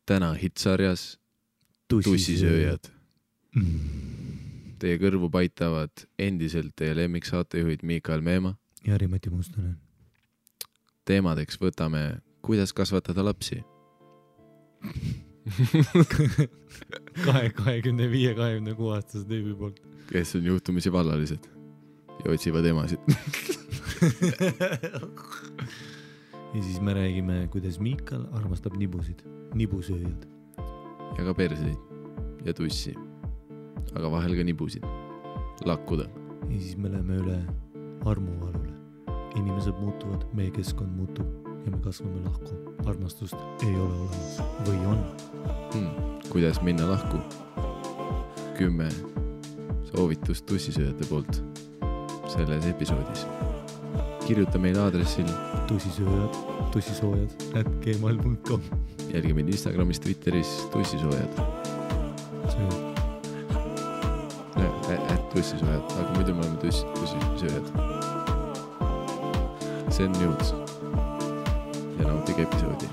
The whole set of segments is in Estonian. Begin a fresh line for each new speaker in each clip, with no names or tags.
täna hitsarjas Tussisööjad. Teie kõrvu paitavad endiselt teie lemmiksaatejuhid Miikael Meemaa
ja Rimati Mustonen.
Teemadeks võtame, kuidas kasvatada lapsi.
25-26 aastase tüübi poolt.
Kes on juhtumisi vallalised ja otsivad emasid.
Ja siis me räägime, kuidas Miikal armastab nibusid, nibusööjad.
Ja ka perseid ja tussi, aga vahel ka nibusid. Lakkuda.
Ja siis me läheme üle armuvalule. Inimesed muutuvad, meie keskkond muutub ja me kasvame lahku. Armastust ei ole olemas. Või on?
Kuidas minna lahku? 10 soovitust tussisööjate poolt selles episoodis. Kirjuta meile aadressil
tussisoojad@gmail.com.
Jälgi meid Instagramis, Twitteris tussisoojad. Tussisoojad, aga muidu me oleme tussisööjad. See on news. Ja nautige episoodi.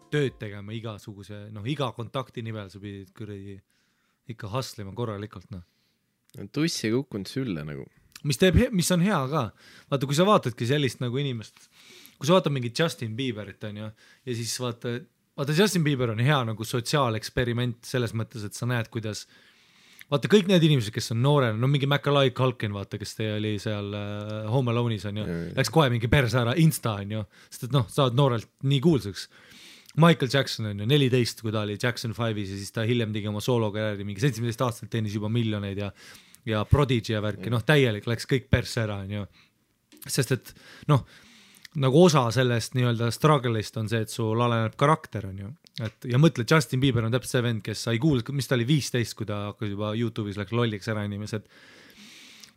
Tööd tegema igasuguse, iga kontakti nimel sa pidid kuradi ikka hustlima korralikult,
Tuss ei kukkunud sülle nagu.
Mis on hea ka. Vaata, kui sa vaatadki sellist nagu inimest, kui sa vaatad mingit Justin Bieberit, ja siis vaata Justin Bieber on hea nagu sotsiaaleksperiment selles mõttes, et sa näed, kuidas vaata kõik need inimesed, kes on noorena, mingi Macaulay Culkin, vaata, kes teie oli seal Home Alone'is, läks kohe mingi perse ära Insta, sest et saad noorelt nii kuulsaks. Michael Jackson on 14, kui ta oli Jackson 5-is ja siis ta hiljem tegi oma soolokarjääri, mingi 17 aastalt teenis juba miljoneid ja Prodigy ja värki, täielik läks kõik perse ära, sest et nagu osa sellest nii-öelda struggle'ist on see, et sul aleneb karakter, ja mõtle, Justin Bieber on täpselt see vend, kes sai kuulda, mis ta oli 15, kui ta hakkas juba YouTube'is läks lolliks ära inimesed.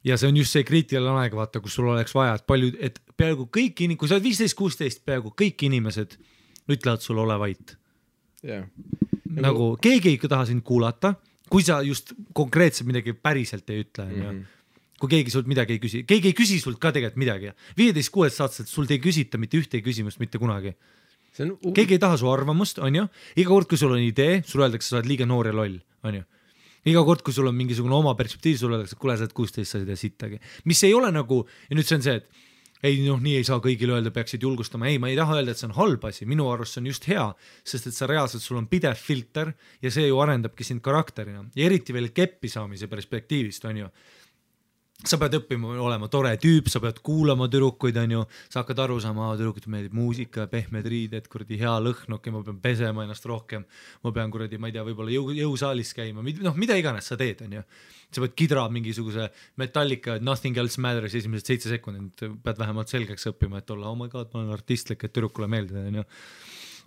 Ja see on just see kriitiline aeg, vaata, kus sul oleks vaja, et peaaegu kõik kui sa oled 15-16, peaaegu kõik inimesed ütlevad sul ole vait.
Yeah.
Nagu keegi ei taha sind kuulata, kui sa just konkreetselt midagi päriselt ei ütle. Kui keegi sult midagi ei küsi. Keegi ei küsi sult ka tegelikult midagi. 15-16 aastaselt sult ei küsita mitte ühtegi küsimust mitte kunagi. Keegi ei taha su arvamust, on ju? Iga kord, kui sul on idee, sul öeldakse, sa oled liiga noor ja loll, on ju? Iga kord, kui sul on mingisugune oma perspektiiv, sul öeldakse, kuule, sa oled 16, sa ei sittagi. Mis ei ole nagu, ja nüüd see on see, et nii ei saa kõigile öelda, peaksid julgustama. Ei, ma ei taha öelda, et see on halb asi. Minu arust see on just hea, sest et sa reaalselt, sul on pidev filter ja see ju arendabki sind karakterina. Ja eriti veel keppi saamise perspektiivist, on ju. Sa pead õppima olema tore tüüp, sa pead kuulama tüdrukuid, on ju. Sa hakkad aru saama, tüdrukud meeldib muusika, pehmed riided, kuradi hea lõhn, ma pean pesema ennast rohkem. Ma pean kuradi, ma ei tea, võib-olla jõusaalis käima. Mida iganes sa teed, on ju. Sa pead kidra mingisuguse Metallica, Nothing Else Matters esimesed 7 sekundit, pead vähemalt selgeks õppima, et olla, oh my god, ma olen artistlik, et tüdrukule meeldida, on ju.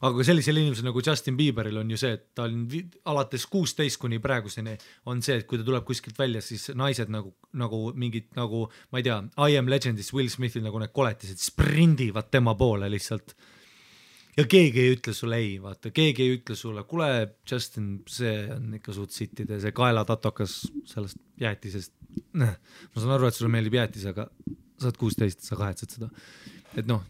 aga sellisel inimesel nagu Justin Bieberil on ju see, et ta on alates 16 kuni praeguseni on see, et kui ta tuleb kuskilt välja, siis naised nagu mingid nagu, ma ei tea, I Am Legendis Will Smithil nagu need koletised sprindivad tema poole lihtsalt. Ja keegi ei ütle sulle ei, vaata, keegi ei ütle sulle, kuule Justin, see on ikka suht sittide, see kaelatatokas sellest jäätisest. Ma saan aru, et sulle meeldib jäätis, aga sa oled 16, sa kahetsed seda. Et noh,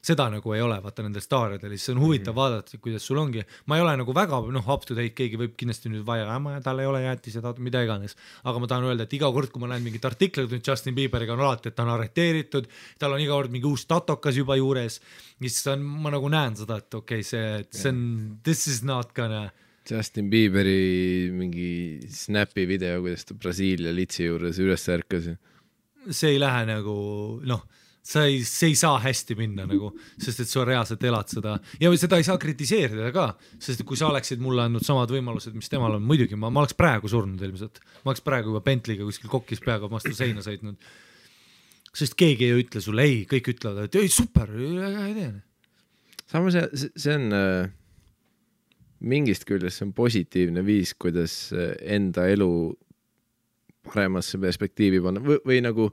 seda nagu ei ole, vaata nendel staaridel, siis on huvitav vaadata, kuidas sul ongi. Ma ei ole nagu väga up to date, keegi võib kindlasti nüüd vaja, tal ei ole jäätis ja mida iganes. Aga ma tahan öelda, et iga kord, kui ma näen mingit artiklit nüüd Justin Bieberiga on alati, et ta on arreteeritud, tal on iga kord mingi uus tatokas juba juures, siis ma nagu näen seda, et okei, see on, this is not gonna...
Justin Bieberi mingi snapi video, kuidas ta Brasiilia litsi juures üles ärkas.
See ei lähe nagu, see ei saa hästi minna nagu, sest et sa reaalselt elad seda ja seda ei saa kritiseerida ka, sest kui sa oleksid mulle andnud samad võimalused, mis temal on, muidugi ma oleks praegu surnud ilmselt, ma oleks praegu juba Bentley'ga kuskil kokkis peaga vastu seina sõitnud, sest keegi ei ütle sulle ei, kõik ütlevad, et ei super, ei tee.
Samas see on mingist küljest, see on positiivne viis, kuidas enda elu paremasse perspektiivi panna või nagu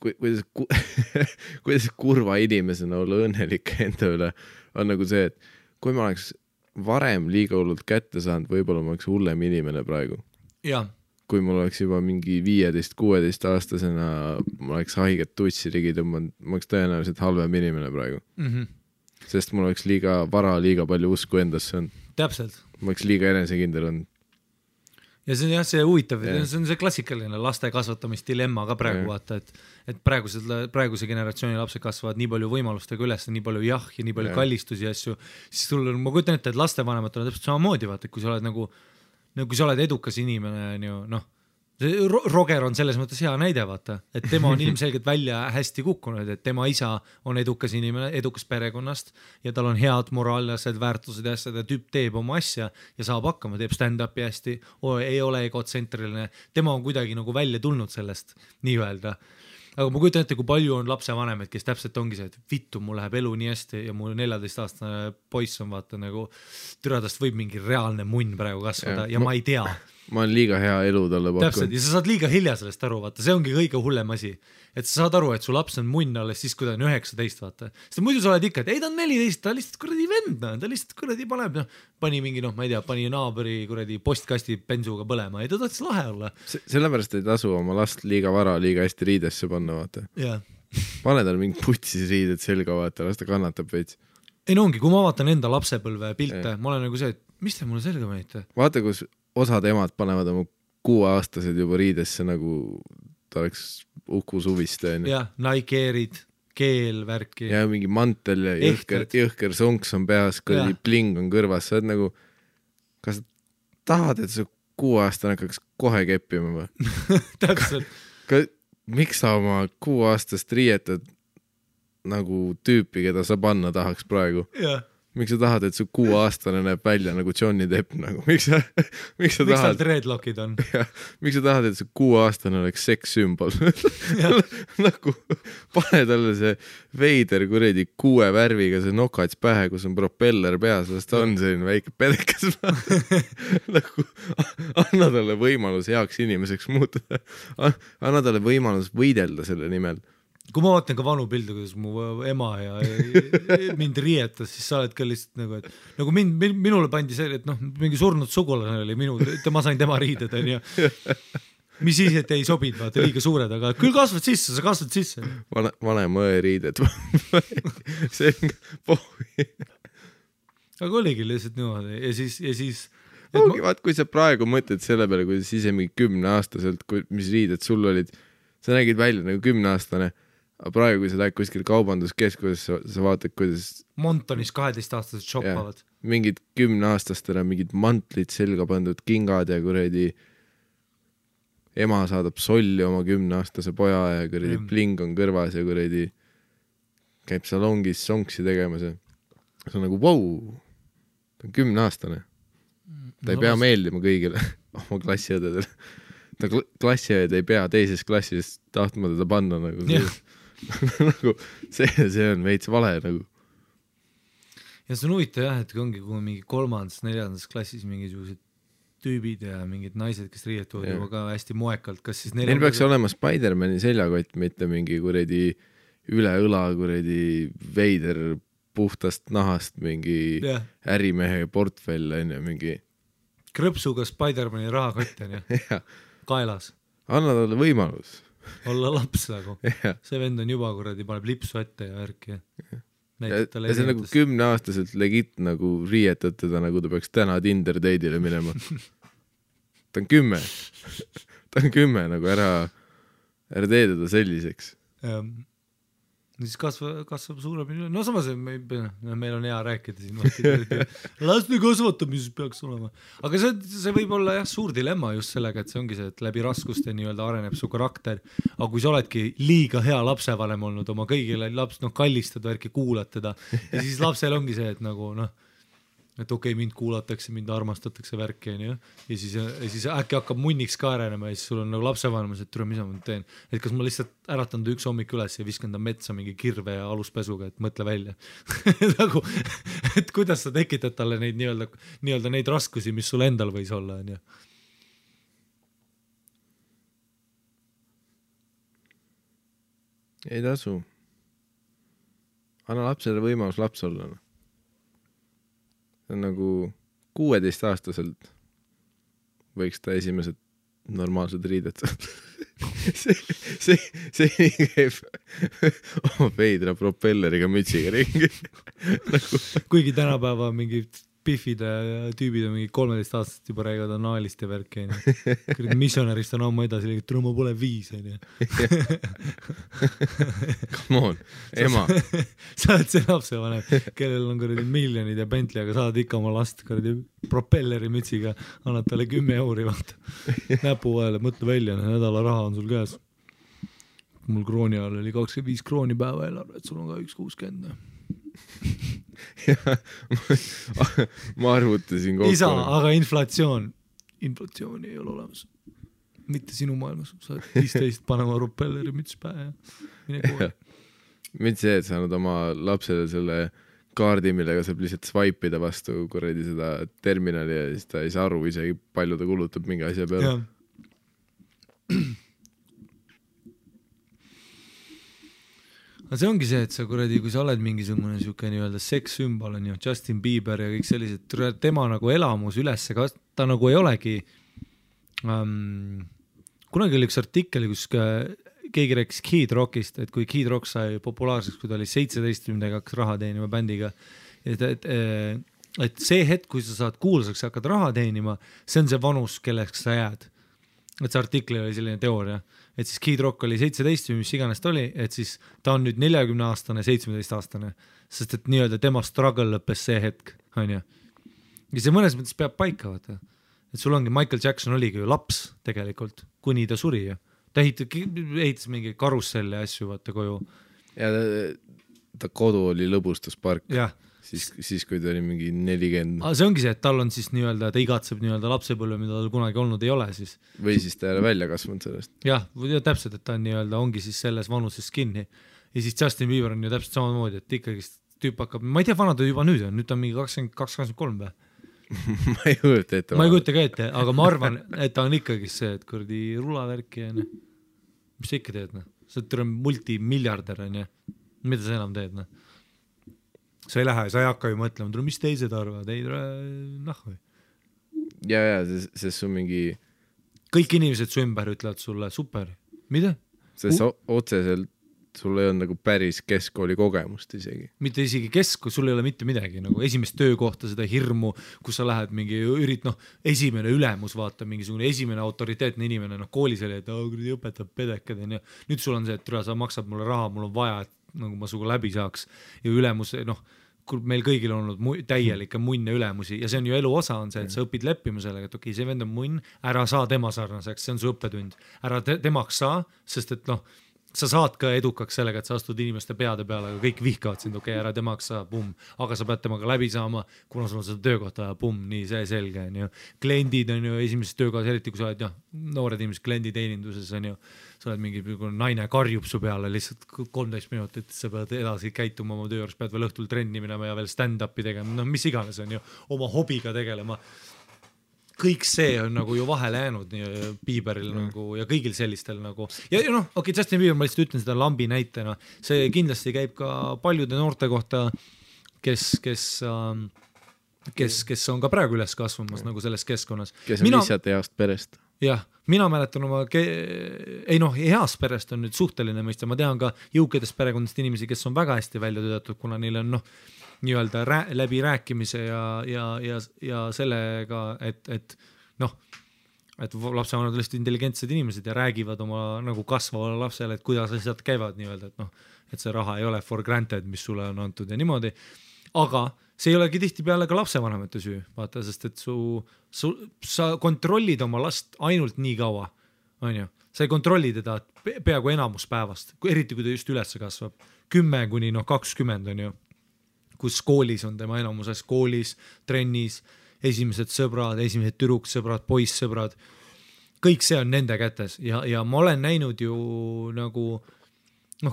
kuidas kurva inimesena olla õnnelik enda üle on nagu see, et kui ma oleks varem liiga hullult kätte saanud, võib-olla ma oleks hullem inimene praegu.
Ja.
Kui mul oleks juba mingi 15-16 aastasena, ma oleks haiget tutsi ligi tõmmanud, ma oleks tõenäoliselt halvem inimene praegu. Sest mul oleks liiga vara, liiga palju usku endasse on.
Täpselt.
Ma oleks liiga enesekindel on.
Ja see on jah, see huvitav, see on see klassikaline laste kasvatamisdilemma ka praegu vaata, et praeguse generatsiooni lapsed kasvavad nii palju võimalustega üles, nii palju ja nii palju kallistusi ja asju, siis sul on, ma kujutan ette, et lastevanemad on täpselt samamoodi vaata, et kui sa oled nagu kui sa oled edukas inimene, Roger on selles mõttes hea näide vaata, et tema on ilmselgelt välja hästi kukkunud, et tema isa on edukas inimene, edukas perekonnast ja tal on head moraalsed väärtused ja asjad ja tüüp teeb oma asja ja saab hakkama, teeb stand-upi hästi, ei ole egotsentriline, tema on kuidagi nagu välja tulnud sellest nii öelda. Aga ma kujutan ette, kui palju on lapsevanemad, kes täpselt ongi see, et vittu, mul läheb elu nii hästi ja mul 14-aastane poiss on vaata nagu türadast võib mingi reaalne munn praegu kasvada ja ma ei tea.
Ma olen liiga hea elu talle pakkunud.
Täpselt, ja sa saad liiga hilja sellest aru, vaata, see ongi kõige hullem asi. Et sa saad aru, et su laps on munn alles siis, kui ta on 19, vaata. Sest muidu sa oled ikka, et ei, ta on 14, ta lihtsalt kuradi vend, ta lihtsalt kuradi paneb, pani mingi, ma ei tea, pani naabri kuradi postkasti bensuga põlema, ei ta tahtis lahe olla.
Sellepärast ei tasu oma last liiga vara, liiga hästi riidesse panna, vaata. Pane tal mingi putsis riided selga, vaata, las ta kannatab veits.
Ei no ongi, kui ma vaatan enda lapsepõlve pilte, ma olen nagu see, et mis te mulle selga panite?
Vaata, kus osad emad panevad oma 6-aastased juba riidesse nagu ta oleks Uku Suviste.
Ja, Nike-erid, keelvärki.
Ja mingi mantel ja jõhker sonks on peas, kui pling on kõrvas. Sa oled nagu, kas tahad, et sa 6-aastane hakkaks kohe keppima või?
Täpselt.
Miks sa oma 6-aastast riietad nagu tüüpi, keda sa panna tahaks praegu?
Jah.
Miks sa tahad, et su 6-aastane näeb välja nagu Johnny Depp nagu? Miks
tal dreadlockid on?
Miks sa tahad, et su 6-aastane oleks sekssümbol? Nagu pane talle see veider kuredi 6 värviga see nokats pähe, kus on propeller peas, sest ta on selline väike pedekas. Nagu anna talle võimalus heaks inimeseks muutuda. Anna talle võimalus võidelda selle nimel.
Kui ma vaatan ka vanu pilde, kuidas mu ema ja mind rietas, siis sa oled ka lihtsalt nagu, et nagu minule pandi see, et mingi surnud sugulane oli ma sain tema riided, on ju. Mis siis, et ei sobinud, vaata liiga suured, aga küll kasvad sisse, sa kasvad sisse.
Vanem õe riided. See on pohvi.
Aga oligi lihtsalt niimoodi ja siis
ongi, vaat, kui sa praegu mõtled selle peale, kui sa ise mingi 10-aastaselt, mis riided sul olid, sa nägid välja nagu 10-aastane, aga praegu, kui sa lähed kuskil kaubanduskeskuses, sa vaatad, kuidas
Montonis 12-aastased shoppavad.
Mingid 10-aastastele mingid mantlid selga pandud kingad ja kuredi ema saadab solli oma 10-aastase poja ja kuredi pling on kõrvas ja kuredi käib salongis sonksi tegemas ja see on nagu, wow, ta on 10-aastane. Ta ei pea meeldima kõigile oma klassiõdedele. Ta klassiõed ei pea teises klassis tahtma teda panna nagu, nagu see on veits vale nagu.
ja see on huvitav jah, et ongi kui mingi 3.-4. klassis mingisugused tüübid ja mingid naised, kes riietuvad juba ka hästi moekalt, kas siis
neil peaks olema Spider-Mani seljakott, mitte mingi kuradi üle õla kuradi veider puhtast nahast mingi ärimehe portfell on ju, mingi
krõpsuga Spider-Mani rahakott on ju, kaelas.
Anna talle võimalus.
Olla laps nagu. See vend on juba kuradi, paneb lipsu ette ja värki.
Ja see on nagu 10-aastaselt legit nagu riietad teda, nagu ta peaks täna Tinder date'ile minema. Ta on 10. Ta on 10, nagu ära tee teda selliseks.
Siis kasvab suurem, no samas meil on hea rääkida siin, laste kasvatamises peaks olema, aga see võib olla jah suur dilemma just sellega, et see ongi see, et läbi raskuste nii-öelda areneb su karakter, aga kui sa oledki liiga hea lapsevanem olnud, oma kõigile laps, kallistad värki, kuulad teda ja siis lapsel ongi see, et nagu et okei, mind kuulatakse, mind armastatakse värki ja siis äkki hakkab munniks ka arenema ja siis sul on nagu lapsevanemas, et tule, mis ma teen, et kas ma lihtsalt äratan ta üks hommik üles ja viskan ta metsa mingi kirve ja aluspesuga, et mõtle välja nagu, et kuidas sa tekitad talle neid nii-öelda neid raskusi, mis sul endal võis olla, on ju.
Ei tasu. Anna lapsele võimalus laps olla. Nagu 16-aastaselt võiks ta esimesed normaalsed riided see käib oma veidra propelleriga mütsiga ringi nagu...
kuigi tänapäeva mingi Biffide tüübid on mingi 13-aastased juba räägivad anaalist ja värki missionärist on ammu edasi liigitud, ma pole 5
come on, ema
sa oled see lapsevanem, kellel on kuradi miljonid ja Bentley, aga saad ikka oma last kuradi propelleri mütsiga, annad talle 10 euri vaata näpu vahele, mõtle välja, nädala raha on sul käes. Mul krooni all oli 25 krooni päeva eelarve, et sul on ka 1.60
ma arvutasin kokku.
Isa, aga inflatsiooni ei ole olemas. Mitte sinu maailmas. Sa oled 15 panema propelleri müts pähe ja mine kooli.
Mitte see, et sa annad oma lapsele selle kaardi, millega saab lihtsalt swipe'ida vastu kuradi seda terminali ja siis ta ei saa aru isegi palju ta kulutab mingi asja peale. aga
see ongi see, et sa kuradi, kui sa oled mingisugune siuke nii-öelda sekssümbol on ju, Justin Bieber ja kõik sellised, tema nagu elamus üles, ta nagu ei olegi kunagi oli üks artikkel, kus keegi rääkis Kid Rockist, et kui Kid Rock sai populaarseks, kui ta oli 17 hakkas raha teenima bändiga, et see hetk, kui sa saad kuulsaks ja hakkad raha teenima, see on see vanus, kelleks sa jääd. Et see artikli oli selline teooria, et siis Kid Rock oli 17 või mis iganes ta oli, et siis ta on nüüd 40-aastane, 17-aastane, sest et nii-öelda tema struggle lõppes see hetk, on ju. Ja see mõnes mõttes peab paika, vaata. Et sul ongi, Michael Jackson oligi ju laps tegelikult, kuni ta suri ju. Ta ehitas mingi karusselli asju, vaata koju.
Ja ta kodu oli lõbustuspark.
Jah.
Siis kui ta oli mingi 40.
See ongi see, et tal on siis nii-öelda, ta igatseb nii-öelda lapsepõlve, mida tal kunagi olnud ei ole siis.
Või siis ta ei ole välja kasvanud sellest.
Jah, täpselt, et ta on nii-öelda, ongi siis selles vanuses kinni. Ja siis Justin Bieber on ju täpselt samamoodi, et ikkagi tüüp hakkab, ma ei tea, vana ta juba nüüd on mingi 22-23 või?
ma ei kujuta ette.
Ma ei kujuta ka ette, aga ma arvan, et ta on ikkagi see, et kurdi rulavärki ja mis sa ikka teed, sa oled multimiljarder, mida sa enam teed, sa ei lähe, sa ei hakka ju mõtlema, mis teised arvad, ei või.
Ja, sest su mingi...
Kõik inimesed su ümber ütlevad sulle, super, mida?
Sest otseselt sul ei on nagu päris keskkooli kogemust isegi.
Mitte isegi sul ei ole mitte midagi, nagu esimest töökohta, seda hirmu, kus sa lähed mingi esimene ülemus, vaata, mingisugune esimene autoriteetne inimene, koolis oli, et õpetab pedekad, ja nüüd sul on see, et sa maksad mulle raha, mul on vaja, et nagu ma suga läbi saaks ja ülemus, meil kõigil on olnud täielikke munne ülemusi ja see on ju elu osa on see, et sa õpid leppima sellega, et okei, see vend on munn, ära saa tema sarnaseks, see on su õppetund, ära temaks saa, sest et sa saad ka edukaks sellega, et sa astud inimeste peade peale, aga kõik vihkavad sind, okei, ära temaks saa, aga sa pead temaga läbi saama, kuna sul on seda töökohta, nii see selge, on ju. Kliendid on ju esimeses töökohas, eriti kui sa oled noored inimesed klienditeeninduses, on ju, sa oled mingi naine karjub su peale lihtsalt 13 minutit, sa pead edasi käituma oma töö juures, pead veel õhtul trenni minema ja veel stand-up'i tegema, no mis iganes on ju, oma hobiga tegelema. Kõik see on nagu ju vahele jäänud Bieberil nagu ja kõigil sellistel nagu ja noh, okei, Justin Bieber, ma lihtsalt ütlen seda lambi näitena, see kindlasti käib ka paljude noorte kohta, kes on ka praegu üles kasvamas nagu selles keskkonnas.
Kes on lihtsalt heast perest.
Jah, mina mäletan oma, heast perest on nüüd suhteline mõista, ma tean ka jõukadest perekondast inimesi, kes on väga hästi välja töötatud, kuna neil on nii-öelda läbi rääkimise ja sellega, et lapsevanemad on lihtsalt intelligentsed inimesed ja räägivad oma nagu kasvavale lapsele, et kuidas asjad käivad nii-öelda, et see raha ei ole for granted, mis sulle on antud ja niimoodi, aga see ei olegi tihtipeale ka lapsevanemate süü, vaata, sest et sa kontrollid oma last ainult nii kaua, on ju, sa ei kontrolli teda peaaegu enamus päevast, eriti kui ta just üles kasvab, 10 kuni 20 on ju, kus koolis on tema enamuses, koolis, trennis, esimesed sõbrad, esimesed tüdruksõbrad, poissõbrad, kõik see on nende kätes ja ma olen näinud ju nagu,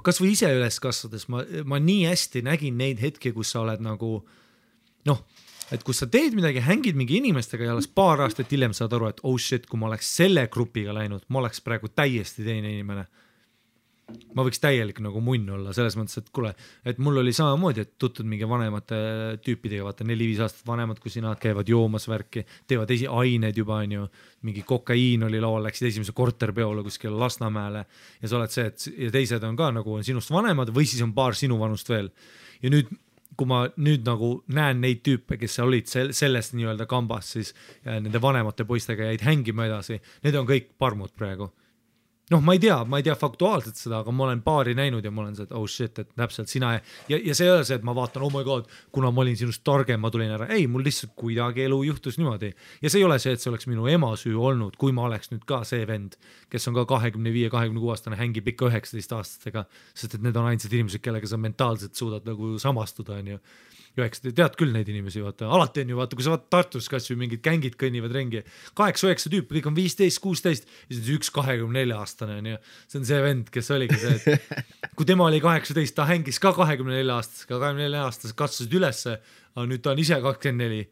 kas või ise üles kasvades, ma nii hästi nägin neid hetki, kus sa oled nagu, et kus sa teed midagi, hängid mingi inimestega ja alles paar aastat hiljem saad aru, et oh shit, kui ma oleks selle grupiga läinud, ma oleks praegu täiesti teine inimene. Ma võiks täielik nagu munn olla, selles mõttes, et kuule, et mul oli samamoodi, et tutud mingi vanemate tüüpidega, vaata 4-5 aastat vanemad, kui sina käivad joomas värki, teevad ained juba, on ju, mingi kokaiin oli laual, läksid esimese korterpeole kuskil Lasnamäele ja sa oled see, et ja teised on ka nagu on sinust vanemad või siis on paar sinu vanust veel. Ja nüüd, kui ma nüüd nagu näen neid tüüpe, kes olid sellest nii-öelda kambas, siis ja nende vanemate poistega jäid hängima edasi, need on kõik parmud praegu. Ma ei tea faktuaalselt seda, aga ma olen paari näinud ja ma olen see, et oh shit, et täpselt sina ja see ei ole see, et ma vaatan, oh my god, kuna ma olin sinust targem, ma tulin ära. Ei, mul lihtsalt kuidagi elu juhtus niimoodi. Ja see ei ole see, et see oleks minu ema süü olnud, kui ma oleks nüüd ka see vend, kes on ka 25-26 aastane, hängib ikka 19 aastastega, sest et need on ainsad inimesed, kellega sa mentaalselt suudad nagu samastuda, on ju. Tead küll neid inimesi, vaata, alati on ju, vaata, kui sa vaatad Tartus kas või mingid kängid kõnnivad rengi, 8-9 tüüpi, kõik on 15-16 ja siis üks 24 aastane on ju, see on see vend, kes oligi see, et kui tema oli 18, ta hängis ka 24 aastasega, 24 aastased kasvasid ülesse, aga nüüd ta on ise 24,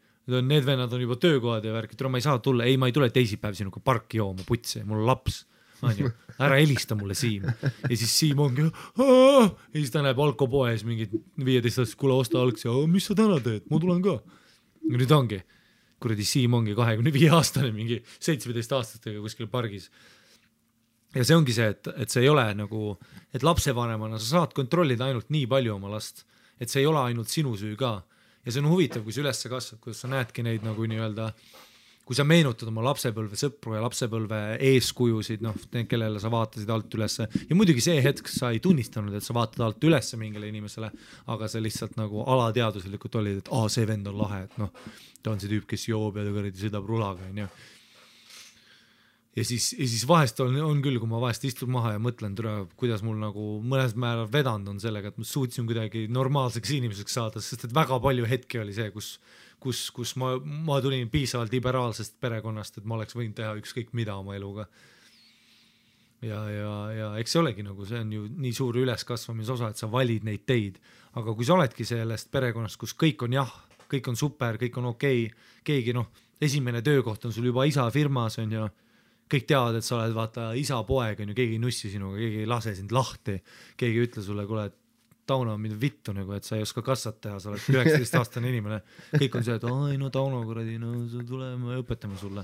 need vennad on juba töökohad ja värk, et ma ei saa tulla, ma ei tule teisipäev sinuga parki jooma, putsi, mul on laps. Ära helista mulle Siim ja siis Siim ongi ja siis ta näeb alkopoes mingid 15 aastast, kuule osta algsi, mis sa täna teed, ma tulen ka ja nüüd ongi, kuradi Siim ongi 25 aastane mingi 17 aastastega kuskil pargis ja see ongi see, et see ei ole nagu, et lapsevanemana sa saad kontrollida ainult nii palju oma last, et see ei ole ainult sinu süü ka ja see on huvitav, kui sa üles kasvad, kuidas sa näedki neid nagu nii-öelda kui sa meenutad oma lapsepõlve sõpru ja lapsepõlve eeskujusid, kellele sa vaatasid alt ülesse ja muidugi see hetk sa ei tunnistanud, et sa vaatad alt ülesse mingile inimesele, aga sa lihtsalt nagu alateaduslikult olid, et see vend on lahe, et ta on see tüüp, kes joob ja ta sõidab rulaga, on ju. Ja siis vahest on küll, kui ma vahest istun maha ja mõtlen, kuidas mul nagu mõnes määral vedanud on sellega, et ma suutsin kuidagi normaalseks inimeseks saada, sest et väga palju hetki oli see, kus ma tulin piisavalt liberaalsest perekonnast, et ma oleks võinud teha ükskõik mida oma eluga. Ja eks see olegi nagu, see on ju nii suur üleskasvamise osa, et sa valid neid teid, aga kui sa oledki sellest perekonnast, kus kõik on kõik on super, kõik on okei, keegi esimene töökoht on sul juba isa firmas, on ju, kõik teavad, et sa oled vaata isa poeg, on ju, keegi ei nussi sinuga, keegi ei lase sind lahti, keegi ei ütle sulle, kuule, et Tauno on mida vittu, nagu, et sa ei oska kassat teha, sa oled 19-aastane inimene. Kõik on see, et Tauno, kuradi, tuleme ja õpetame sulle.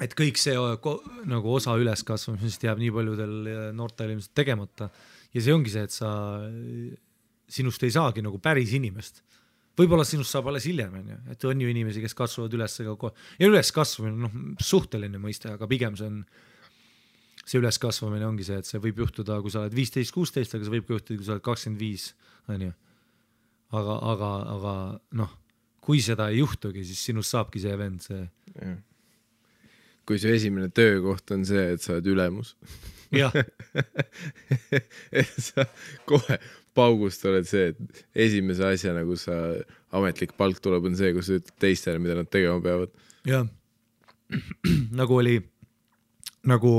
Et kõik see nagu osa üleskasvamisest jääb nii paljudel noortel ilmselt tegemata. Ja see ongi see, et sinust ei saagi nagu päris inimest. Võib-olla sinust saab alles hiljem, et on ju inimesi, kes kasvavad üles. Ja üleskasvamine, suhteline mõiste, aga pigem see üleskasvamine ongi see, et see võib juhtuda, kui sa oled 15-16, aga see võib juhtuda, kui sa oled 25, on ju. Aga kui seda ei juhtugi, siis sinust saabki see vend, see.
kui su esimene töökoht on see, et sa oled ülemus.
jah,
et sa kohe paugust oled see, et esimese asjana, kus sa ametlik palk tuleb, on see, kus sa ütled teistele, mida nad tegema peavad.
jah. nagu oli, nagu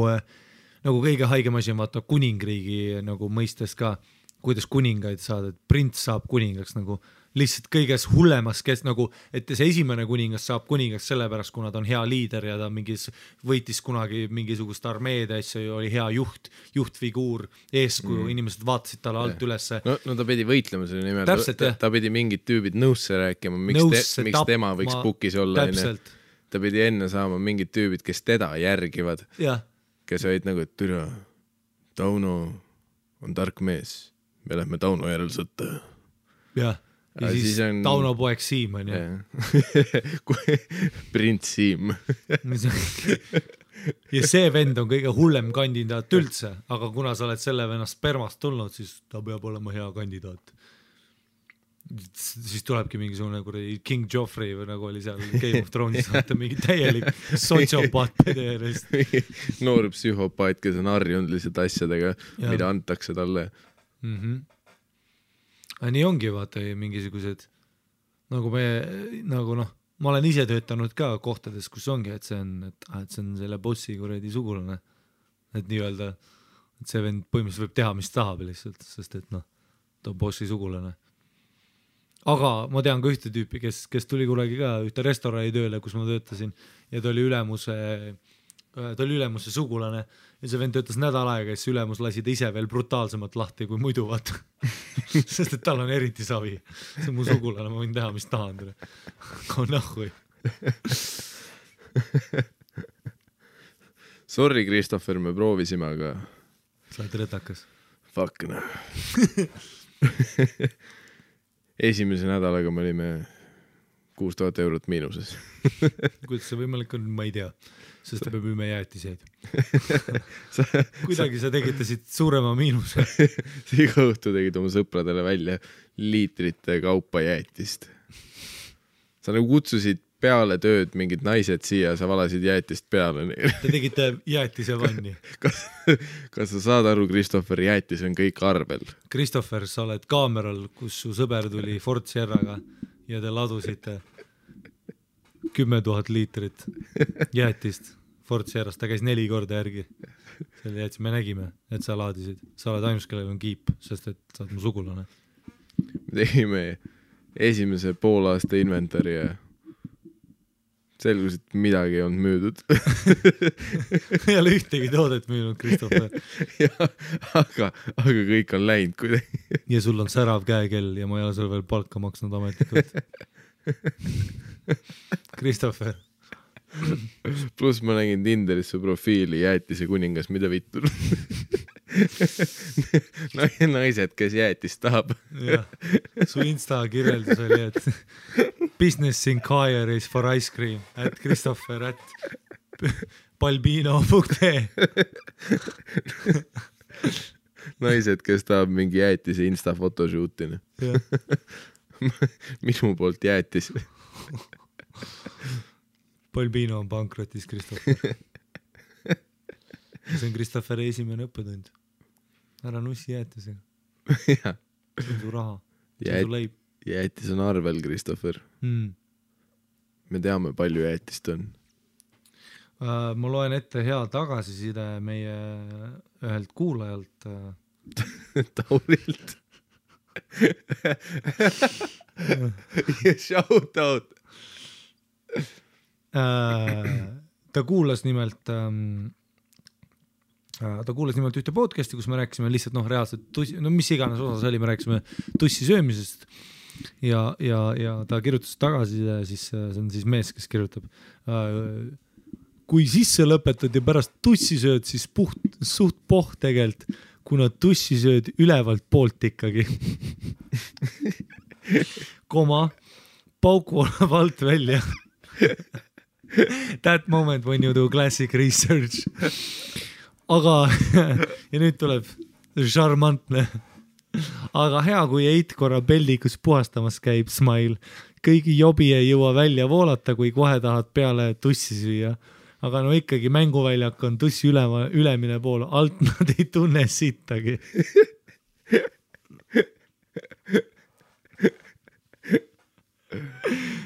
kõige haigem asi on vaata kuningriigi nagu mõistes ka, kuidas kuningaid saada, et prints saab kuningaks nagu lihtsalt kõiges hullemas, kes nagu, et see esimene kuningas saab kuningaks sellepärast, kuna ta on hea liider ja ta mingis võitis kunagi mingisugust armeed asja, oli hea juhtfiguur, eeskuju, inimesed vaatasid talle alt ülesse.
No ta pidi võitlema selle nimel,
Täpselt,
ta pidi mingid tüübid nõusse rääkima, miks tema võiks pukis olla. Ta pidi enne saama mingid tüübid, kes teda järgivad, kes olid nagu, et türa, Tauno on tark mees, me lähme Tauno järel sõtta.
Jah. Ja siis on... Tauno poeg Siim on ju.
Prints Siim.
Ja see vend on kõige hullem kandidaat üldse, aga kuna sa oled selle venna spermast tulnud, siis ta peab olema hea kandidaat. Siis tulebki mingisugune King Joffrey või nagu oli seal Game of Thrones, vaata mingi täielik sotsiopaat pederist.
Noor psühhopaat, kes on harjunud lihtsalt asjadega, mida antakse talle.
Nii ongi vaata mingisugused nagu ma olen ise töötanud ka kohtades, kus ongi, et see on selle bossi kuradi sugulane, et nii-öelda, et see vend põhimõtteliselt võib teha, mis tahab lihtsalt, sest et ta on bossi sugulane. Aga ma tean ka ühte tüüpi, kes tuli kunagi ka ühte restorani tööle, kus ma töötasin ja ta oli ülemuse sugulane ja see vend töötas nädal aega ja siis ülemus lasi ta ise veel brutaalsemalt lahti kui muidu, vaata. Sest et tal on eriti savi. See on mu sugulane, ma võin teha, mis tahan. Kui nahhui.
Sorry, Christopher, me proovisime, aga...
Sa oled rõtakas.
Fuck, no. Esimese nädalaga me olime 6000 eurot miinuses.
Kuidas see võimalik on, ma ei tea. Sest me müüme jäätiseid. Kuidagi sa tegitasid suurema miinuse.
Iga õhtu tegid oma sõpradele välja liitrite kaupa jäätist. Sa nagu kutsusid peale tööd mingid naised siia, sa valasid jäätist peale.
Te tegite jäätise vanni.
Kas sa saad aru, Christopher, jäätis on kõik arvel?
Christopher, sa oled kaameral, kus su sõber tuli Ford Sierraga ja te ladusite 10 000 liitrit jäätist Ford Sierrast, ta käis 4 korda järgi. Selle jäätis, me nägime, et sa laadisid. Sa oled ainus, kellel on kiip, sest et sa oled mu sugulane.
Me tegime esimese poolaasta inventari ja selgus, et midagi ei olnud müüdud.
Ei ole ühtegi toodet müünud, Christopher.
Aga kõik on läinud kuidagi.
Ja sul on särav käekell ja ma ei ole sul veel palka maksnud ametlikult. Christopher.
Plus ma nägin Tinderis su profiili jäätise kuningas, mida vittu. Naised, kes jäätist tahab.
Su Insta kirjeldus oli, et business inquiries for ice cream at Christopher at balbino.ee.
Naised, kes tahab mingi jäätise Insta photoshootini. Minu poolt jäätis.
Balbino on pankrotis, Christopher. See on Christopheri esimene õppetund. Ära nussi jäätisega. See on su raha. See on su leib.
Jäätis on arvel, Christopher. Me teame, palju jäätist on.
Ma loen ette hea tagasiside meie ühelt kuulajalt.
Taurilt. Shout out.
Ta kuulas nimelt ühte podcasti, kus me rääkisime lihtsalt reaalselt mis iganes osas oli, me rääkisime tussi söömisest ja ta kirjutas tagasi ja siis see on siis mees, kes kirjutab kui sisse lõpetad ja pärast tussi sööd, siis suht poht tegelt, kuna tussi sööd ülevalt poolt ikkagi. Pauk volab alt välja. That moment when you do classic research. Aga, ja nüüd tuleb šarmantne. Aga hea, kui eit korra peldikus puhastamas käib, smile. Kõigi jobi ei jõua välja voolata, kui kohe tahad peale tussi süüa. aga no ikkagi mänguväljak on tussi ülemine pool, alt nad ei tunne sittagi.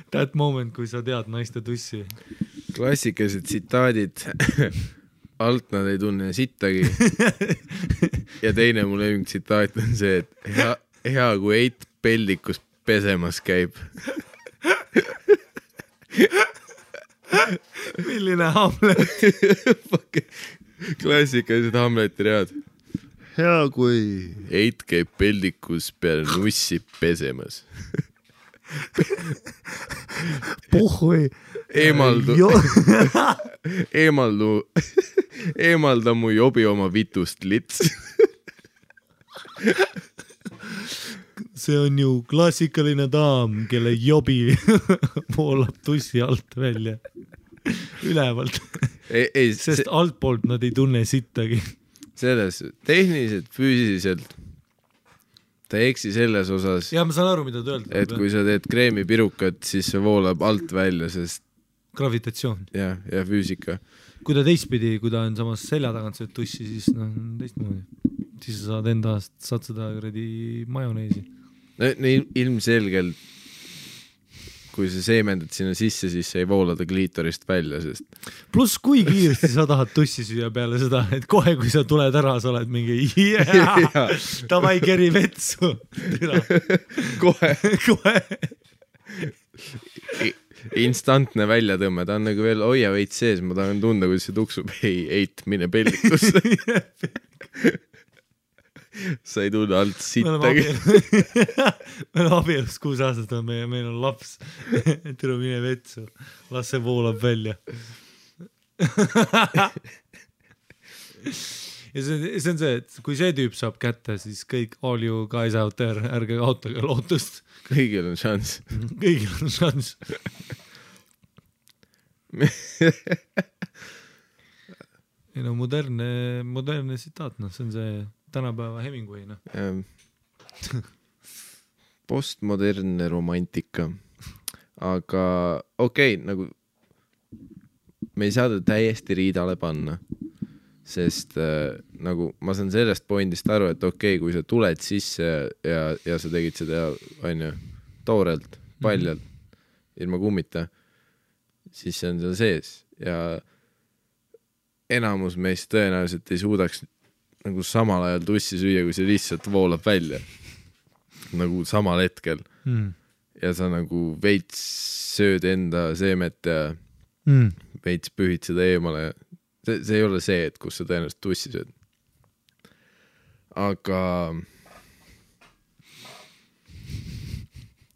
That moment, kui sa tead naiste tussi.
Klassikalised tsitaadid. Alt nad ei tunne sittagi. Ja teine mu lemmik tsitaat on see, et hea kui Eit peldikus pesemas käib.
Milline Hamlet?
Klassikalised Hamleti read. Hea kui Eit käib peldikus peale nussi pesemas.
Puhui.
Eemalda mu jobi oma vitust lits.
See on ju klassikaline daam, kelle jobi voolab tussi alt välja. Ülevalt. Sest altpoolt nad ei tunne sittagi.
Selles tehniliselt, füüsiliselt ta ei eksi selles osas.
Ja ma saan aru, mida ta öelda.
Et kui sa teed kreemipirukat, siis see voolab alt välja, sest
gravitatsioon.
Ja füüsika.
Kui ta teistpidi, kui ta on samas selja tagant sööd tussi, siis teistmoodi. Siis sa saad seda majoneesi. Ilmselgelt, kui sa seemendad sinna sisse, siis sa ei voola ta kliitorist välja, sest... Plus kui kiiresti sa tahad tussi süüa peale seda, et kohe, kui sa tuled ära, sa oled mingi tavai keri vetsu. Kohe.
Instantne väljatõmme, ta on nagu veel hoia veits sees, ma tahan tunda, kui see tuksub, Eit, mine pellikusse. Sa ei tunne alt sittagi.
Me oleme abielus 6 aastat, meil on laps. Tule mine vetsu, las see voolab välja. Ja see on see, et kui see tüüp saab kätte, siis kõik all you guys out there, ärge kaotage lootust.
Kõigil on šanss.
Kõigil on šanss. Ei no modernne sitaat, see on see tänapäeva Hemingway,
Postmodernne romantika. Aga okei, nagu me ei saa ta täiesti riidale panna, sest nagu ma saan sellest pointist aru, et okei, kui sa tuled sisse ja sa tegid seda toorelt, paljalt, ilma kummita, siis see on seal sees ja enamus meist tõenäoliselt ei suudaks nagu samal ajal tussi süüa, kui see lihtsalt voolab välja. Nagu samal hetkel. Ja sa nagu veits sööd enda seemet ja veits pühid seda eemale. See ei ole see, et kus sa tõenäoliselt tussi sööd. Aga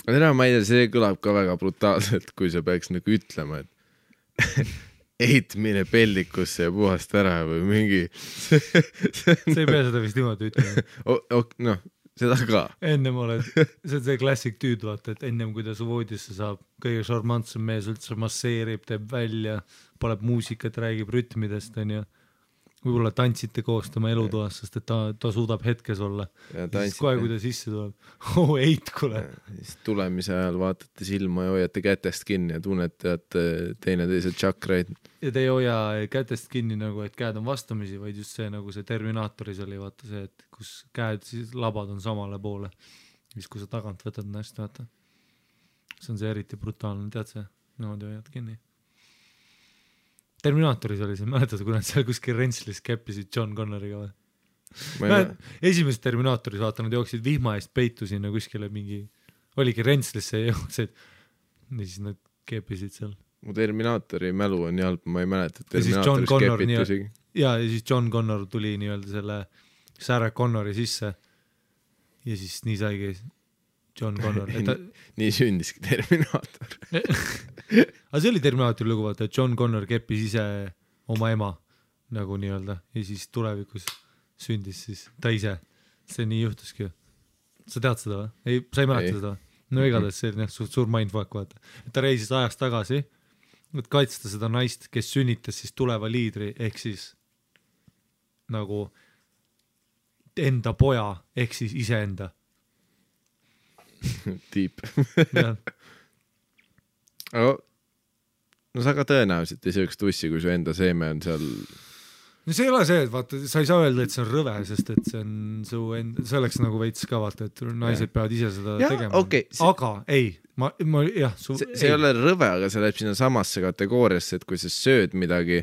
ma ei tea, see kõlab ka väga brutaalselt, kui sa peaks nagu ütlema, et Eit mine pellikusse ja puhast ära või mingi
see ei pea seda vist niimoodi ütlema.
Seda ka.
Ennem oled, see on see klassik tüüd, vaata, et ennem kui ta su voodisse saab, kõige šarmantsem mees üldse masseerib, teeb välja, paneb muusikat, räägib rütmidest, on ju. Võib-olla tantsite koos tema elutoas, sest et ta suudab hetkes olla. Ja siis kohe, kui ta sisse tuleb, Eit, kuule.
Siis tulemise ajal vaatate silma ja hoiate kätest kinni ja tunnete, et teineteise tšakraid. Ja
te ei hoia kätest kinni nagu, et käed on vastamisi, vaid just see, nagu see Terminaatoris oli, vaata see, et kus käed, siis labad on samale poole. Siis kui sa tagant võtad näst, vaata. See on see eriti brutaalne, tead see? Niimoodi hoiad kinni. Terminaatoris oli see, mäletad, kui nad seal kuskil Rentslis käppisid John Connoriga või? Esimeses Terminaatoris, vaata, nad jooksid vihma eest peitu sinna kuskile mingi, oligi Rentslisse ja jooksid, ja siis nad käppisid seal.
Mu Terminaatori mälu on nii halb, ma ei mäleta, et Terminaatoris käpitusigi.
Ja siis John Connor tuli nii-öelda selle Sarah Connori sisse ja siis nii saigi John Connor.
Nii sündiski Terminaator.
Aga see oli Terminaatori lugu, vaata, et John Connor keppis ise oma ema nagu nii-öelda ja siis tulevikus sündis siis ta ise. See nii juhtuski. Sa tead seda või? Ei, sa ei mäleta seda või? No igatahes see oli suur mindfuck, vaata. Et ta reisis ajast tagasi, et kaitsta seda naist, kes sünnitas siis tuleva liidri, ehk siis nagu enda poja, ehk siis iseenda.
Deep. Aga no sa ka tõenäoliselt ei sööks tussi, kui su enda seeme on seal.
no see ei ole see, et vaata, sa ei saa öelda, et see on rõve, sest et see on su see oleks nagu veits ka vaata, et naised peavad ise seda tegema.
Okay,
aga ei, ma jah.
See ei ole rõve, aga see läheb sinna samasse kategooriasse, et kui sa sööd midagi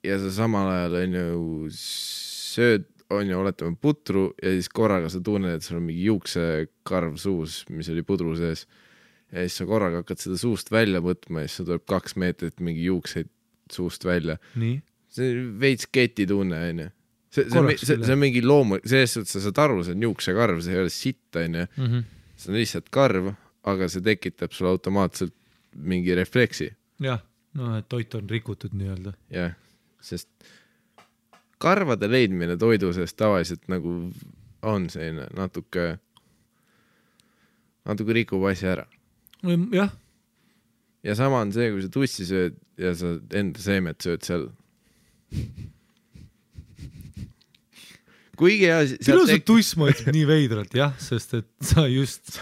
ja sa samal ajal on ju sööd, on ju, oletame putru ja siis korraga sa tunned, et sul on mingi juuksekarv suus, mis oli pudru sees ja siis sa korraga hakkad seda suust välja võtma ja siis tuleb 2 meetrit mingi juukseid suust välja.
Nii?
See on veits keti tunne, on ju. See on mingi loomu, sellest, et sa saad aru, see on juuksekarv, see ei ole sitt, on ju. See on lihtsalt karv, aga see tekitab sulle automaatselt mingi refleksi.
Jah, no et toit on rikutud nii-öelda.
Jah, sest karvade leidmine toidu seest tavaliselt nagu on selline natuke rikub asja ära.
Jah.
Ja sama on see, kui sa tussi sööd ja sa enda seemet sööd seal. Kuigi ja...
Pilused tuss mõtleb nii veidralt, jah, sest et sa just...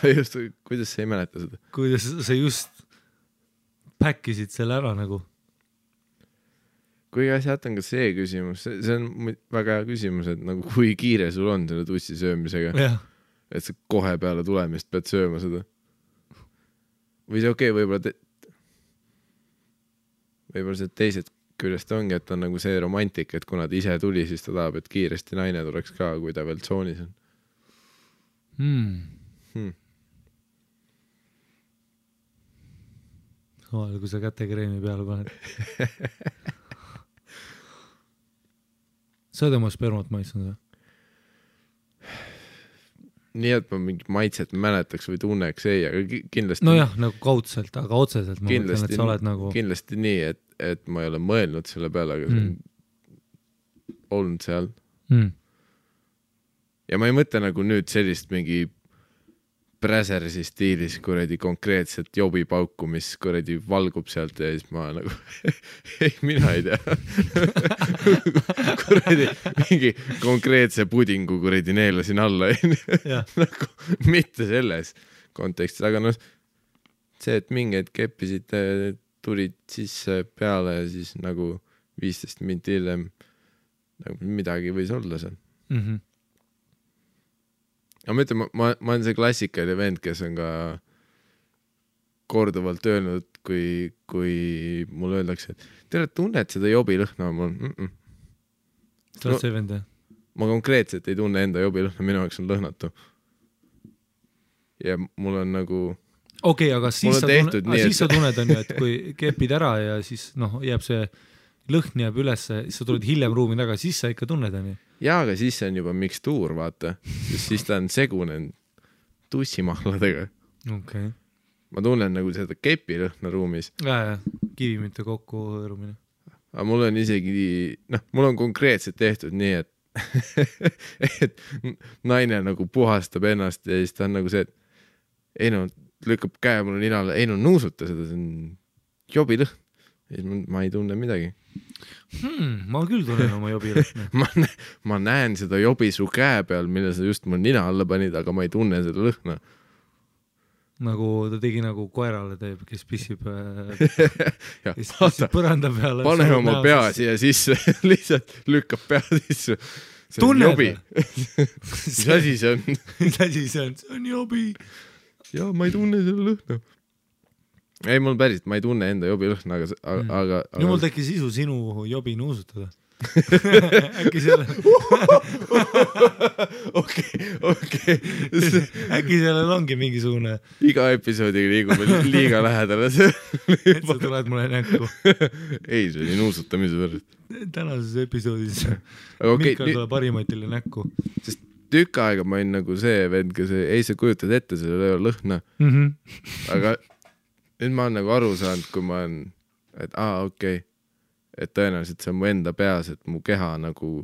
Kuidas sa ei mäleta seda?
Kuidas sa just päkkisid selle ära nagu.
Kuigi sealt on ka see küsimus, see on väga hea küsimus, et nagu kui kiire sul on selle tussi söömisega, et sa kohe peale tulemist pead sööma seda. Või see okei, võib-olla see teised küljest ongi, et on nagu see romantik, et kuna ta ise tuli, siis ta tahab, et kiiresti naine tuleks ka, kui ta veel tsoonis on.
Kui sa kätekreemi peale paned. Sa oled oma spermat maitsnud või?
Nii, et ma mingi maitset mäletaks või tunneks ei, aga kindlasti...
No jah, nagu kaudselt, aga otseselt ma mõtlen, et sa oled nagu...
Kindlasti nii, et ma ei ole mõelnud selle peale, aga see on olnud seal. Ja ma ei mõtle nagu nüüd sellist mingi Bräsersi stiilis kuradi konkreetselt jobipauku, mis kuradi valgub sealt ja siis ma nagu ei, mina ei tea. Kuradi mingi konkreetse pudingu kuradi neelasin alla. Nagu mitte selles kontekstis, aga noh, see, et mingid keppisid tulid sisse peale ja siis nagu 15 minti hiljem nagu midagi võis olla seal. Aga ma ütlen, ma olen see klassikaline vend, kes on ka korduvalt öelnud, kui mulle öeldakse, et tere, tunned seda jobilõhna?
Sa oled see vend, jah?
Ma konkreetselt ei tunne enda jobilõhna, minu jaoks on lõhnatu. Ja mul on nagu...
Okei, aga siis sa tunned, on ju, et kui kepid ära ja siis jääb see lõhn jääb üles, siis sa tuled hiljem ruumi taga, siis sa ikka tunned, on ju? Jaa,
aga siis see on juba mikstuur, vaata. Siis ta on segunen tussimahladega.
Okay.
Ma tunnen nagu seda kepilõhna ruumis.
Ja, kivimite kokku hõõrumine.
Aga mul on isegi, mul on konkreetselt tehtud nii, et naine nagu puhastab ennast ja siis ta on nagu see, et ei lükkab käe mulle ninale, ei nuusuta seda, see on jobilõhn. Ma ei tunne midagi.
Ma küll tunnen oma jobilõhna.
ma näen seda jobi su käe peal, mille sa just mul nina alla panid, aga ma ei tunne seda lõhna.
Nagu ta tegi nagu koerale teeb, kes pissib põranda peale.
Pane oma pea siia sisse, lihtsalt lükkab pea sisse.
Tunned?
Jobi. Mis asi see on?
Mis asi see on? See on jobi.
Ja ma ei tunne selle lõhna. Ei, mul päris, ma ei tunne enda jobi lõhna, aga...
Nüüd mul tekkis isu sinu jobi nuusutada. Äkki sellel...
Okei.
Äkki sellel ongi mingisugune...
Iga episoodiga liigume liiga lähedale.
Et sa tuled mulle näkku.
Ei, see oli nuusutamise pärast.
Tänases episoodis Mihkel tuleb parimatile näkku.
Sest tükk aega ma olin nagu see vend, kes ei sa kujutad ette selle lõhna. Aga... Nüüd ma olen nagu aru saanud, kui ma olen, et okei, et tõenäoliselt see on mu enda peas, et mu keha nagu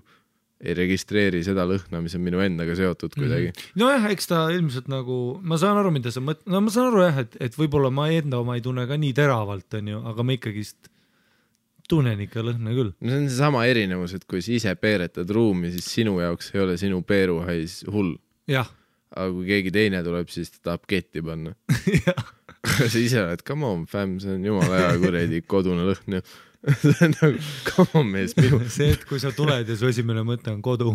ei registreeri seda lõhna, mis on minu endaga seotud kuidagi.
Nojah, eks ta ilmselt nagu, ma saan aru, mida sa mõtled, ma saan aru jah, et võib-olla ma enda oma ei tunne ka nii teravalt, on ju, aga ma ikkagist tunnen ikka lõhna küll.
No see on see sama erinevus, et kui sa ise peeretad ruumi, siis sinu jaoks ei ole sinu peeruhais hull.
Jah.
Aga kui keegi teine tuleb, siis ta tahab ketti panna.
Jah.
sa ise oled, come on fam, see on jumala hea kuradi kodune lõhn ju. See on nagu, come on mees, minu.
See, et kui sa tuled ja su esimene mõte on kodu.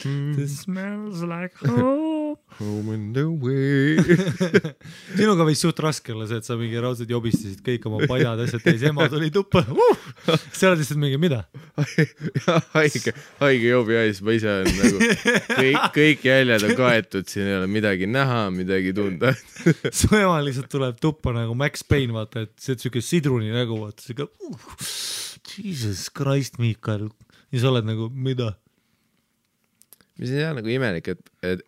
This smells like home.
Home in the way.
Sinuga võis suht raske olla see, et sa mingi raudselt jobistasid kõik oma paljad asjad täis, ema tuli tuppa. Sa oled lihtsalt mingi, mida?
Haige jobi ais, ma ise olen nagu kõik jäljed on kaetud, siin ei ole midagi näha, midagi tunda.
Su ema lihtsalt tuleb tuppa nagu Max Payne, vaata, et see on sidruni nägu, vaata, see ka Jesus Christ, Miikal. Ja sa oled nagu, mida?
Mis ei tea nagu imelik,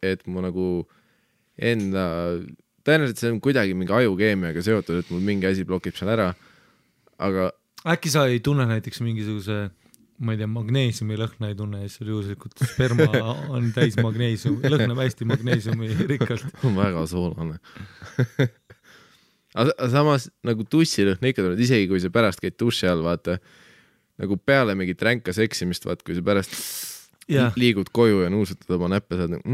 et mu nagu enda, tõenäoliselt see on kuidagi mingi ajukeemiaga seotud, et mul mingi asi blokib seal ära, aga
äkki sa ei tunne näiteks mingisuguse, ma ei tea, magneesiumi lõhna ei tunne, ja seal juhuslikult sperma on täis magneesium, lõhnab hästi magneesiumi rikkalt.
Väga soolane. Aga samas nagu tussilõhn ikka tuleb, isegi kui sa pärast käid duši all, vaata, nagu peale mingit ränka seksimist, vaata, kui sa pärast liigud koju ja nuusutad oma näppe, saad nagu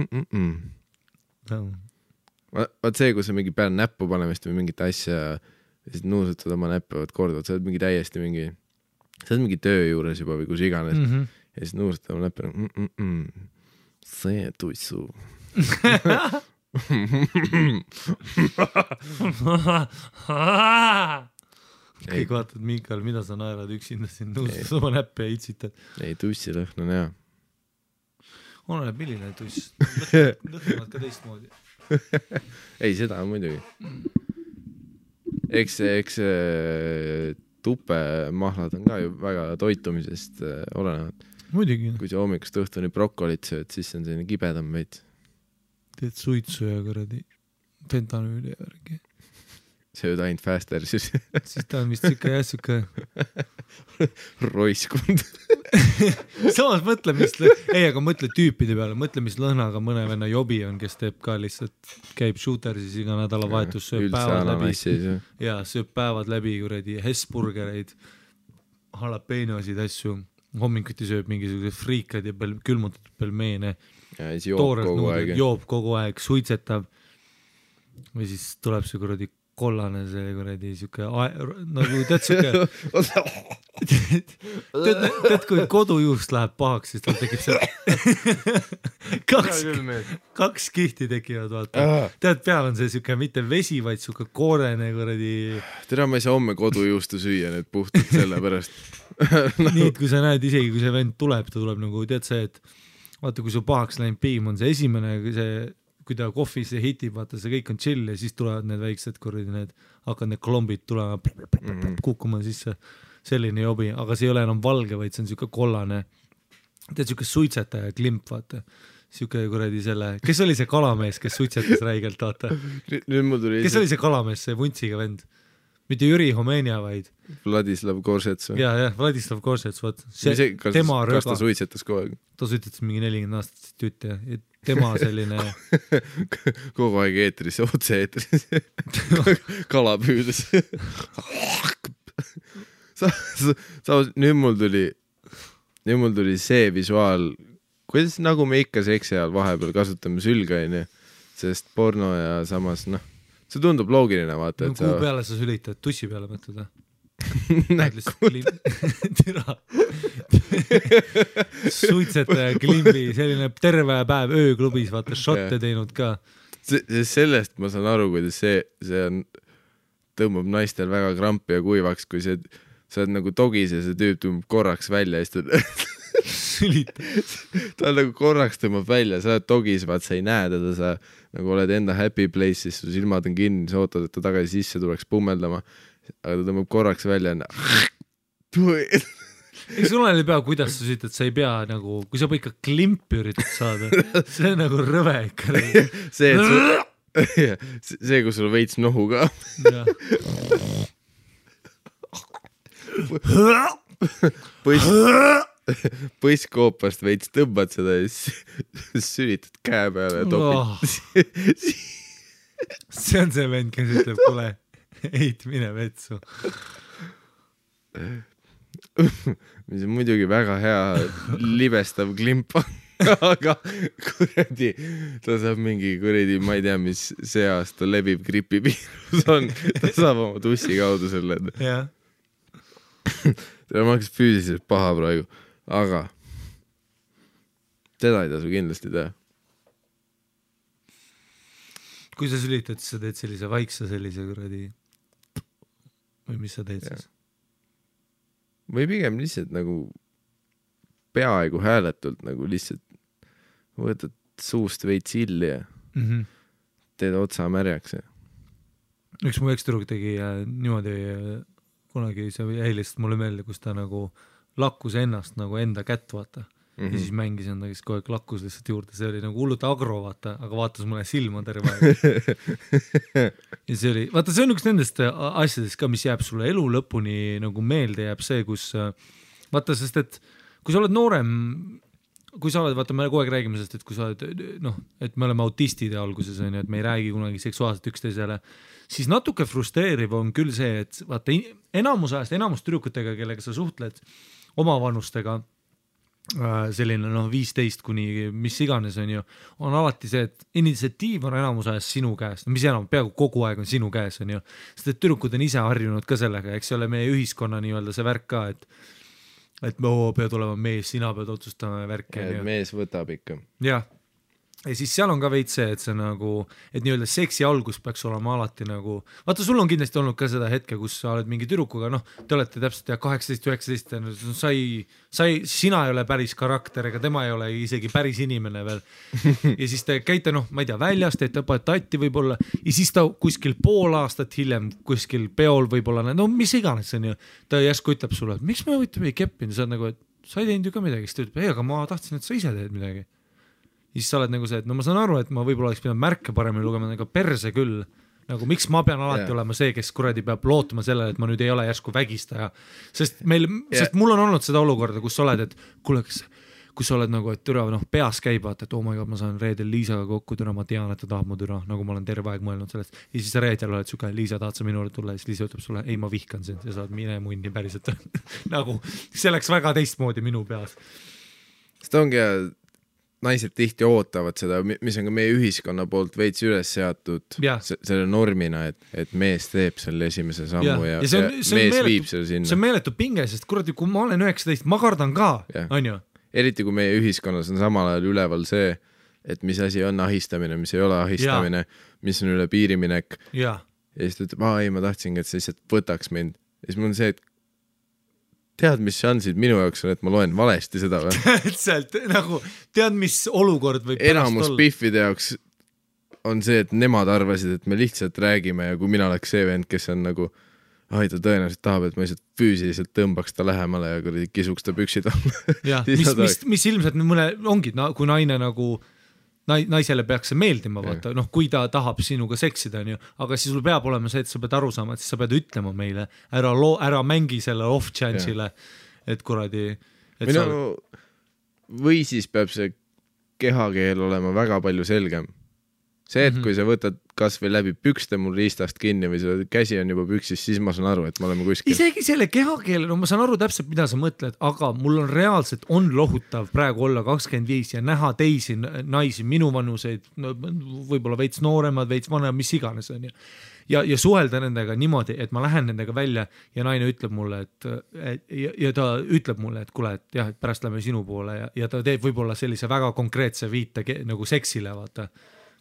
vaat see, kui sa mingi peale näppu panemist või mingit asja ja siis nuusutad oma näppe, vaat kordavad, sa oled mingi täiesti mingi, sa oled mingi töö juures juba või kus iganes ja siis nuusutad oma näppe see tuissu
kõik vaatad, Miikal, mida sa naerad üksinda siin nuusutad oma näppe ja itsitad.
Ei, tussilõhn on hea.
Oleneb milline tuss. Lõhnavad ka teistmoodi.
Ei, seda on muidugi. Eks tupemahlad on ka ju väga toitumisest olenevad.
Muidugi.
Kui sa hommikust õhtuni brokolit sööd, siis on selline kibedam veits.
Teed suitsu ja kuradi fentanüüli ja värgi.
Sööd ainult faster, siis
ta on vist siuke
roiskund.
Samas mõtle, aga mõtle tüüpide peale, mõtle, mis lõhnaga mõne venna jobi on, kes teeb ka lihtsalt, käib shootersis iga nädalavahetus, sööb päevad läbi ja sööb päevad läbi kuradi Hesburgereid, jalapenosid, asju, hommikuti sööb mingisugused friikad ja külmutatud pelmeene, joob kogu aeg, suitsetab või siis tuleb see kuradi kollane, see kuradi siuke, nagu tead siuke, tead kui kodujuust läheb pahaks, siis tal tekib see kaks kihti tekivad, vaata. Tead, peal on see siuke mitte vesi, vaid siuke koorene kuradi.
Tere, ma ei saa homme kodujuustu süüa nüüd puhtalt selle pärast.
Nii, et kui sa näed, isegi kui see vend tuleb, ta tuleb nagu, tead see, et vaata, kui su pahaks läinud piim on see esimene, kui ta kohvis ja hitib, vaata, see kõik on chill ja siis tulevad need väiksed kuradi, hakkad need klombid tulema kukkuma sisse, selline jobi, aga see ei ole enam valge, vaid see on siuke kollane, tead, siuke suitsetaja klimp, vaata, siuke kuradi selle, kes oli see kalamees, kes suitsetas räigelt, vaata, kes oli see kalamees, see vuntsiga vend, mitte Jüri Homenia, vaid
Vladislav Korsets või?
Ja, Vladislav Korsets, vaat,
kas ta suitsetas kogu aeg?
Ta suitsetas mingi 40 aastat tütt ja tema selline
kogu aeg eetris, otse eetris kala püüdes nüüd mul tuli see visuaal, kuidas nagu me ikka seksi ajal vahepeal kasutame sülga, sest porno ja samas see tundub loogiline, vaata, et
kuhu peale sa sülitad, tussi peale mõtled või? Suitsetaja klimbi, selline terve päev ööklubis, vaata, šotte teinud ka.
Sellest ma saan aru, kuidas see on, tõmbab naistel väga krampi ja kuivaks, kui sa oled nagu dogis ja see tüüp tõmbab korraks välja ja ta nagu korraks tõmbab välja, sa oled dogis, vaat sa ei näe teda, sa nagu oled enda happy place'is, su silmad on kinni, sa ootad, et ta tagasi sisse tuleks pummeldama, aga ta tõmbab korraks välja
eks sul oli pea, kuidas sa sütad, sa ei pea nagu, kui sa ikka klimpi üritad saada, see on nagu rõve ikka.
see, kus sul veits nohu ka. Põsskoopast veits tõmbad seda ja sülitad käe peale ja topid.
See on see vend, kes ütleb, kuule, eit mine vetsu.
Mis on muidugi väga hea libestav klimp. aga kuradi, ta saab mingi kuradi, ma ei tea, mis see aasta leviv gripiviirus on, ta saab oma tussi kaudu selle.
jah.
ta maksis füüsiliselt paha praegu, aga seda ei tasu kindlasti teha.
kui sa sülitad, siis sa teed sellise vaikse sellise kuradi või mis sa teed siis?
Või pigem lihtsalt nagu peaaegu hääletult nagu lihtsalt võtad suust veits illi ja teed otsa märjaks.
Üks mu ekstüdruk tegi niimoodi kunagi see helist mulle meelde, kus ta nagu lakkus ennast nagu enda kätt vaata. Ja siis mängis enda, kes kogu aeg lakkus lihtsalt juurde, see oli nagu hullult agro vaata, aga vaatas mulle silma terve aeg. Ja see oli, vaata see on üks nendest asjadest ka, mis jääb sulle elu lõpuni nagu meelde jääb see, kus vaata, sest et kui sa oled noorem, kui sa oled, vaata me kogu aeg räägime sest, et kui sa oled, noh, et me oleme autistide alguses, on ju, et me ei räägi kunagi seksuaalselt üksteisele, siis natuke frustreeriv on küll see, et vaata enamus ajast, enamus tüdrukutega, kellega sa suhtled oma vanustega, selline 15 kuni mis iganes on ju, on alati see, et initsiatiiv on enamus ajast sinu käes, mis enam, peaaegu kogu aeg on sinu käes on ju, sest et tüdrukud on ise harjunud ka sellega, eks ole meie ühiskonna nii-öelda see värk ka, et me pead olema mees, sina pead otsustama värke.
Mees võtab ikka.
Jah. Ja siis seal on ka veits see, et see nagu, et nii-öelda seksi algus peaks olema alati nagu, vaata sul on kindlasti olnud ka seda hetke, kus sa oled mingi tüdrukuga, noh, te olete täpselt 18-19, sina ei ole päris karakter, ega tema ei ole isegi päris inimene veel. Ja siis te käite, noh, ma ei tea, väljas, teete tatti võib-olla, ja siis ta kuskil pool aastat hiljem, kuskil peol võib-olla, no mis iganes see on ju, ta järsku ütleb sulle, et miks me võitame ei keppinud, sa oled nagu, et sa ei teinud ju ka midagi, siis ta ütleb, ei, aga ma tahtsin, et sa ise teed midagi. Siis sa oled nagu see, et no ma saan aru, et ma võib-olla oleks pidanud märke paremini lugema, aga perse küll, nagu miks ma pean alati olema see, kes kuradi peab lootuma sellele, et ma nüüd ei ole järsku vägistaja, sest mul on olnud seda olukorda, kus sa oled, et kuule, kui sa oled nagu, et türa, noh, peas käib, vaata, et oh my god, ma saan reedel Liisaga kokku, türa, ma tean, et ta tahab mu türa, nagu ma olen terve aeg mõelnud sellest, ja siis sa reedel oled suke, Liisa, tahad sa minule tulla, ja siis Liisa ütleb sulle, ei, ma vihkan sind ja sa oled mine munni päriselt nagu, see läks väga teistmoodi minu peas.
Seda ongi naised tihti ootavad seda, mis on ka meie ühiskonna poolt veits üles seatud selle normina, et mees teeb selle esimese sammu ja mees viib selle sinna.
See on meeletu pinge, sest kuradi, kui ma olen 19, ma kardan ka, on ju?
Eriti kui meie ühiskonnas on samal ajal üleval see, et mis asi on ahistamine, mis ei ole ahistamine, mis on üle piiriminek. Ja siis ta ütleb, ei, ma tahtsingi, et sa lihtsalt võtaks mind. Ja siis mul on see, et tead, mis šansid minu jaoks on, et ma loen valesti seda või?
Täpselt, nagu tead, mis olukord võib
enamus piffide jaoks on see, et nemad arvasid, et me lihtsalt räägime ja kui mina oleks see vend, kes on nagu ta tõenäoliselt tahab, et ma lihtsalt füüsiliselt tõmbaks ta lähemale ja kuradi kisuks ta püksid alla.
mis ilmselt mõne ongi, kui naine nagu naisele peaks see meeldima, vaata, noh, kui ta tahab sinuga seksida, on ju, aga siis sul peab olema see, et sa pead aru saama, et siis sa pead ütlema meile, ära mängi selle off-chance'ile, et kuradi
või siis peab see kehakeel olema väga palju selgem. See, et kui sa võtad kas või läbi pükste mul riistast kinni või see käsi on juba püksis, siis ma saan aru, et me oleme kuskil.
Isegi selle kehakeel, no ma saan aru täpselt, mida sa mõtled, aga mul on reaalselt lohutav praegu olla 25 ja näha teisi naisi, minu vanuseid, no, võib-olla veits nooremad, veits vanemad, mis iganes on ju. Ja suhelda nendega niimoodi, et ma lähen nendega välja ja naine ütleb mulle, ja ta ütleb mulle, et kuule, et jah, et pärast lähme sinu poole ja ta teeb võib-olla sellise väga konkreetse viite nagu seksile, vaata.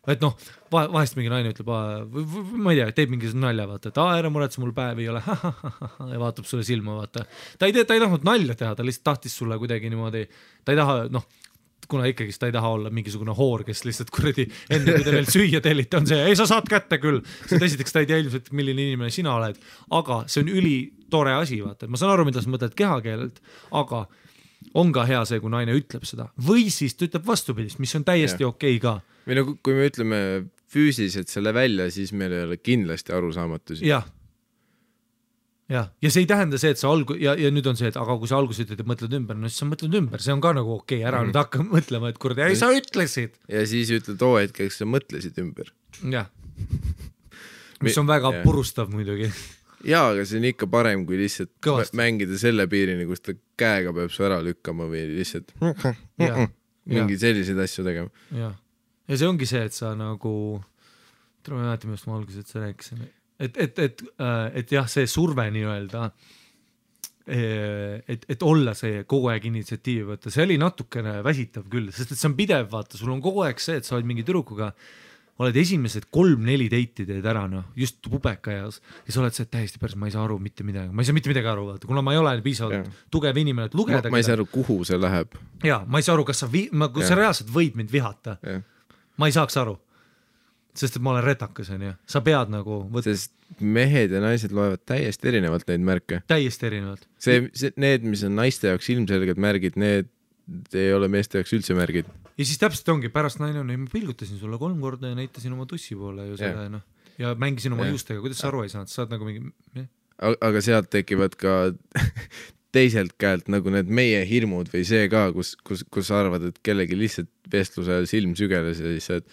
Et noh, vahest mingi naine ütleb, ma ei tea, teeb mingi nalja, vaata, et ära muretse, mul päev ei ole, ja vaatab sulle silma, vaata. Ta ei tahtnud nalja teha, ta lihtsalt tahtis sulle kuidagi niimoodi, ta ei taha, noh, kuna ikkagi ta ei taha olla mingisugune hoor, kes lihtsalt kuradi enne, kui te veel süüa tellite, on see, ei, sa saad kätte küll. Sest esiteks ta ei tea ilmselt, milline inimene sina oled, aga see on ülitore asi, vaata. Ma saan aru, mida sa mõtled kehakeelelt, aga on ka hea see, kui naine ütleb seda. Või siis ta ütleb vastupidist, mis on täiesti okei ka.
Või nagu, kui me ütleme füüsiliselt selle välja, siis meil ei ole kindlasti arusaamatusi.
Ja see ei tähenda see, et sa ja nüüd on see, et aga kui sa alguses ütled, et mõtled ümber, no siis sa mõtled ümber, see on ka nagu okei, ära nüüd hakka mõtlema, et kurdi, ei sa ütlesid.
Ja siis ütled hetkeks sa mõtlesid ümber.
Jah, mis on väga purustav muidugi.
Jaa, aga see on ikka parem, kui lihtsalt mängida selle piirini, kus ta käega peab su ära lükkama või lihtsalt mingi selliseid asju tegema.
Jah. Ja see ongi see, et sa nagu, ma ei mäleta, millest ma alguses, et sa rääkisin, et jah, see surve nii-öelda, et olla see kogu aeg initsiatiivi võtta, see oli natukene väsitav küll, sest et see on pidev, vaata, sul on kogu aeg see, et sa oled mingi tüdrukuga, oled esimesed 3-4 deiti teed ära, just pubeka eas, ja sa oled see täiesti päris, ma ei saa aru mitte midagi, ma ei saa mitte midagi aru, vaata, kuna ma ei ole piisavalt tugev inimene, et lugeda.
Ma ei saa aru, kuhu see läheb.
Jaa, ma ei saa aru, kas sa reaalselt võid mind vihata. Ma ei saaks aru. Sest et ma olen retakas, sa pead nagu
sest mehed ja naised loevad täiesti erinevalt neid märke.
Täiesti erinevalt.
Need, mis on naiste jaoks ilmselged märgid, need ei ole meeste jaoks üldse märgid.
Ja siis täpselt ongi, pärast naine on, ma pilgutasin sulle 3 korda ja näitasin oma tussi poole ju selle, ja mängisin oma juustega, kuidas sa aru ei saanud, saad nagu mingi...
Aga sealt tekivad ka teiselt käelt nagu need meie hirmud või see ka, kus arvad, et kellegi lihtsalt vestluse silm sügeles ja siis et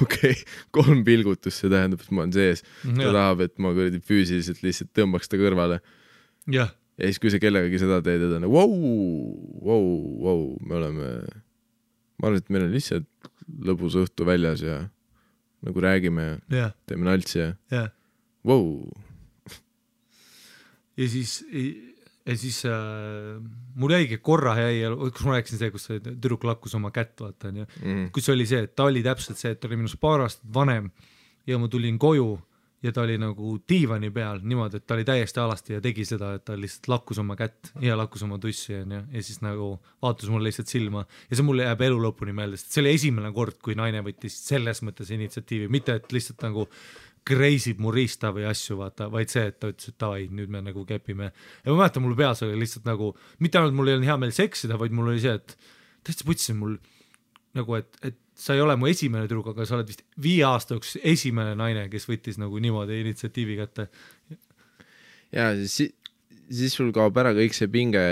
okei, 3 pilgutust, see tähendab, et ma olen sees. Ta tahab, et ma füüsiliselt lihtsalt tõmbaks ta kõrvale.
Ja
siis kui sa kellegagi seda teed, et on wow, me oleme, ma arvan, et meil on lihtsalt lõbus õhtu väljas ja nagu räägime ja teeme naltsi ja wow.
Ja siis mul jäigi korra kus ma rääkisin see, kus tüdruk lakkus oma kätt, vaata, kus oli see, et ta oli täpselt see, et ta oli minust 2 aastat vanem ja ma tulin koju ja ta oli nagu diivani peal niimoodi, et ta oli täiesti alasti ja tegi seda, et ta lihtsalt lakkus oma kätt ja lakkus oma tussi ja siis nagu vaatas mulle lihtsalt silma ja see mulle jääb elu lõpuni meelde, sest see oli esimene kord, kui naine võttis selles mõttes initsiatiivi, mitte et lihtsalt nagu kreisib mu riista või asju, vaata, vaid see, et ta ütles, et davai, nüüd me nagu kepime. Ja ma mäletan, mul peas oli lihtsalt nagu, mitte ainult mul ei olnud hea meel seksida, vaid mul oli see, et täitsa putsin mul nagu, et sa ei ole mu esimene tüdruk, aga sa oled vist 5 aasta jooksul esimene naine, kes võttis nagu niimoodi initsiatiivi kätte.
Ja siis sul kaob ära kõik see pinge,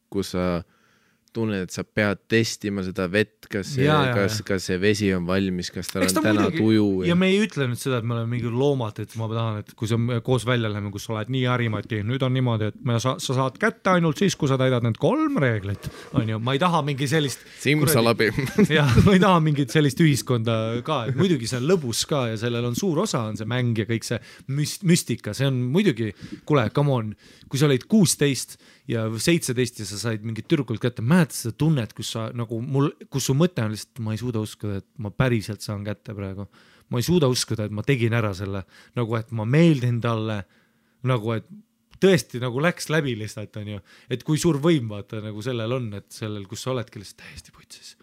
kus sa tunned, et sa pead testima seda vett, kas see vesi on valmis, kas tal on täna tuju.
Ja me ei ütle nüüd seda, et me oleme mingi loomad, et ma tahan, et kui sa koos välja läheme, kus sa oled nii harimadki, nüüd on niimoodi, et sa saad kätte ainult siis, kui sa täidad need 3 reeglit. Ma ei taha mingi sellist...
Simsalabi.
Ja, ma ei taha mingit sellist ühiskonda ka, et muidugi see on lõbus ka ja sellel on suur osa, on see mäng ja kõik see müstika, see on muidugi, kuule, come on, kui sa olid 16 ja 17 ja sa said mingit tüdrukult kätte, mäletad seda tunnet, kus sa nagu kus su mõte on lihtsalt, ma ei suuda uskuda, et ma päriselt saan kätte praegu. Ma ei suuda uskuda, et ma tegin ära selle, nagu et ma meeldin talle, nagu et tõesti nagu läks läbi lihtsalt, on ju. Et kui suur võim vaata nagu sellel on, et sellel, kus sa oledki lihtsalt täiesti putsis.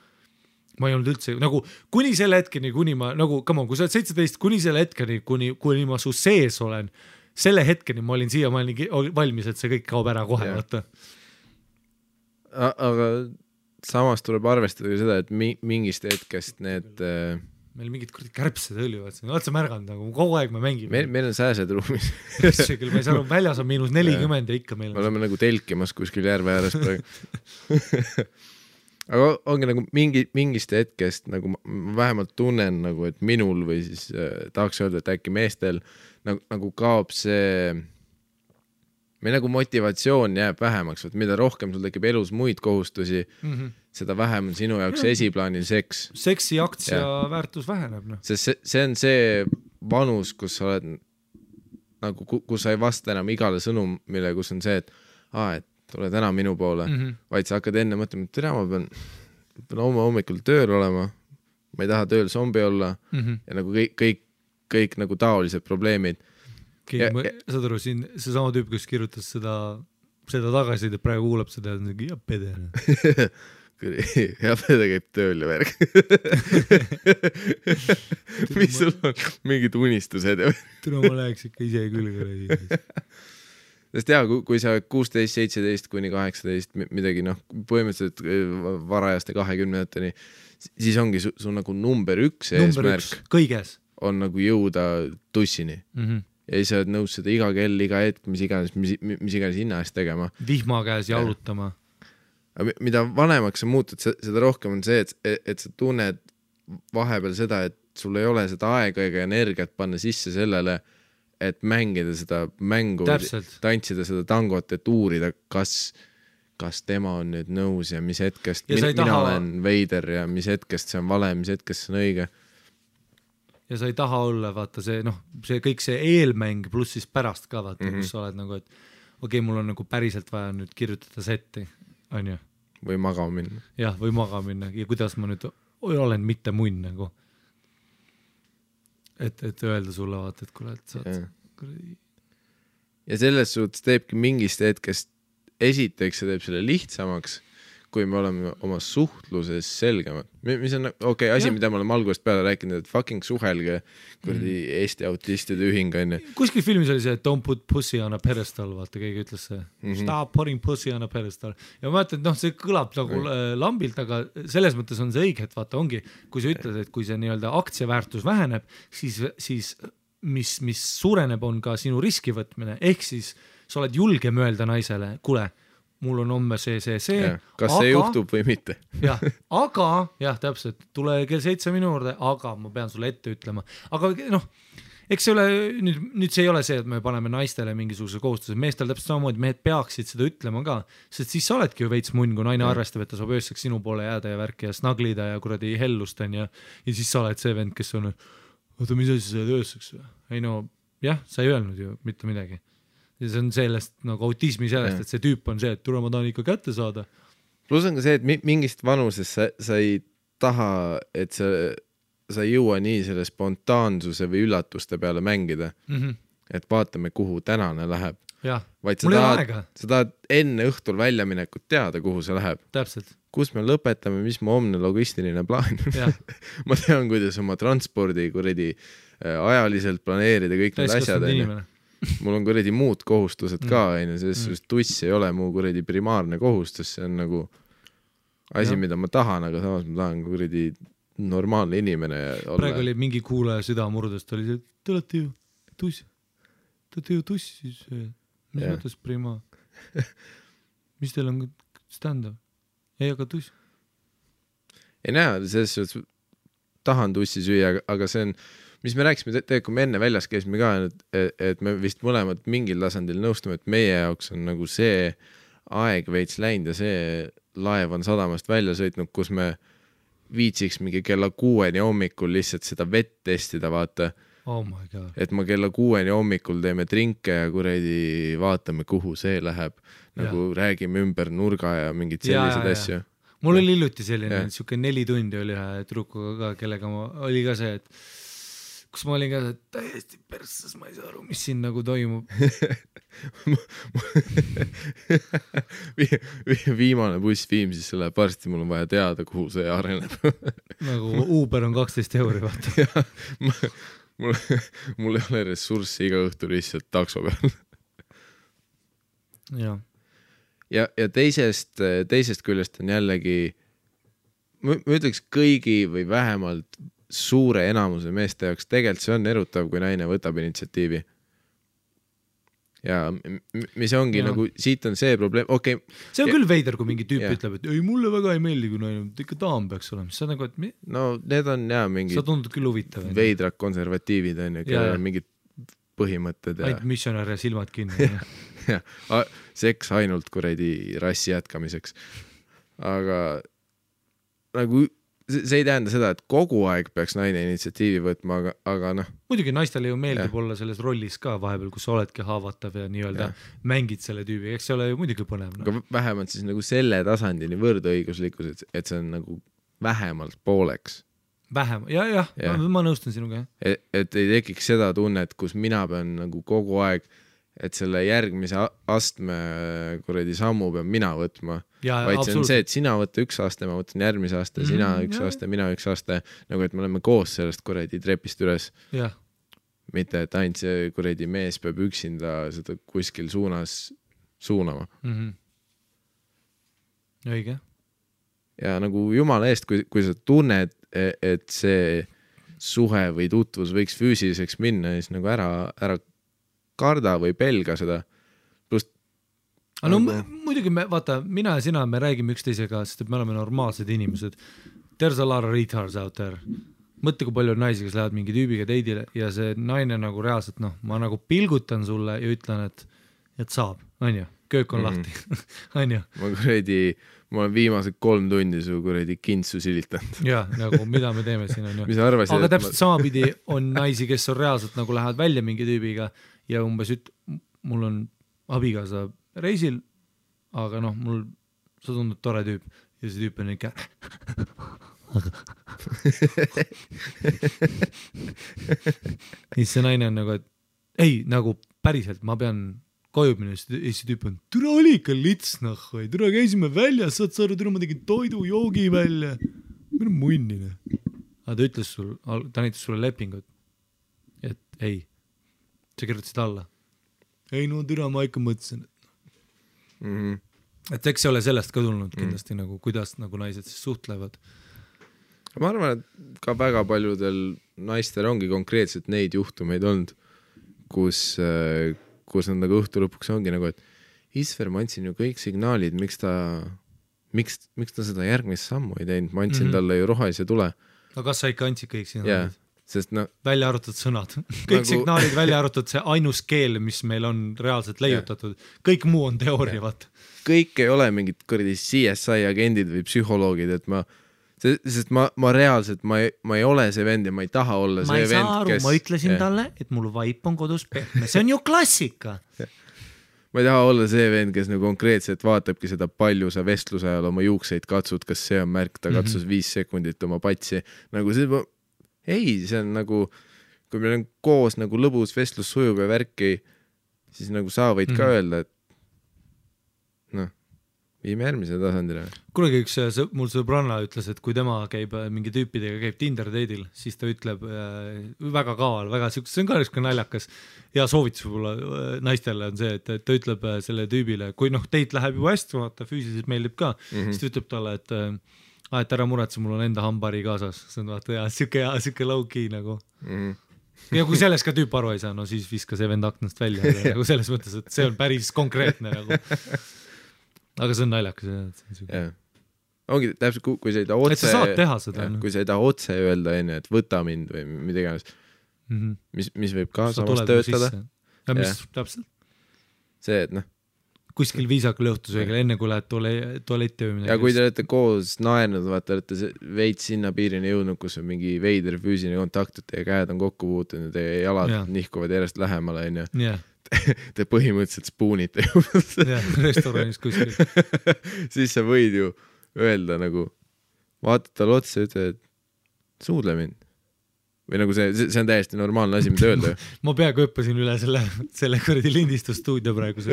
Ma ei olnud üldse, nagu kuni selle hetkeni, kuni ma, nagu, come on, kui sa oled 17, kuni selle hetkeni, kuni ma su sees olen, selle hetkeni ma olin siia, ma olin valmis, et see kõik kaob ära kohe, vaata.
Aga samas tuleb arvestada seda, et mingist hetkest need...
Meil mingid kärbsed õlivad, oled sa märganud, nagu kogu aeg me mängime.
Meil on sääsed ruumis.
Küll, ma ei saa aru, väljas on -40 ja ikka meil on.
Me oleme nagu telkimas kuskil järve ääres praegu. Aga ongi nagu mingist hetkest, nagu ma vähemalt tunnen, nagu, et minul või siis tahaks öelda, et äkki meestel nagu kaob see, meil nagu motivatsioon jääb vähemaks, et mida rohkem sul tekib elus muid kohustusi, seda vähem on sinu jaoks esiplaanil seks.
Seksi aktsia väärtus väheneb. No.
See on see vanus, kus sa oled nagu, kus sa ei vasta enam igale sõnumile, kus on see, et tule täna minu poole, vaid sa hakkad enne mõtlema, et ma pean hommikul tööl olema, ma ei taha tööl zombi olla ja nagu kõik nagu taolised probleemid.
Saad aru, siin see sama tüüp, kes kirjutas seda tagasi, et praegu kuulab seda, ja pede.
Ja pede käib tööl ja värg. Mis sul on mingid unistused?
Tule ma läheks ikka ise küll.
Sest kui sa 16, 17 kuni 18 midagi, põhimõtteliselt varajaste 20-teni, siis ongi su nagu number 1 eesmärk
kõiges
on nagu jõuda tussini. Ja siis sa oled nõus seda iga kell, iga hetk, mis iganes hinna eest tegema.
Vihma käes jalutama.
Mida vanemaks sa muutud, seda rohkem on see, et sa tunned vahepeal seda, et sul ei ole seda aega ega energiat panna sisse sellele, et mängida seda mängu, tantsida seda tangot, et uurida, kas kas tema on nüüd nõus ja mis hetkest
Ja sa ei
mina
taha-
olen veider ja mis hetkest see on vale, mis hetkest see on õige.
ja sa ei taha olla, vaata see see kõik see eelmäng pluss siis pärast ka vaata kus sa oled nagu, et okei, mul on nagu päriselt vaja nüüd kirjutada setti, on ju,
või magama minna.
jah, või maga minna ja kuidas ma nüüd olen mitte munn nagu, et öelda sulle vaata, et kuule, et sa oled kuradi.
Ja selles suhtes teebki mingist hetkest, esiteks see teeb selle lihtsamaks, kui me oleme oma suhtluses selgemad. Mis on asi, mida me oleme algusest peale rääkinud, et fucking suhelge kuradi Eesti autistide ühing on.
Kuskil filmis oli see, et don't put pussy on a pedestal, vaata, keegi ütles see. Stop putting pussy on a pedestal. Ja ma mõtlen, et see kõlab nagu lambilt, aga selles mõttes on see õige, et vaata ongi, kui sa ütled, et kui see nii-öelda aktsiaväärtus väheneb, siis mis suureneb, on ka sinu riski võtmine, ehk siis sa oled julgem öelda naisele, kuule, mul on homme see.
Kas see juhtub või mitte?
aga täpselt, tule kell 7 minu juurde, aga ma pean sulle ette ütlema. Aga eks see ole, nüüd see ei ole see, et me paneme naistele mingisuguse kohustuse, meestel täpselt samamoodi, mehed peaksid seda ütlema ka, sest siis sa oledki ju veits munn, kui naine arvestab, et ta saab ööseks sinu poole jääda ja värki ja snaglida ja kuradi hellust on ja siis sa oled see vend, kes on, oota, mis asi sa oled ööseks? Ei sa ei öelnud ju mitte midagi. Ja see on sellest nagu autismi sellest, et see tüüp on see, et tule ma tahan ikka kätte saada.
Plus on ka see, et mingist vanuses sa ei taha, et sa ei jõua nii selle spontaansuse või üllatuste peale mängida, et vaatame, kuhu tänane läheb. Vaid sa tahad enne õhtul väljaminekut teada, kuhu see läheb.
Täpselt.
Kus me lõpetame, mis mu homne logistiline plaan ma tean, kuidas oma transpordi kuradi ajaliselt planeerida kõik need asjad. Mul on kuradi muud kohustused ka, selles tuss ei ole mu kuradi primaarne kohustus, see on nagu asi, mida ma tahan, aga samas ma tahan kuradi normaalne inimene olla.
Praegu oli mingi kuulaja süda murdust, oli see, te olete ju tuss, siis mis mõttes prima? Mis teil on stand-up? Ei, aga tuss?
Ei näe, selles suhtes tahan tussi süüa, aga see on mis me rääkisime, kui me enne väljas käisime ka, et me vist mõlemad mingil tasandil nõustume, et meie jaoks on nagu see aeg veits läinud ja see laev on sadamast välja sõitnud, kus me viitsiks mingi kella 6 hommikul lihtsalt seda vett testida, vaata.
Oh my God.
Et ma kella 6 hommikul teeme trinke ja kuradi vaatame, kuhu see läheb. Nagu räägime ümber nurga ja mingid sellised asju.
Mul oli hiljuti selline, siuke 4 tundi oli ühe trukuga ka, kellega oli ka see, et kus ma olin ka täiesti persses, ma ei saa aru, mis siin nagu toimub.
Viimane buss Viimsisse läheb varsti, mul on vaja teada, kuhu see areneb.
Nagu Uber on 12 €, vaata.
Mul ei ole ressurssi iga õhtu lihtsalt takso peal. Ja teisest küljest on jällegi, ma ütleks kõigi või vähemalt suure enamuse meeste jaoks tegelikult see on erutav, kui naine võtab initsiatiivi. Ja mis ongi nagu, siit on see probleem, okei.
See on küll veider, kui mingi tüüp ütleb, et ei, mulle väga ei meeldi, kui naine, ikka daam peaks olema. See on nagu, et
no need on mingid
sa tundud küll huvitav.
Veidrad konservatiivid on ja kellel on mingid põhimõtted.
Ainult missionär ja silmad kinni.
Seks ainult kuradi rassi jätkamiseks. Aga nagu see ei tähenda seda, et kogu aeg peaks naine initsiatiivi võtma, aga
muidugi naistele ju meeldib olla selles rollis ka vahepeal, kus sa oledki haavatav ja nii-öelda mängid selle tüübi, eks see ole ju muidugi põnev.
Aga vähemalt siis nagu selle tasandini võrdõiguslikkus, et see on nagu vähemalt pooleks.
Ma nõustun sinuga.
Et ei tekiks seda tunnet, kus mina pean nagu kogu aeg, et selle järgmise astme kuradi sammu pean mina võtma. Vaid see on see, et sina võtta üks aste, ma võtan järgmise aste, sina üks aste, mina üks aste, nagu et me oleme koos sellest kuradi trepist üles. Mitte, et ainult see kuradi mees peab üksinda seda kuskil suunas suunama.
Õige.
Ja nagu jumala eest, kui sa tunned, et see suhe või tutvus võiks füüsiliseks minna, siis nagu ära karda või pelga seda.
No muidugi vaata, mina ja sina, me räägime üksteisega, sest me oleme normaalsed inimesed. There's a lot of retards out there. Mõtle, kui palju on naisi, kes lähevad mingi tüübiga teidile ja see naine nagu reaalselt, ma nagu pilgutan sulle ja ütlen, et saab, on ju. köök on lahti . On ju?
ma olen viimased 3 tundi su kuradi kintsu silitanud .
Ja nagu mida me teeme siin on ju .
mis sa arvasid,
aga täpselt samapidi on naisi, kes on reaalselt nagu lähevad välja mingi tüübiga ja umbes mul on abikaasa reisil, aga noh, sa tundud tore tüüp ja see tüüp on ikka siis see naine on nagu, et ei, nagu päriselt ma pean koju minna, siis tüüp on, türa oli ikka lits nahhu, türa käisime väljas, saad sa aru, türa ma tegin toidu, joogi välja, minu munnine. Aga ta ütles ta näitas sulle lepingut, et ei, sa kirjutasid alla. Ei no türa, ma ikka mõtlesin. Et eks ei ole sellest ka tulnud kindlasti nagu, kuidas nagu naised siis suhtlevad.
Ma arvan, et ka väga paljudel naistel ongi konkreetselt neid juhtumeid olnud, kus nad nagu õhtu lõpuks ongi nagu, et Isver, ma andsin ju kõik signaalid, miks ta seda järgmist sammu ei teinud, ma andsin talle ju rohelise tule.
No kas sa ikka andsid kõik signaalid?
Sest
välja arvatud sõnad. Kõik nagu... signaalid välja arvatud see ainus keel, mis meil on reaalselt leiutatud. Kõik muu on teooria, vaata.
Kõik ei ole mingid kõrdi CSI agendid või psühholoogid, et sest ma reaalselt, ma ei ole see vend ja ma ei taha olla see vend,
aru, ma ütlesin talle, et mul vaip on kodus pehme. See on ju klassika.
Ma ei taha olla see vend, kes nagu konkreetselt vaatabki seda palju sa vestluse ajal oma juukseid katsud, kas see on märk, ta katsus 5 sekundit oma patsi. Nagu see, see on nagu, kui meil on koos nagu lõbus vestlus sujub ja värki, siis nagu sa võid ka öelda, et viime järgmise tasandile. Kunagi
üks mul sõbranna ütles, et kui tema käib mingi tüüpidega, käib Tinder date'il, siis ta ütleb väga kaval, väga see on ka üks naljakas ja soovitus võib-olla naistele on see, et ta ütleb selle tüübile, kui date läheb juba hästi, vaata füüsiliselt meeldib ka, siis ta ütleb talle, et ära muretse, mul on enda hambari kaasas. See on vaata siuke low-key nagu. Ja kui selles ka tüüp aru ei saa, no siis viska see vend aknast välja nagu selles mõttes, et see on päris konkreetne nagu. Aga see on naljakas.
Ongi täpselt, kui sa ei taha otse...
Et sa saad teha seda.
Kui sa ei taha otse öelda enne, et võta mind või midagi, mis võib ka samas töötada.
Ja mis täpselt?
See, et
kuskil viisakal õhtusöögil, enne kui lähed tualetti või midagi.
Ja kui te olete koos naernud, vaata, olete veits sinna piirini jõudnud, kus on mingi veider füüsiline kontakt, et teie käed on kokku puutunud ja teie jalad nihkuvad järjest lähemale, te põhimõtteliselt spoonite
restoranis kuskil.
Siis sa võid ju öelda nagu, vaatad tal otsa ja ütle, et suudle mind. Või nagu see on täiesti normaalne asi, mida öelda.
Ma peaaegu õppasin üle selle kõrdi lindistusstuudio praegu. Sa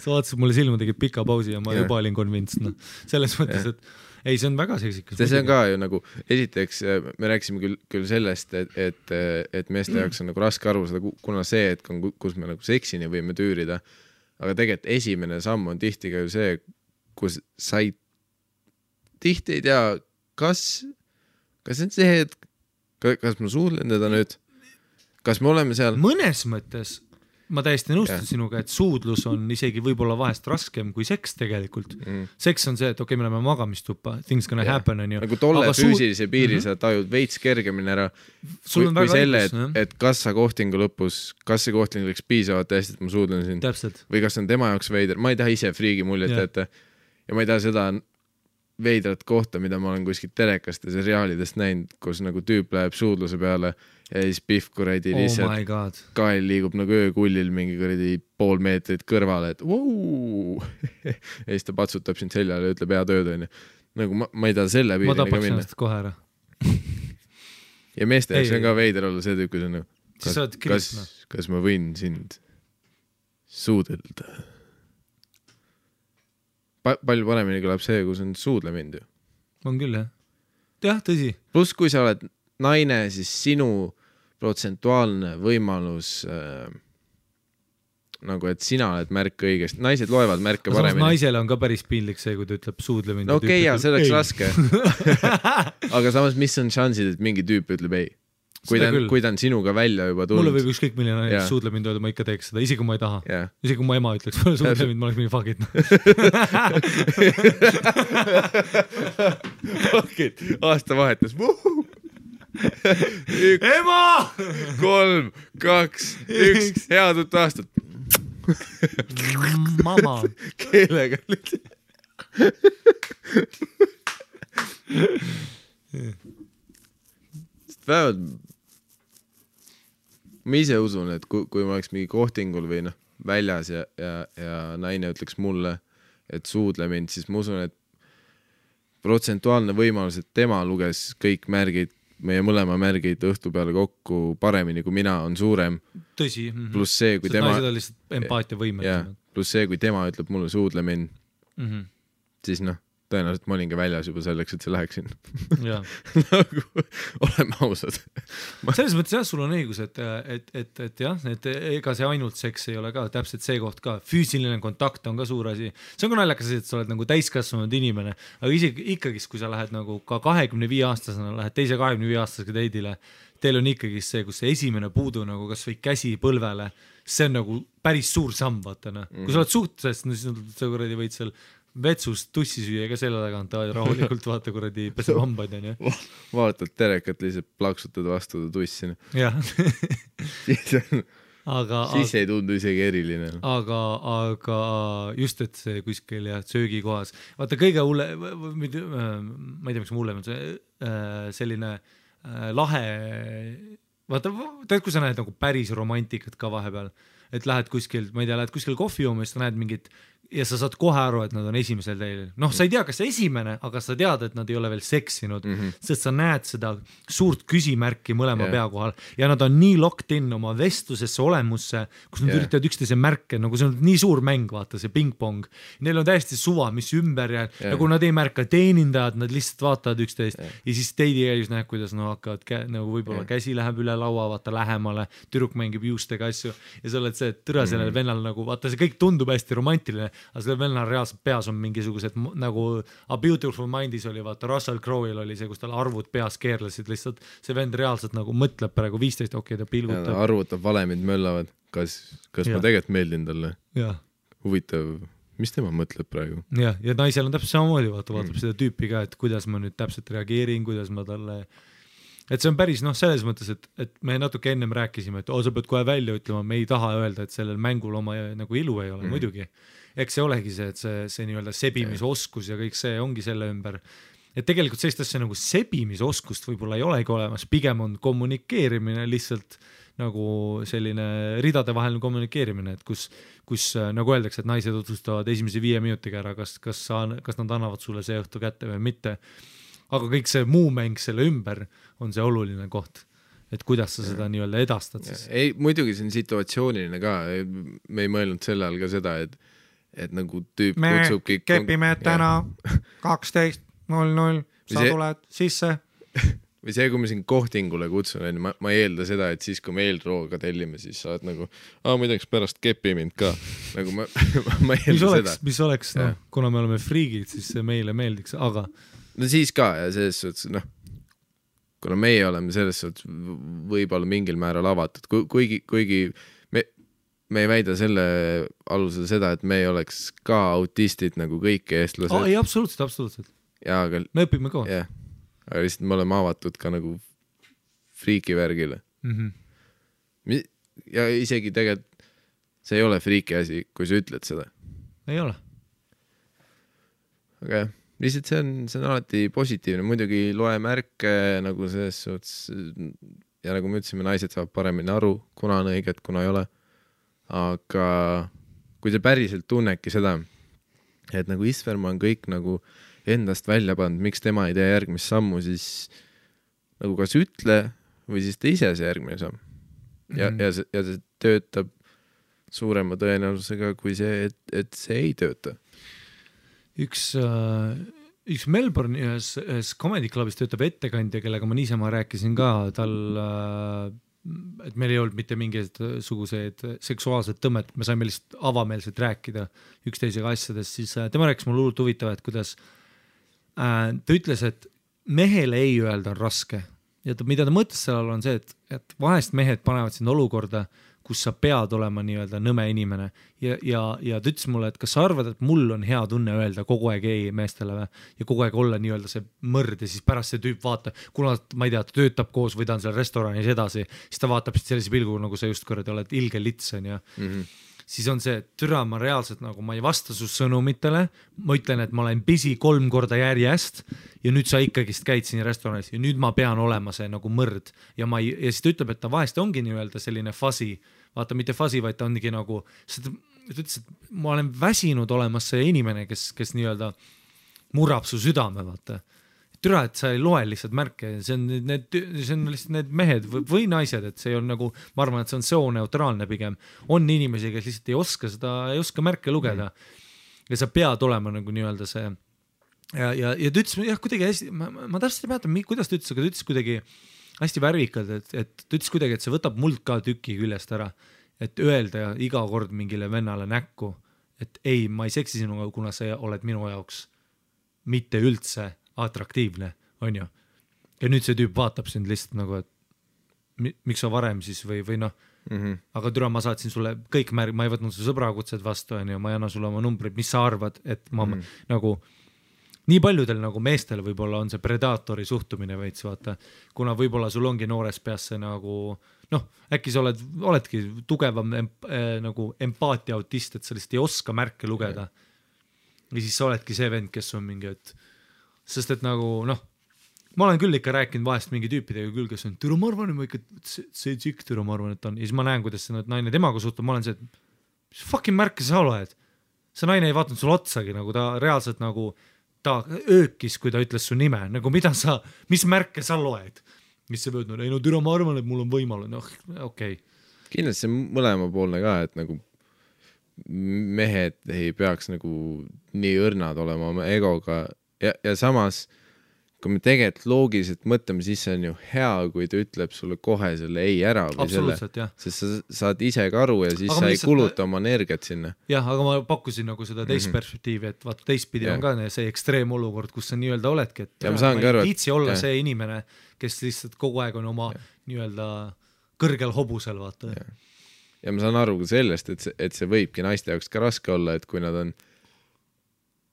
vaatasid mulle silma, tegid pika pausi ja ma juba olin convinced. Selles mõttes, et ei, see on väga seksikas.
See on ka ju nagu, esiteks me rääkisime küll sellest, et meeste jaoks on nagu raske aru seda, kuna see, et kus me nagu seksini võime tüürida, aga tegelikult esimene samm on tihti ka ju see, kus sa tihti ei tea, kas on see, et kas ma suudlen teda nüüd, kas me oleme seal?
Mõnes mõttes ma täiesti nõustun sinuga, et suudlus on isegi võib-olla vahest raskem kui seks tegelikult. Seks on see, et okei, me oleme magamistuppa, things gonna happen on ju.
Nagu tolle füüsilise piiri sa tajud veits kergemini ära kui selle, et kas sa kohtingu lõpus, kas see kohting läks piisavalt hästi, et ma suudlen siin.
Täpselt.
Või kas on tema jaoks veider. Ma ei taha ise friigi muljet ette ja ma ei taha seda veidrat kohta, mida ma olen kuskil telekast ja seriaalidest näinud, kus nagu tüüp läheb suudluse peale ja siis pihv kuradi lihtsalt kael liigub nagu öökullil mingi kuradi 0,5 meetrit kõrvale, et vau! Ja siis ta patsutab sind seljale ja ütleb hea tööd on. Nagu ma ei taha selle piirini ka minna.
Ma tapaks ennast kohe ära.
Ja meeste jaoks on ka veider olla see tüüp, kas ma võin sind suudelda? Palju paremini kõlab see, kus on suudle mind ju.
On küll, jah. Jah, tõsi.
Plus, kui sa oled naine, siis sinu protsentuaalne võimalus nagu, et sina oled märk õigesti. Naised loevad märke paremini.
Naisele on ka päris piinlik see, kui ta ütleb suudle mind.
Okei, ja see oleks raske. Aga samas, mis on šansid, et mingi tüüp ütleb ei? Kui ta on sinuga välja juba tulnud.
Mulle võib ükskõik milline suudle mind öelda, ma ikka teeks seda, isegi kui ma ei taha. Isegi kui ma ema ütleks, suudle mind, ma oleks mingi fuck it.
Fuck it, aasta vahetus.
Ema!
3, 2, 1, head uut aastat.
Mama.
Keelega vähemalt ma ise usun, et kui ma oleks mingi kohtingul või noh, väljas ja naine ütleks mulle, et suudle mind, siis ma usun, et protsentuaalne võimalus, et tema luges kõik märgid, meie mõlema märgid õhtu peale kokku paremini kui mina, on suurem.
Tõsi.
Pluss see, kui tema...
naised on lihtsalt empaatia võimet.
Pluss see, kui tema ütleb mulle suudle mind, siis noh, tõenäoliselt ma olin ka väljas juba selleks, et see läheksin. Nagu, oleme ausad.
Selles mõttes jah, sul on õigus, et jah, et ega see ainult seks ei ole ka, täpselt see koht ka. Füüsiline kontakt on ka suur asi. See on ka naljakas, et sa oled nagu täiskasvanud inimene, aga isegi ikkagi, kui sa lähed nagu ka 25-aastasena, lähed teise 25-aastasega teidile, teil on ikkagi see, kus see esimene puudu nagu kas või käsi põlvele, see on nagu päris suur samm, vaata. Kui sa oled suhtes, siis sa kuradi võid seal vetsust tussi süüa ka selle tagant, rahulikult vaata kuradi peseb hambaid, on ju.
Vaatad terekat, lihtsalt plaksutad vastu tussi.
Jah.
Siis ei tundu isegi eriline.
Aga just, et see kuskil ja söögikohas. Vaata kõige hulle, ma ei tea, miks ma hullem on see selline lahe, vaata, tead, kui sa näed nagu päris romantikat ka vahepeal, et lähed kuskil, ma ei tea, lähed kuskil kohvi jooma, siis sa näed mingit ja sa saad kohe aru, et nad on esimesel teil. Noh, sa ei tea, kas see esimene, aga sa tead, et nad ei ole veel seksinud, sest sa näed seda suurt küsimärki mõlema pea kohal ja nad on nii locked in oma vestlusesse, olemusse, kus nad üritavad üksteise märke, nagu see on nii suur mäng, vaata, see ping-pong. Neil on täiesti suva, mis ümber ja nagu nad ei märka teenindajad, nad lihtsalt vaatavad üksteist ja siis teidi käis näeb, kuidas nad hakkavad nagu võib-olla käsi läheb üle laua, vaata lähemale, tüdruk mängib juustega asju ja sa oled see, et türa sellel vennal nagu, vaata, see kõik tundub hästi romantiline, aga sellel vennal reaalselt peas on mingisugused nagu A Beautiful Mindis oli, vaata Russell Crowe'il oli see, kus tal arvud peas keerlesid, lihtsalt see vend reaalselt nagu mõtleb praegu 15, okei, ta pilgutab.
Arvutab, valemid möllavad, kas ma tegelikult meeldin talle. Huvitav, mis tema mõtleb praegu?
Ja naisel on täpselt samamoodi, vaatab seda tüüpi ka, et kuidas ma nüüd täpselt reageerin, kuidas ma talle... Et see on päris, noh, selles mõttes, et me natuke ennem rääkisime, et sa pead kohe välja ütlema, me ei taha öelda, et sellel mängul oma nagu ilu ei ole, muidugi. Eks see olegi see, et see nii-öelda sebimisoskus ja kõik see ongi selle ümber. Et tegelikult sellist asja nagu sebimisoskust võib-olla ei olegi olemas, pigem on kommunikeerimine lihtsalt nagu selline ridadevaheline kommunikeerimine, et kus nagu öeldakse, et naised otsustavad esimese 5 minutiga ära, kas nad annavad sulle see õhtu kätte või mitte. Aga kõik see muu mäng selle ümber on see oluline koht, et kuidas sa seda nii-öelda edastad siis.
Ei, muidugi see on situatsiooniline ka, me ei mõelnud selle all ka seda, et nagu tüüp kutsubki...
Me kepime täna 12.00, sa tuled sisse.
Või see, kui me siin kohtingule kutsun, ma ei eelda seda, et siis, kui me eelrooga tellime, siis sa oled nagu, muideks pärast kepi mind ka. Nagu ma ei eelda seda.
Mis oleks, no, kuna me oleme friigid, siis see meile meeldiks, aga...
No siis ka, ja selles suhtes, noh, kuna meie oleme selles suhtes võib-olla mingil määral avatud, kuigi me ei väida selle alusel seda, et me ei oleks ka autistid nagu kõik eestlased.
Ei, absoluutselt.
Ja, aga...
Me õpime ka.
Jah, aga lihtsalt me oleme avatud ka nagu friikivärgile. Ja isegi tegelikult see ei ole friiki asi, kui sa ütled seda.
Ei ole.
Aga jah. Lihtsalt see on alati positiivne, muidugi loe märke nagu selles suhtes ja nagu me ütlesime, naised saavad paremini aru, kuna on õiget, kuna ei ole. Aga kui sa päriselt tunnedki seda, et nagu Isverma on kõik nagu endast välja pannud, miks tema ei tee järgmist sammu, siis nagu kas ütle või siis tee ise see järgmine samm. Ja see töötab suurema tõenäosusega kui see, et see ei tööta.
Üks Melbourne ühes Comedy Clubis töötab ettekandja, kellega ma niisama rääkisin ka, tal, et meil ei olnud mitte mingisugused seksuaalsed tõmmet, me saime lihtsalt avameelselt rääkida üksteisega asjadest, siis tema rääkis mulle hullult huvitav, et kuidas ta ütles, et mehele ei öelda on raske ja mida ta mõtles sellal on see, et vahest mehed panevad sind olukorda, kus sa pead olema nii-öelda nõme inimene ja ta ütles mulle, et kas sa arvad, et mul on hea tunne öelda kogu aeg ei meestele ja kogu aeg olla nii-öelda see mõrd ja siis pärast see tüüp vaata, kuna ma ei tea, ta töötab koos või ta on seal restoranis edasi, siis ta vaatab sellise pilgu, nagu sa just korrad oled ilge lits on ja siis on see, et türa, ma reaalselt nagu ma ei vasta su sõnumitele, ma ütlen, et ma olen busy 3 korda järjest ja nüüd sa ikkagist käid siin restoranis ja nüüd ma pean olema see nagu mõrd ja siis ta ütleb, et ta vahest ongi nii-öelda selline fuzzy, vaata mitte fuzzy, vaid ta ongi nagu, ta ütles, et ma olen väsinud olemas see inimene, kes nii-öelda murrab su südame, vaata. Türa, et sa ei loe lihtsalt märke, see on lihtsalt need mehed või naised, et see on nagu, ma arvan, et see on sooneutraalne pigem. On inimesi, kes lihtsalt ei oska märke lugeda ja sa pead olema nagu nii-öelda see ja ta ütles, jah, kuidagi hästi, ma täpselt ei mäletan, kuidas ta ütles, aga ta ütles kuidagi hästi värvikalt, et ta ütles kuidagi, et see võtab muld ka tüki küljest ära, et öelda iga kord mingile vennale näkku, et ei, ma ei seksi sinuga, kuna sa oled minu jaoks mitte üldse atraktiivne, on ju. Ja nüüd see tüüp vaatab sind lihtsalt nagu, et miks sa varem siis või noh, aga türa, ma saatsin sulle kõik ma ei võtnud su sõbrakutsed vastu, on ju, ma ei anna sulle oma numbrid, mis sa arvad, et ma nagu nii paljudel nagu meestel võib-olla on see predaatori suhtumine veits, vaata, kuna võib-olla sul ongi noores peas see nagu, noh, äkki sa oledki tugevam nagu empaatia autist, et sa lihtsalt ei oska märke lugeda. Ja siis sa oledki see vend, kes on mingi, et sest et nagu, noh, ma olen küll ikka rääkinud vahest mingi tüüpidega küll, kes on, türa, ma arvan, et see tšikk, türa, ma arvan, et on, ja siis ma näen, kuidas see naine temaga suhtub, ma olen see, et mis fucking märke sa oled? See naine ei vaatanud sul otsagi, nagu ta reaalselt nagu, ta öökis, kui ta ütles su nime, nagu mis märke sa loed? Mis sa võtnud? Ei no türa, ma arvan, et mul on võimalus, noh, okei.
Kindlasti see mõlemapoolne ka, et nagu mehed ei peaks nagu nii õrnad olema oma egoga ja samas, kui me tegelikult loogiliselt mõtleme, siis see on ju hea, kui ta ütleb sulle kohe selle ei ära või selle, sest sa saad ise ka aru ja siis aga sa ei kuluta oma energiat sinna.
Jah, aga ma pakkusin nagu seda teist perspektiivi, et vaata teistpidi on ka see ekstreemolukord, kus sa nii-öelda oledki, et
ja ma ei
viitsi olla see inimene, kes lihtsalt kogu aeg on oma nii-öelda kõrgel hobusel, vaata.
Ja ma saan aru ka sellest, et see võibki naiste jaoks ka raske olla, et kui nad on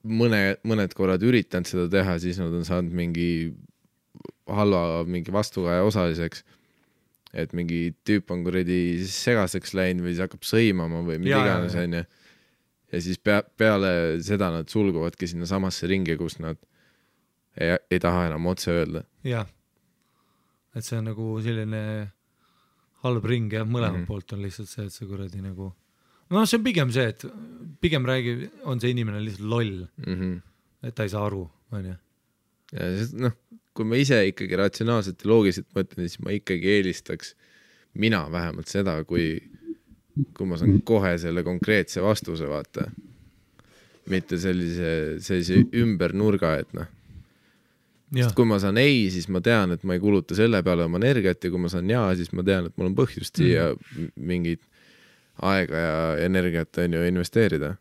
mõned korrad üritanud seda teha, siis nad on saanud mingi halva mingi vastukaja osaliseks, et mingi tüüp on kuradi segaseks läinud või siis hakkab sõimama või mida iganes on ja siis peale seda nad sulguvadki sinna samasse ringi, kus nad ei taha enam otse öelda.
Jah, et see on nagu selline halb ring ja mõlemalt poolt on lihtsalt see, et see kuradi nagu no see on pigem see, et pigem on see inimene lihtsalt loll, et ta ei saa aru, on ju.
Ja noh, kui ma ise ikkagi ratsionaalselt ja loogiliselt mõtlen, siis ma ikkagi eelistaks mina vähemalt seda, kui ma saan kohe selle konkreetse vastuse, vaata. Mitte sellise ümber nurga, et noh. Sest kui ma saan ei, siis ma tean, et ma ei kuluta selle peale oma energiat ja kui ma saan jaa, siis ma tean, et mul on põhjust siia mingid aega ja energiat on ju investeerida.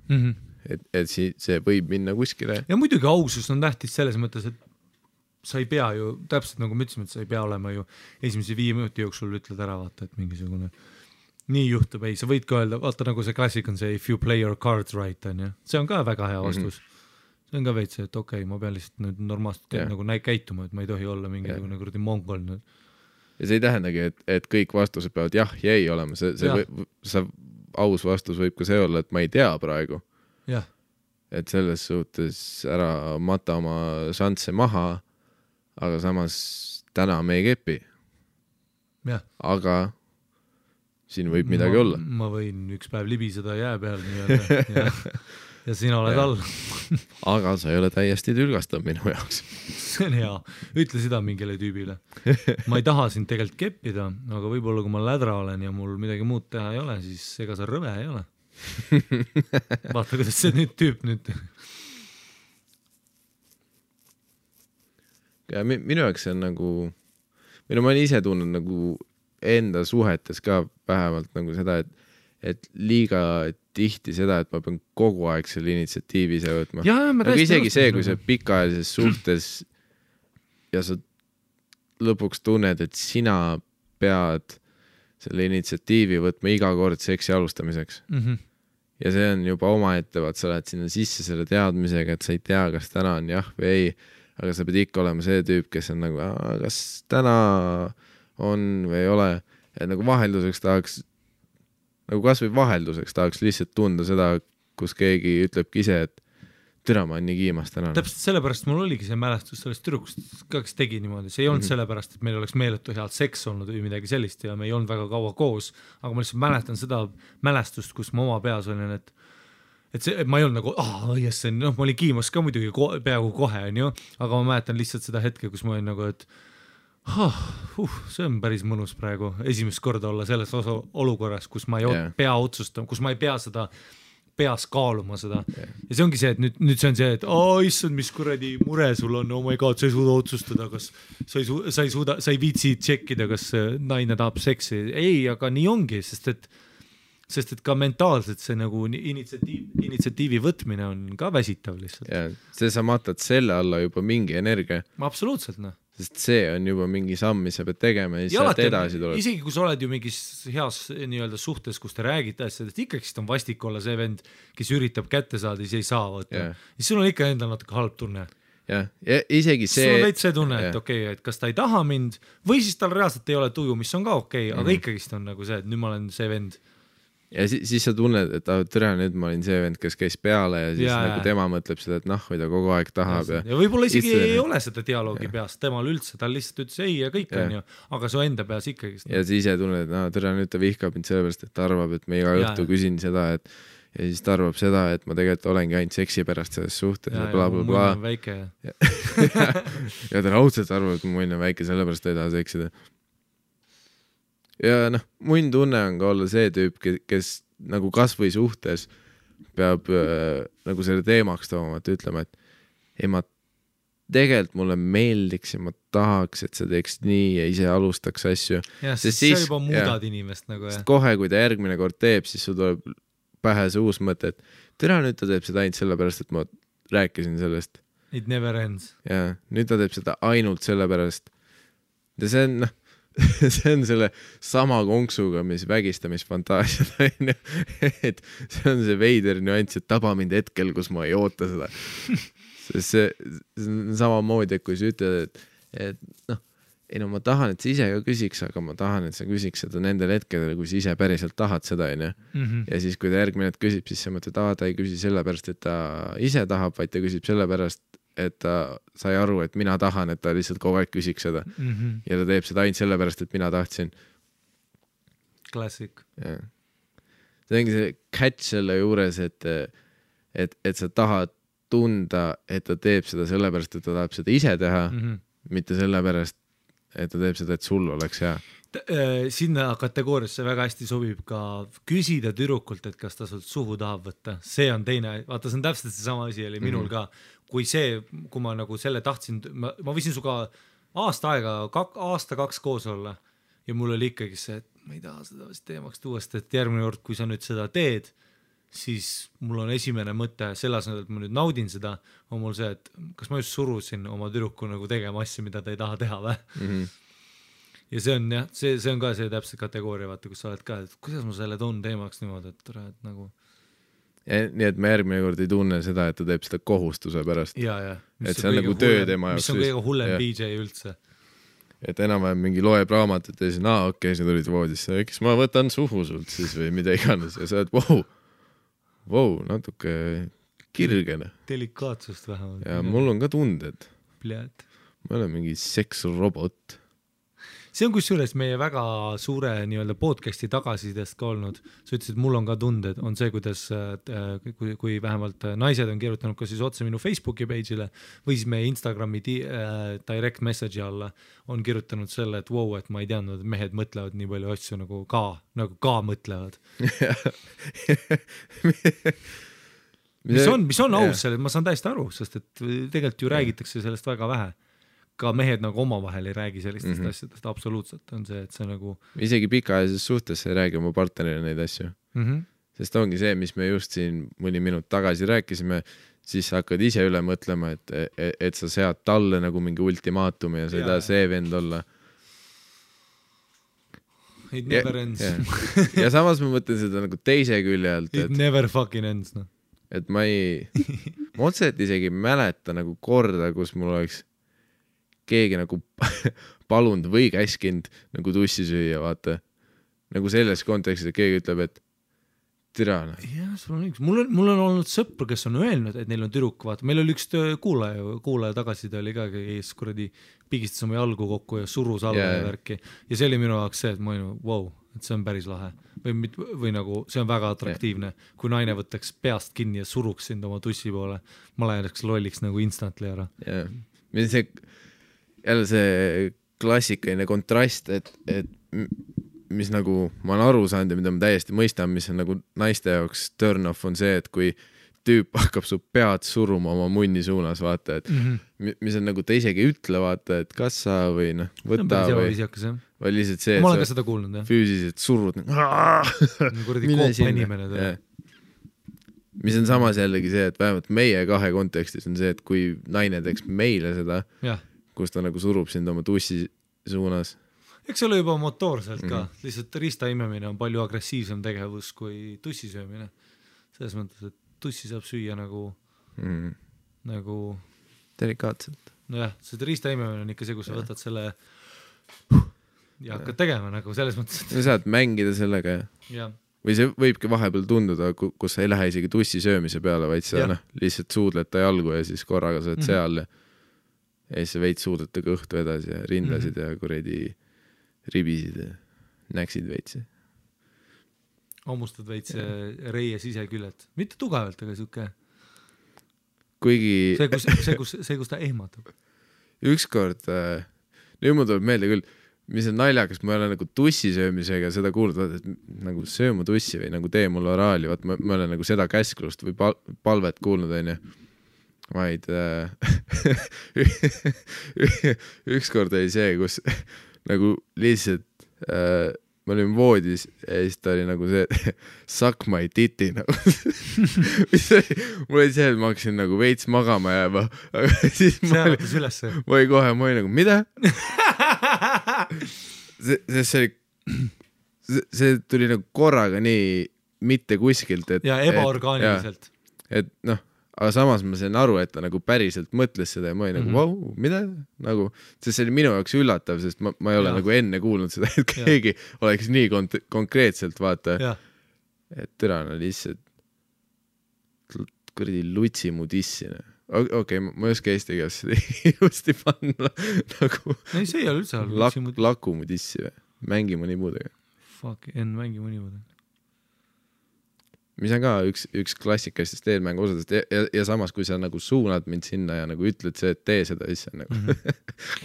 Et see võib minna kuskile.
Ja muidugi ausus on tähtis selles mõttes, et sa ei pea ju, täpselt nagu me ütlesime, et sa ei pea olema ju esimese 5 minuti jooksul ütled ära, vaata, et mingisugune nii juhtub, ei, sa võid ka öelda, vaata nagu see klassik on see if you play your cards right, on ju. See on ka väga hea vastus. See on ka veits, et okei, ma pean lihtsalt nüüd normaalselt nagu käituma, et ma ei tohi olla mingisugune kuradi mongol nüüd.
Ja see ei tähendagi, et kõik vastused peavad jah ja ei olema. See aus vastus võib ka see olla, et ma ei tea praegu.
Jah.
Et selles suhtes ära mata oma šansse maha, aga samas täna me ei kepi.
Jah.
Aga siin võib midagi olla.
Ma võin üks päev libiseda jää peal ja sina oled all.
Aga sa ei ole täiesti tülgastav minu jaoks.
See on hea. Ütle seda mingile tüübile. Ma ei taha sind tegelikult keppida, aga võib-olla kui ma lädra olen ja mul midagi muud teha ei ole, siis ega sa rõve ei ole. Vaata, kuidas see nüüd tüüp nüüd.
Ja minu jaoks see on nagu, ma olen ise tunnen nagu enda suhetes ka vähemalt nagu seda, et liiga tihti seda, et ma pean kogu aeg selle initsiatiivi ise võtma. Aga isegi see, kui sa pikaajalises suhtes ja sa lõpuks tunned, et sina pead selle initsiatiivi võtma iga kord seksi alustamiseks. Ja see on juba omaette, vaat sa lähed sinna sisse selle teadmisega, et sa ei tea, kas täna on jah või ei, aga sa pead ikka olema see tüüp, kes on nagu, kas täna on või ei ole, et nagu vahelduseks tahaks nagu kas või vahelduseks tahaks lihtsalt tunda seda, kus keegi ütlebki ise, et türa, ma olen nii kiimas täna.
Täpselt sellepärast mul oligi see mälestus sellest tüdrukust, kes tegi niimoodi, see ei olnud sellepärast, et meil oleks meeletu head seks olnud või midagi sellist ja me ei olnud väga kaua koos, aga ma lihtsalt mäletan seda mälestust, kus ma oma peas olin, et see, ma ei olnud nagu, yes, noh, ma olin kiimas ka muidugi peaaegu kohe, on ju, aga ma mäletan lihtsalt seda hetke, kus ma olin nagu, et see on päris mõnus praegu esimest korda olla selles olukorras, kus ma ei pea otsustama, kus ma ei pea seda peas kaaluma seda ja see ongi see, et nüüd see on see, et issand, mis kuradi mure sul on, oh my god, sa ei suuda otsustada, kas sa ei viitsi tšekkida, kas naine tahab seksi, ei, aga nii ongi, sest et ka mentaalselt see nagu initsiatiivi võtmine on ka väsitav lihtsalt.
Ja see sa matad selle alla juba mingi energia.
Absoluutselt, noh.
Sest see on juba mingi samm, mis sa pead tegema ja siis sealt edasi tuleb.
Isegi kui sa oled ju mingis heas nii-öelda suhtes, kus te räägite asjadest, ikkagi on vastik olla see vend, kes üritab kätte saada, siis ei saa võtta. Siis sul on ikka endal natuke halb tunne.
Ja isegi see...
Sul on veits see tunne, et okei, et kas ta ei taha mind või siis tal reaalselt ei ole tuju, mis on ka okei, aga ikkagist on nagu see, et nüüd ma olen see vend.
Ja siis sa tunned, et türa, nüüd ma olin see vend, kes käis peale ja siis nagu tema mõtleb seda, et või ta kogu aeg tahab.
Ja võib-olla isegi ei ole seda dialoogi peas temal üldse, ta lihtsalt ütles ei ja kõik on ju, aga su enda peas ikkagi.
Ja siis ise tunned, et türa, nüüd ta vihkab mind sellepärast, et ta arvab, et me iga õhtu küsin seda, et ja siis ta arvab seda, et ma tegelikult olengi ainult seksi pärast selles suhtes ja blablabla.
Mu on väike.
Ja ta raudselt arvab, et mu on väike, sellepärast ta ei taha seksida. Ja mun tunne on ka olla see tüüp, kes nagu kas või suhtes peab nagu selle teemaks tooma, et ütlema, et ei, ma tegelikult mulle meeldiks ja ma tahaks, et sa teeks nii ja ise alustaks asju.
Ja, see juba muudad inimest nagu.
Sest kohe, kui ta järgmine kord teeb, siis sul tuleb pähe see uus mõte, et türa, nüüd ta teeb seda ainult sellepärast, et ma rääkisin sellest.
It never ends.
Ja, nüüd ta teeb seda ainult sellepärast. Ja see on, see on selle sama konksuga, mis vägistamisfantaasiad on, et see on see veider nüanss, et taba mind hetkel, kus ma ei oota seda. See on samamoodi, et kui sa ütled, et ei ma tahan, et sa ise ka küsiks, aga ma tahan, et sa küsiks seda nendel hetkedel, kui sa ise päriselt tahad seda, on ju. Ja siis, kui ta järgmine hetk küsib, siis sa mõtled, ta ei küsi sellepärast, et ta ise tahab, vaid ta küsib sellepärast, et ta sai aru, et mina tahan, et ta lihtsalt kogu aeg küsiks seda. Ja ta teeb seda ainult sellepärast, et mina tahtsin.
Klassik.
See ongi see catch selle juures, et sa tahad tunda, et ta teeb seda sellepärast, et ta tahab seda ise teha, mitte sellepärast, et ta teeb seda, et sul oleks hea.
Sinna kategooriasse väga hästi sobib ka küsida tüdrukult, et kas ta sult suhu tahab võtta. See on teine, vaata, see on täpselt see sama asi oli minul ka. Kui ma nagu selle tahtsin, ma võisin suga aasta 2 koos olla ja mul oli ikkagi see, et ma ei taha seda teemaks tuuast, et järgmine kord, kui sa nüüd seda teed, siis mul on esimene mõte selles, et ma nüüd naudin seda, on mul see, et kas ma just surusin oma tüdruku nagu tegema asju, mida ta ei taha teha või? Ja see on jah, see on ka see täpselt kategooria, vaata, kus sa oled ka, et kuidas ma selle toon teemaks niimoodi, et nagu...
Ja, nii et me järgmine kord ei tunne seda, et ta teeb seda kohustuse pärast.
Ja.
Et see on nagu töö tema jaoks.
Mis on kõige hullem BJ üldse.
Et enam-vähem mingi loeb raamatut ja siis, okei, sa tulid voodisse, eks ma võtan suhu sult siis või mida iganes ja sa oled, wow, natuke kirgene.
Delikaatsust vähemalt.
Ja mul on ka tunded.
Pljad.
Ma olen mingi seksrobot.
See on kusjuures meie väga suure nii-öelda podcasti tagasisidest ka olnud. Sa ütlesid, et mul on ka tunded, on see, kuidas kui vähemalt naised on kirjutanud ka siis otse minu Facebooki page'ile või siis meie Instagrami direct message'i alla on kirjutanud selle, et wow, et ma ei teadnud, et mehed mõtlevad nii palju asju nagu ka mõtlevad. mis on aus selle, ma saan täiesti aru, sest et tegelikult ju räägitakse sellest väga vähe. Ka mehed nagu omavahel ei räägi sellistest asjadest, absoluutselt on see, et see nagu...
Isegi pikaajalises suhtes ei räägi oma partnerile neid asju. Sest ongi see, mis me just siin mõni minut tagasi rääkisime, siis sa hakkad ise üle mõtlema, et sa sead talle nagu mingi ultimaatumi ja sa ei taha see vend olla.
It never ends.
Ja samas ma mõtlen seda nagu teise külje alt.
It never fucking ends, no.
Et ma otseselt isegi mäleta nagu korda, kus mul oleks keegi nagu palunud või käskinud nagu tussi süüa, vaata. Nagu selles kontekstis, et keegi ütleb, et Tirana.
jah, sul on üks, mul on olnud sõpru, kes on öelnud, et neil on tüdruk, vaata, meil oli üks kuulaja tagasiside oli ka, kes kuradi pigistas oma jalgu kokku ja surus alla ja värki ja see oli minu jaoks see, et ma olin, wow, et see on päris lahe või nagu see on väga atraktiivne, kui naine võtaks peast kinni ja suruks sind oma tussi poole, ma läheks lolliks nagu instantly ära.
jah, see jälle see klassikaline kontrast, et mis nagu ma olen aru saanud ja mida ma täiesti mõistan, mis on nagu naiste jaoks turn off on see, et kui tüüp hakkab su pead suruma oma munni suunas, vaata, et mis on nagu ta isegi ütle, vaata, et kas sa või noh, võta või lihtsalt see,
ma olen ka seda kuulnud, jah.
Füüsiliselt surud
kuradi koopa inimene.
Mis on samas jällegi see, et vähemalt meie kahe kontekstis on see, et kui naine teeks meile seda, kus ta nagu surub sind oma tussi suunas.
Eks ole juba motoorselt ka, lihtsalt riista imemine on palju agressiivsem tegevus kui tussi söömine. Selles mõttes, et tussi saab süüa nagu
delikaatselt.
Nojah, see riista imemine on ikka see, kus sa võtad selle ja hakkad tegema nagu selles mõttes.
Sa saad mängida sellega
ja.
Või see võibki vahepeal tunduda, kus sa ei lähe isegi tussi söömise peale, vaid sa lihtsalt suudled ta jalgu ja siis korraga sa oled seal ja siis sa veid suudled ta kõhtu edasi ja rindasid ja kuredi ribisid ja näksid veitsi.
Hammustad veits reie siseküllet. Mitte tugevalt, aga siuke.
Kuigi...
See, kus ta ehmatab.
Ükskord, nüüd mul tuleb meelde küll, mis on naljakas, ma ei ole nagu tussi söömisega seda kuulnud, et nagu sööma tussi või nagu tee mulle oraali, vaat ma olen nagu seda käsklust või palvet kuulnud, on ju. Vaid ükskord oli see, kus nagu lihtsalt ma olin voodis ja siis ta oli nagu see suck my titi nagu. Mul oli see, et ma hakkasin nagu veits magama jääma, aga siis ma olin nagu, mida? See tuli nagu korraga nii mitte kuskilt, et
ja ebaorgaaniliselt.
Et noh, aga samas ma sain aru, et ta nagu päriselt mõtles seda ja ma olin nagu, vau, mida? Nagu, sest see oli minu jaoks üllatav, sest ma ei ole nagu enne kuulnud seda, et keegi oleks nii konkreetselt, vaata, et türana lihtsalt kuradi lutsi mu dissina. Okei, ma ei oska eesti keeles seda ilusti panna nagu
ei, see ei ole üldse
laku mu dissi või? Mängi mu nipudega.
Fuck, mängi mu nipudega.
Mis on ka üks klassikastest eelmängu osadest ja samas, kui sa nagu suunad mind sinna ja nagu ütled see, et tee seda, siis on nagu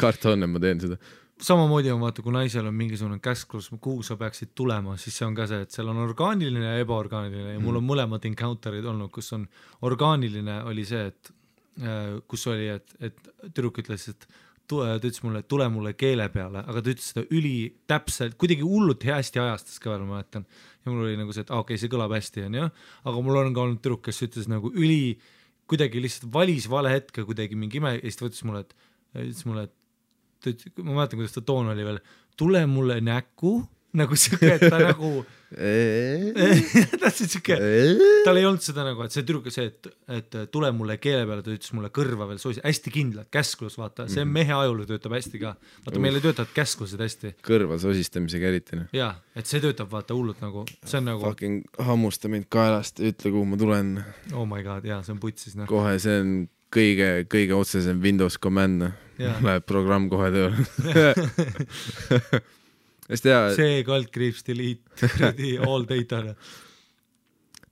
karta on, et ma teen seda.
Samamoodi on vaata, kui naisel on mingisugune käsklus, kuhu sa peaksid tulema, siis see on ka see, et seal on orgaaniline ja ebaorgaaniline ja mul on mõlemad encounterid olnud, kus on orgaaniline oli see, et kus oli, et tüdruk ütles, et ta ütles mulle, et tule mulle keele peale, aga ta ütles seda üli täpselt, kuidagi hullult hästi ajastas ka veel, ma mäletan. Ja mul oli nagu see, et okei, see kõlab hästi, on jah, aga mul on ka olnud tüdruk, kes ütles nagu üli, kuidagi lihtsalt valis vale hetke kuidagi mingi ime, ja siis ta ütles mulle, ma mäletan, kuidas ta toon oli veel, tule mulle näkku, nagu siuke, et ta nagu tahtsid siuke, tal ei olnud seda nagu, et see tüdruk see, et tule mulle keele peale, ta ütles mulle kõrva veel soos, hästi kindlalt, käsklus, vaata, see mehe ajul töötab hästi ka, vaata meil ei töötavad käsklused hästi.
Kõrva sosistamisega eriti.
Jaa, et see töötab vaata hullult nagu, see on nagu
fucking hammusta mind kaelast, ütle kuhu ma tulen.
Oh my god, jaa, see on putsis.
Kohe see on kõige otsesem Windows command, läheb programm kohe tööle.
See kaldkriips delete all data.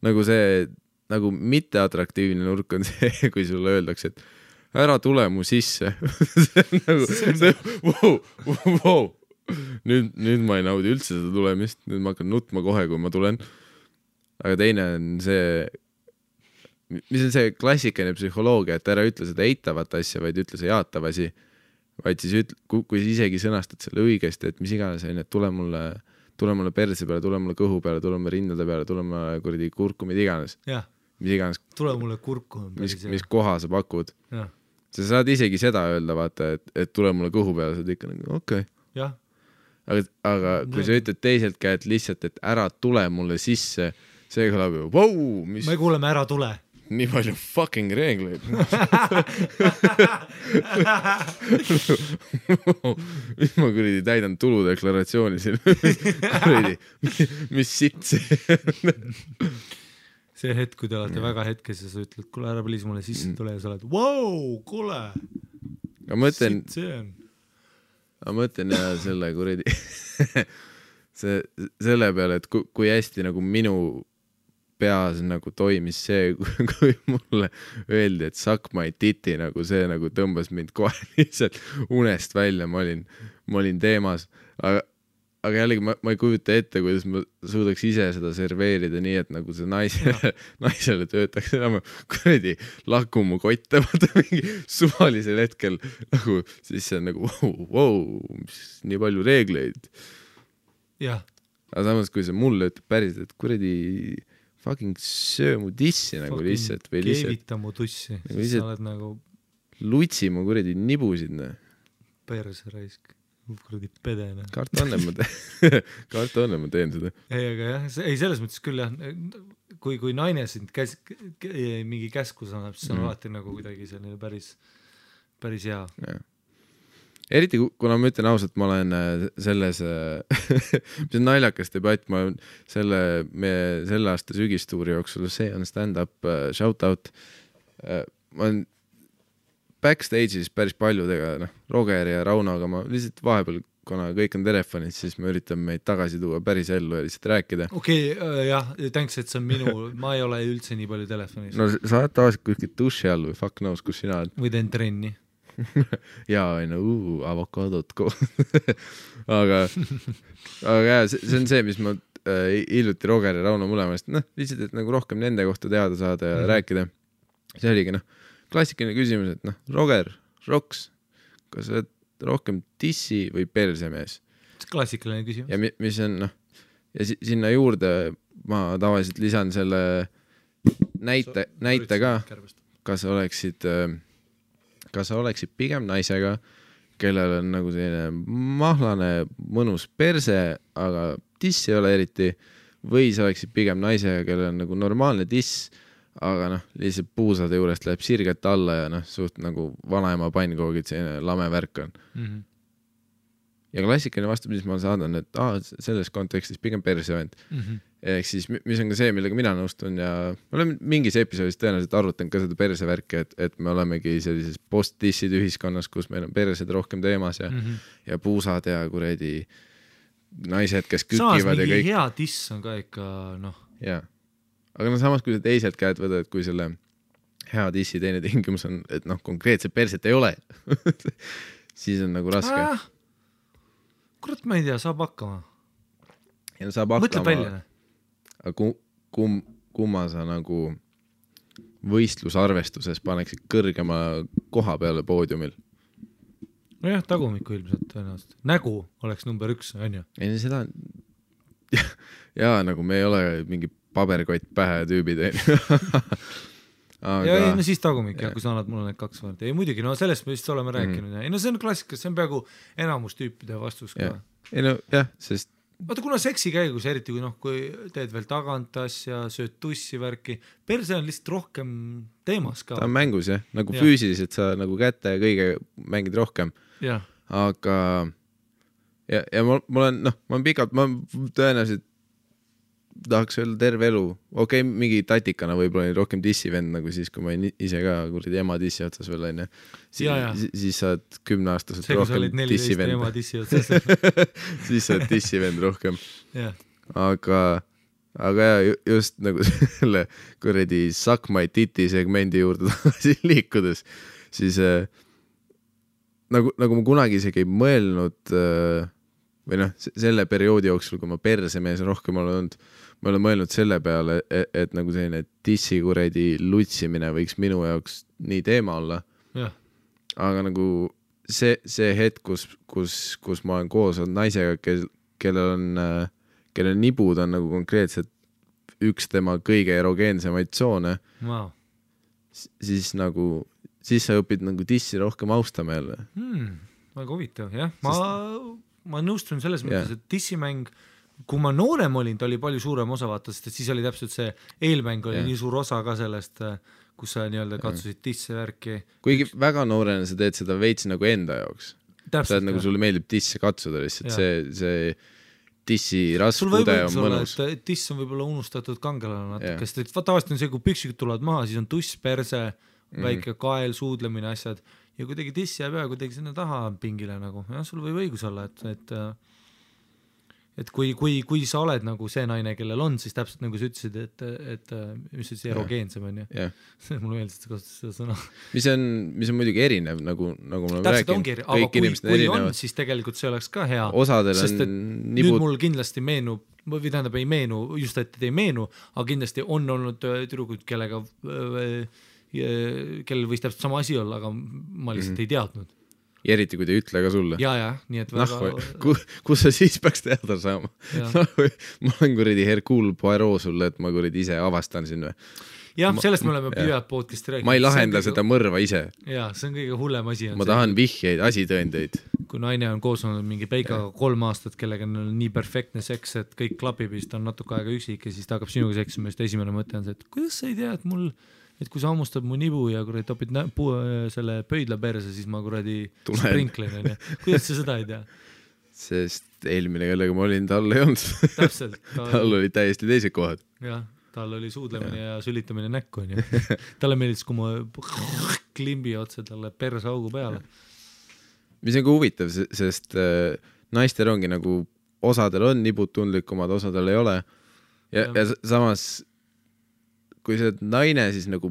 Nagu see nagu mitteatraktiivne nurk on see, kui sulle öeldakse, et ära tule mu sisse. Wow. Nüüd ma ei naudi üldse seda tulemist, nüüd ma hakkan nutma kohe, kui ma tulen. Aga teine on see, mis on see klassikaline psühholoogia, et ära ütle seda eitavat asja, vaid ütle see jaatav asi. Vaid siis kui isegi sõnastad selle õigesti, et mis iganes on, et tule mulle perse peale, tule mulle kõhu peale, tule mulle rindade peale, tule mulle kuradi kurku, mida iganes. Mis iganes.
Tule mulle kurku.
Mis koha sa pakud. Sa saad isegi seda öelda, vaata, et tule mulle kõhu peale, sa oled ikka nagu okei. Aga kui sa ütled teiselt käed lihtsalt, et ära tule mulle sisse, see kõlab ju, wow,
me kuuleme ära tule.
nii palju fucking reegleid. Mis ma kuradi täidan tuludeklaratsiooni siin. Kuradi, mis sitt see?
See hetk, kui te olete väga hetkes ja sa ütled, kuule ära please mulle sisse tule ja sa oled, wow, kuule, sitt see on.
Ma mõtlen ja selle kuradi selle peale, et kui hästi nagu minu peas nagu toimis see, kui mulle öeldi, et suck my titi, nagu see nagu tõmbas mind kohe lihtsalt unest välja, ma olin teemas, aga jällegi ma ei kujuta ette, kuidas ma suudaks ise seda serveerida nii, et nagu see naisele töötaks enam kuradi lakumu kotte, vaata mingi suvalisel hetkel nagu siis see on nagu wow, nii palju reegleid.
Jah.
Aga samas, kui see mulle ütleb päris, et kuradi fucking söö mu tissi nagu lihtsalt või lihtsalt
keevita mu tussi,
nagu
sa oled nagu
lutsi mu kuradi nibusid
perse raisk, kuradi pedene.
Karta on, ma teen seda.
Ei, aga jah, ei selles mõttes küll jah, kui naine sind mingi käskus annab, siis on alati nagu kuidagi selline päris hea.
Ja. Eriti kuna ma ütlen ausalt, ma olen selles mis on naljakas debatt, ma olen selle aasta sügistuuri jooksul, see on stand-up shout-out, ma olen backstage'is päris paljudega, Roger ja Raunoga, ma lihtsalt vahepeal, kuna kõik on telefonid, siis ma üritan meid tagasi tuua päris ellu ja lihtsalt rääkida.
Okei, jah, thanks, et see on ma ei ole üldse nii palju telefonis.
No sa oled tavaliselt kuskilt duši all või fuck knows, kus sina oled.
Või teen trenni.
jaa, avokadot aga jah, see on see, mis ma hiljuti Roger ja Rauno mõlemast, lihtsalt, et nagu rohkem nende kohta teada saada ja rääkida. See oligi, klassikaline küsimus, et Roger, Roks, kas sa oled rohkem tissi või persemees?
Klassikaline küsimus.
Ja mis on, ja sinna juurde ma tavaliselt lisan selle näite ka, kas sa oleksid pigem naisega, kellel on nagu selline mahlane mõnus perse, aga tiss ei ole eriti, või sa oleksid pigem naisega, kellel on nagu normaalne tiss, aga lihtsalt puusade juurest läheb sirget alla ja suht nagu vanaema pannkoogid, selline lame värk on. Ja klassikaline vastu, mis ma saadan, et selles kontekstis pigem persevend. Ehk siis, mis on ka see, millega mina nõustun ja ma olen mingis episoodis tõenäoliselt arvutan ka seda persevärki, et me olemegi sellises post-tissid ühiskonnas, kus meil on persed rohkem teemas ja puusad ja kuredi naised, kes kükivad ja kõik.
Samas mingi hea tiss on ka ikka,
Jaa. Aga samas, kui sa teiselt käed võtad, kui selle hea tissi teine tingimus on, et konkreetselt perset ei ole, siis on nagu raske.
Kurat, ma ei tea, saab hakkama.
Ja saab hakkama.
Mõtleb välja.
Aga kumma sa nagu võistlusarvestuses paneksid kõrgema koha peale poodiumil?
No jah, tagumiku ilmselt tõenäoliselt. Nägu oleks number 1, on ju?
Ei, seda jaa, nagu me ei ole mingi paberkott pähe tüübid.
Aga... Ja siis tagumik, kui sa annad mulle need 2 võrd. Ei muidugi, sellest me vist oleme rääkinud. Ei, see on klassika, see on peaaegu enamus tüüpide vastus ka.
Ei jah, sest
Vaata, kuna seksi käigus, eriti kui teed veel tagant asja, sööd tussi värki, perse on lihtsalt rohkem teemas ka. Ta
on mängus jah, nagu füüsiliselt sa nagu kätte ja kõige mängid rohkem. Aga ja ma olen pikalt, ma tõenäoliselt tahaks öelda terve elu. Okei, mingi tatikana võib-olla rohkem dissivend, nagu siis, kui ma ise ka kuradi ema dissi otsas veel on. Siis sa oled 10-aastaselt rohkem dissivend. Siis sa oled dissivend rohkem. Aga just nagu selle kuradi suck my titi segmendi juurde tagasi liikudes, siis nagu ma kunagi isegi ei mõelnud või selle perioodi jooksul, kui ma persemees rohkem olnud, ma olen mõelnud selle peale, et nagu selline tissi kuredi lutsimine võiks minu jaoks nii teema olla. Aga nagu see hetk, kus ma olen koos olnud naisega, kellel nibud on nagu konkreetselt üks tema kõige erogeensemaid tsoone, siis sa õpid nagu tissi rohkem austama jälle.
Väga huvitav, jah. Ma nõustun selles mõttes, et tissimäng kui ma noorem olin, ta oli palju suurem osa vaata, sest et siis oli täpselt see eelmäng oli nii suur osa ka sellest, kus sa nii-öelda katsusid tisse värki.
Kuigi väga noorena sa teed seda veits nagu enda jaoks. Sa oled nagu sulle meeldib tisse katsuda lihtsalt, see tissi raskude on mõnus.
Tiss on võib-olla unustatud kangelane natuke, sest tavaliselt on see, kui püksikud tulevad maha, siis on tuss, perse, väike kael, suudlemine, asjad ja kuidagi tiss jääb ja kuidagi sinna taha pingile nagu, jah, sul võib õigus olla, et kui sa oled nagu see naine, kellel on, siis täpselt nagu sa ütlesid, et mis ütlesid, erogeensem on ju. Mulle meeldis, et kasutas seda sõna.
Mis on muidugi erinev, nagu ma
räägin. Aga kui on, siis tegelikult see oleks ka hea.
Osadel
sest
on
nüüd mul kindlasti meenub, või tähendab ei meenu, just et ei meenu, aga kindlasti on olnud tüdrukud, kellel võis täpselt sama asi olla, aga ma lihtsalt ei teadnud.
Ja eriti, kui te ütle ka sulle.
Ja, nii et väga...
Kus sa siis peaks teada saama? Ma olen kuradi Hercule Poirot sulle, et ma kuradi ise avastan siin või?
Jah, sellest me oleme pidevalt podcasti rääkinud.
Ma ei lahenda seda mõrva ise.
Ja, see on kõige hullem asi.
Ma tahan vihjeid, asitõendeid.
Kui naine on koos olnud mingi peikaga 3 aastat, kellega on nii perfektne seks, et kõik klapib, siis ta on natuke aega üksik ja siis ta hakkab sinuga seksima, just esimene mõte on see, et kuidas sa ei tea, et kui sa hammustad mu nibu ja kuradi topid selle pöidla perse, siis ma kuradi sprinklen. Kuidas sa seda ei tea?
Sest eelmine, kellega ma olin, tal ei olnud.
Täpselt.
Tal oli täiesti teised kohad.
Jah, tal oli suudlemine ja sülitamine näkku. Talle meeldis, kui ma klimbi otse talle perse augu peale.
Mis on ka huvitav, sest naistel ongi nagu, osadel on nibud tundlikumad, osadel ei ole. Ja samas kui sa oled naine, siis nagu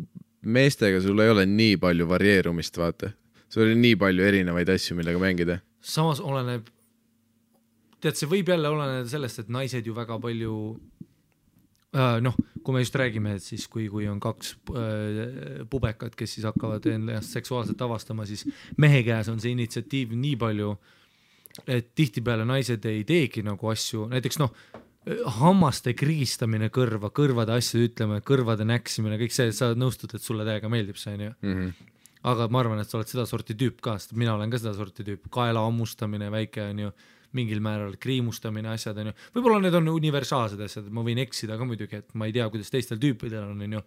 meestega sul ei ole nii palju varieerumist, vaata. Sul oli nii palju erinevaid asju, millega mängida.
Samas oleneb, tead, see võib jälle oleneda sellest, et naised ju väga palju, kui me just räägime, et siis kui on 2 pubekat, kes siis hakkavad ennast seksuaalselt avastama, siis mehe käes on see initsiatiiv nii palju, et tihtipeale naised ei teegi nagu asju, näiteks hammaste kriistamine kõrvade asju ütlema, kõrvade näksimine, kõik see, sa nõustud, et sulle täiega meeldib see, aga ma arvan, et sa oled seda sorti tüüp ka, sest mina olen ka seda sorti tüüp, kaela ammustamine, väike on ju, mingil määral kriimustamine, asjad on ju, võib-olla need on universaalsed asjad, ma võin eksida ka muidugi, et ma ei tea, kuidas teistel tüüpidel on ju,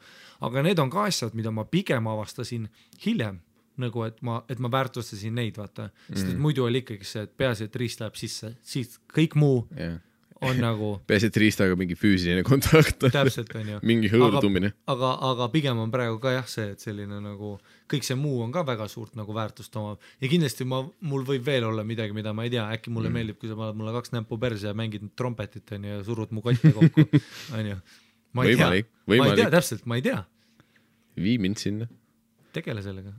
aga need on ka asjad, mida ma pigem avastasin hiljem, nagu et ma väärtustasin neid, vaata, sest et muidu oli ikkagi see, et peaasi, et riist läheb sisse, siis kõik muu on nagu
peaasi, et riistaga mingi füüsiline kontakt
täpselt on ju
mingi hõõrdumine
aga pigem on praegu ka jah see, et selline nagu kõik see muu on ka väga suurt nagu väärtust omab ja kindlasti mul võib veel olla midagi, mida ma ei tea, äkki mulle meeldib, kui sa paned mulle 2 näppu perse ja mängid trompetit on ju ja surud mu kotte kokku on ju ma ei tea täpselt, ma ei tea
vii mind sinna
tegele sellega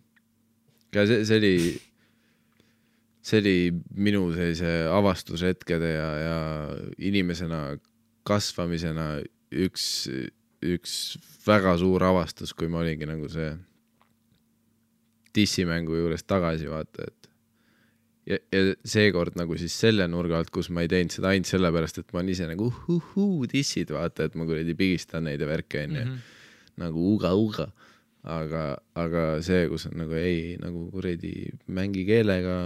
ka see oli minu sellise avastushetkede ja inimesena kasvamisena üks väga suur avastus, kui ma olingi nagu see tissimängu juures tagasi vaata, et ja seekord nagu siis selle nurga alt, kus ma ei teinud seda ainult sellepärast, et ma olen ise nagu tissid vaata, et ma kuradi pigistan neid ja värke nagu uga, aga see, kus on nagu ei, nagu kuradi mängi keelega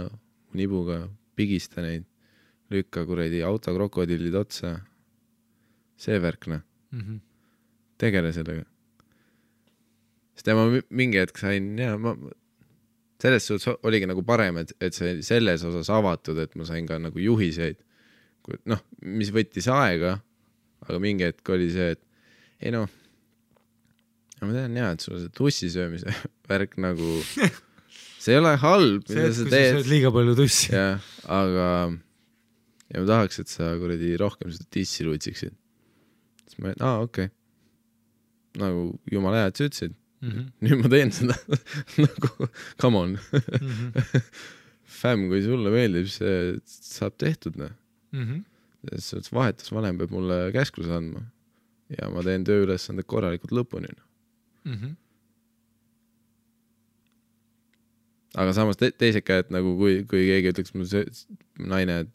nibuga, pigista neid, lükka kuradi autokrokodillid otsa. See värkna. Tegele sellega. Sest ma mingi hetk sain, selles suhtes oligi nagu parem, et see selles osas avatud, et ma sain ka nagu juhiseid. Mis võttis aega, aga mingi hetk oli see, et ei ma tean et sul see tussisöömise värk nagu see ei ole halb, mida sa teed. See, et kui sa sööd liiga palju tussi. Ja, aga ma tahaks, et sa kuradi rohkem seda tissi luitsiksid. Siis ma okei. Nagu jumala hea, et sa ütlesid. Nüüd ma teen seda. Nagu, come on. Fäm, kui sulle meeldib, see saab tehtud. Vahetusvanem peab mulle käskluse andma. Ja ma teen tööülesanded korralikult lõpuni. Aga samas teised käed, nagu kui keegi ütleks mu naine, et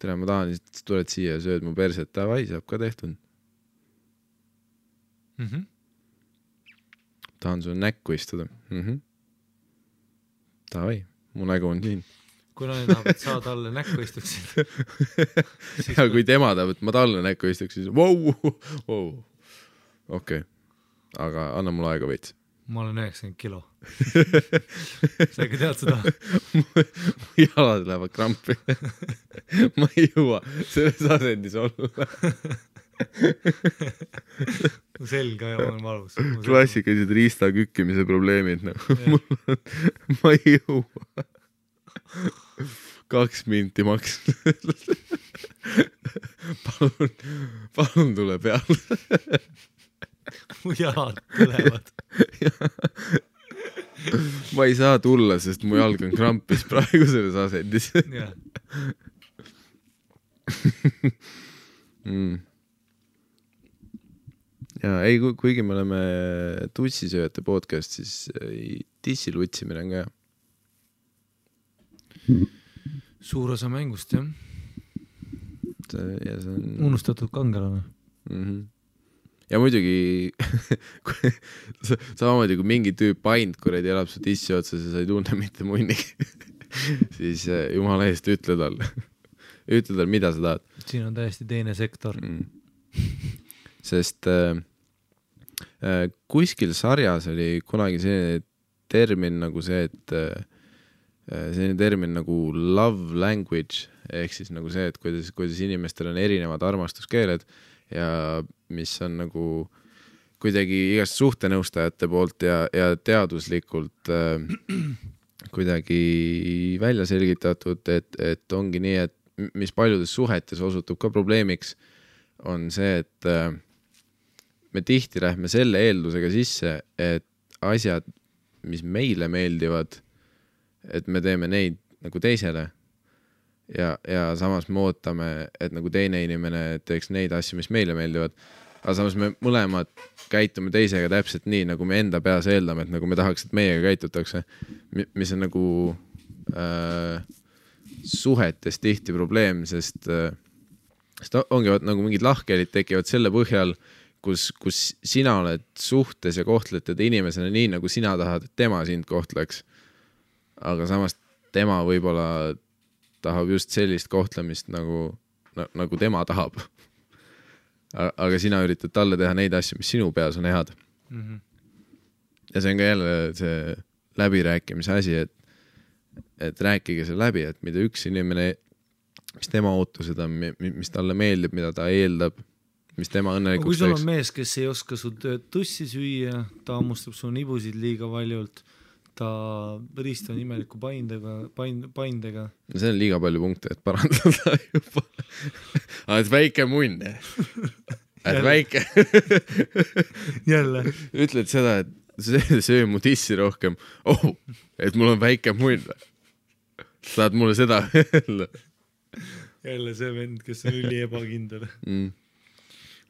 tere, ma tahan, siis tuled siia ja sööd mu perset, tavai, saab ka tehtud. Tahan sulle näkku istuda. Tavai, mu nägu on siin.
kui naine tahab, et sa talle näkku istuksid.
Ja kui tema tahab, et ma talle näkku istuksid, siis okei. Aga anna mulle aega veits.
Ma olen 90 kilo. Sa ikka tead seda?
Jalad lähevad krampi. Ma ei jõua selles asendis olla.
Selg on valus.
Klassikalised riista kükkimise probleemid. Ma ei jõua. 2 minti maks. Palun tule peale.
Mu jalad tulevad.
Ma ei saa tulla, sest mu jalg on krampis praegu selles asendis. Ja ei, kuigi me oleme tussisööjate podcast, siis tissil utsimine on ka hea.
Suur osa mängust, jah.
Ja see on...
Unustatud kangelane.
Ja muidugi samamoodi kui mingi tüüp paint, kuradi elab su tissi otsas ja sa ei tunne mitte munni, siis jumala eest ütle talle, mida sa tahad.
Siin on täiesti teine sektor.
Sest kuskil sarjas oli kunagi selline termin nagu see, et selline termin nagu love language, ehk siis nagu see, et kuidas inimestel on erinevad armastuskeeled ja mis on nagu kuidagi igast suhtenõustajate poolt ja teaduslikult kuidagi välja selgitatud, et ongi nii, et mis paljudes suhetes osutub ka probleemiks, on see, et me tihti lähme selle eeldusega sisse, et asjad, mis meile meeldivad, et me teeme neid nagu teisele ja samas me ootame, et nagu teine inimene teeks neid asju, mis meile meeldivad, aga samas me mõlemad käitume teisega täpselt nii, nagu me enda peas eeldame, et nagu me tahaks, et meiega käitutakse, mis on nagu suhetes tihti probleem, sest ongi nagu mingid lahkhelid tekivad selle põhjal, kus sina oled suhtes ja kohtled teda inimesena nii, nagu sina tahad, et tema sind kohtleks. Aga samas tema võib-olla tahab just sellist kohtlemist, nagu tema tahab. Aga sina üritad talle teha neid asju, mis sinu peas on head. Ja see on ka jälle see läbirääkimise asi, et rääkige see läbi, et mida üks inimene, mis tema ootused on, mis talle meeldib, mida ta eeldab, mis tema õnnelikuks
kui sul on mees, kes ei oska su tussi süüa, ta ammustab su nibusid liiga valjult, ta ristab imeliku paindega. See
on liiga palju punkte, et parandada juba. Et väike munn. Et väike.
Jälle.
Ütled seda, et söö mu tissi rohkem. Et mul on väike munn. Saad mulle seda öelda.
Jälle see vend, kes on üli ebakindel.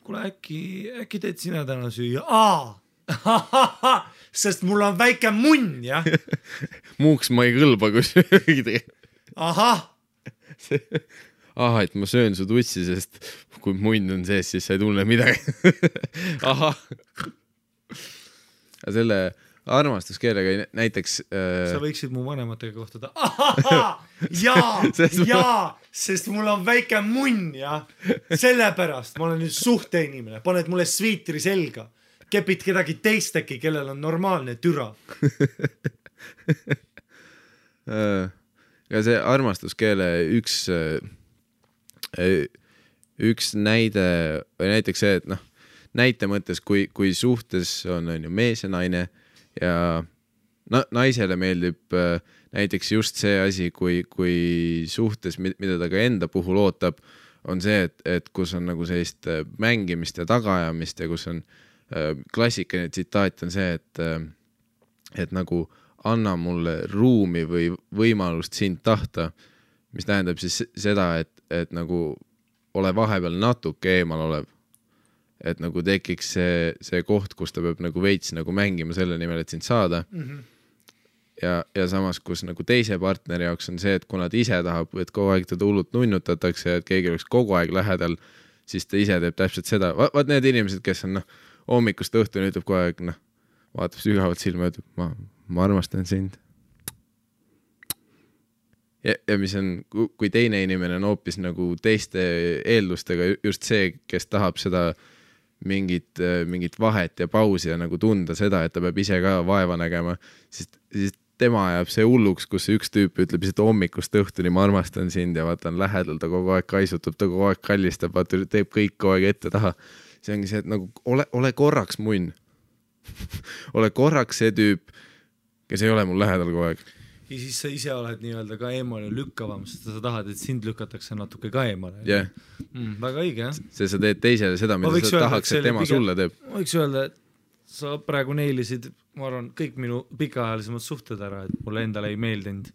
Kuule, äkki teed sina täna süüa? Sest mul on väike munn, jah?
Muuks ma ei kõlba, kui söögi. Et ma söön su tussi, sest kui munn on sees, siis sa ei tunne midagi. Selle armastuskeelega näiteks...
Sa võiksid mu vanematega kohtada. Jaa, sest mul on väike munn, jah? Sellepärast ma olen nüüd suhteinimene. Paned mulle sviitri selga. Kepid kedagi teist äkki, kellel on normaalne türa.
Ja see armastuskeele üks näide, või näiteks see, et näite mõttes, kui suhtes on ju mees ja naine ja naisele meeldib näiteks just see asi, kui suhtes, mida ta ka enda puhul ootab, on see, et kus on nagu sellist mängimist ja tagaajamist ja kus on klassikaline tsitaat on see, et nagu anna mulle ruumi või võimalust sind tahta, mis tähendab siis seda, et nagu ole vahepeal natuke eemal olev. Et nagu tekiks see koht, kus ta peab nagu veits nagu mängima selle nimel, et sind saada. Ja samas, kus nagu teise partneri jaoks on see, et kuna ta ise tahab, et kogu aeg teda hullult nunnutatakse, et keegi oleks kogu aeg lähedal, siis ta ise teeb täpselt seda. Vaat need inimesed, kes on hommikust õhtuni ütleb kogu aeg, vaatab sügavalt silma ja ütleb, ma armastan sind. ja mis on, kui teine inimene on hoopis nagu teiste eeldustega, just see, kes tahab seda mingit vahet ja pausi ja nagu tunda seda, et ta peab ise ka vaeva nägema, siis tema ajab see hulluks, kus üks tüüp ütleb lihtsalt hommikust õhtuni, ma armastan sind ja vaata on lähedal, ta kogu aeg kaisutab, ta kogu aeg kallistab, vaata teeb kõik kogu aeg ette taha. See ongi see, et nagu ole korraks munn. ole korraks see tüüp, kes ei ole mul lähedal kogu aeg.
Ja siis sa ise oled nii-öelda ka eemale lükkavam, sest sa tahad, et sind lükatakse natuke ka eemale.
Yeah.
Väga õige, jah.
See sa teed teisele seda, mida sa tahaks, et tema sulle teeb.
Ma võiks öelda, et sa praegu neilisid, ma arvan, kõik minu pikaajalisemad suhted ära, et mulle endale ei meeldinud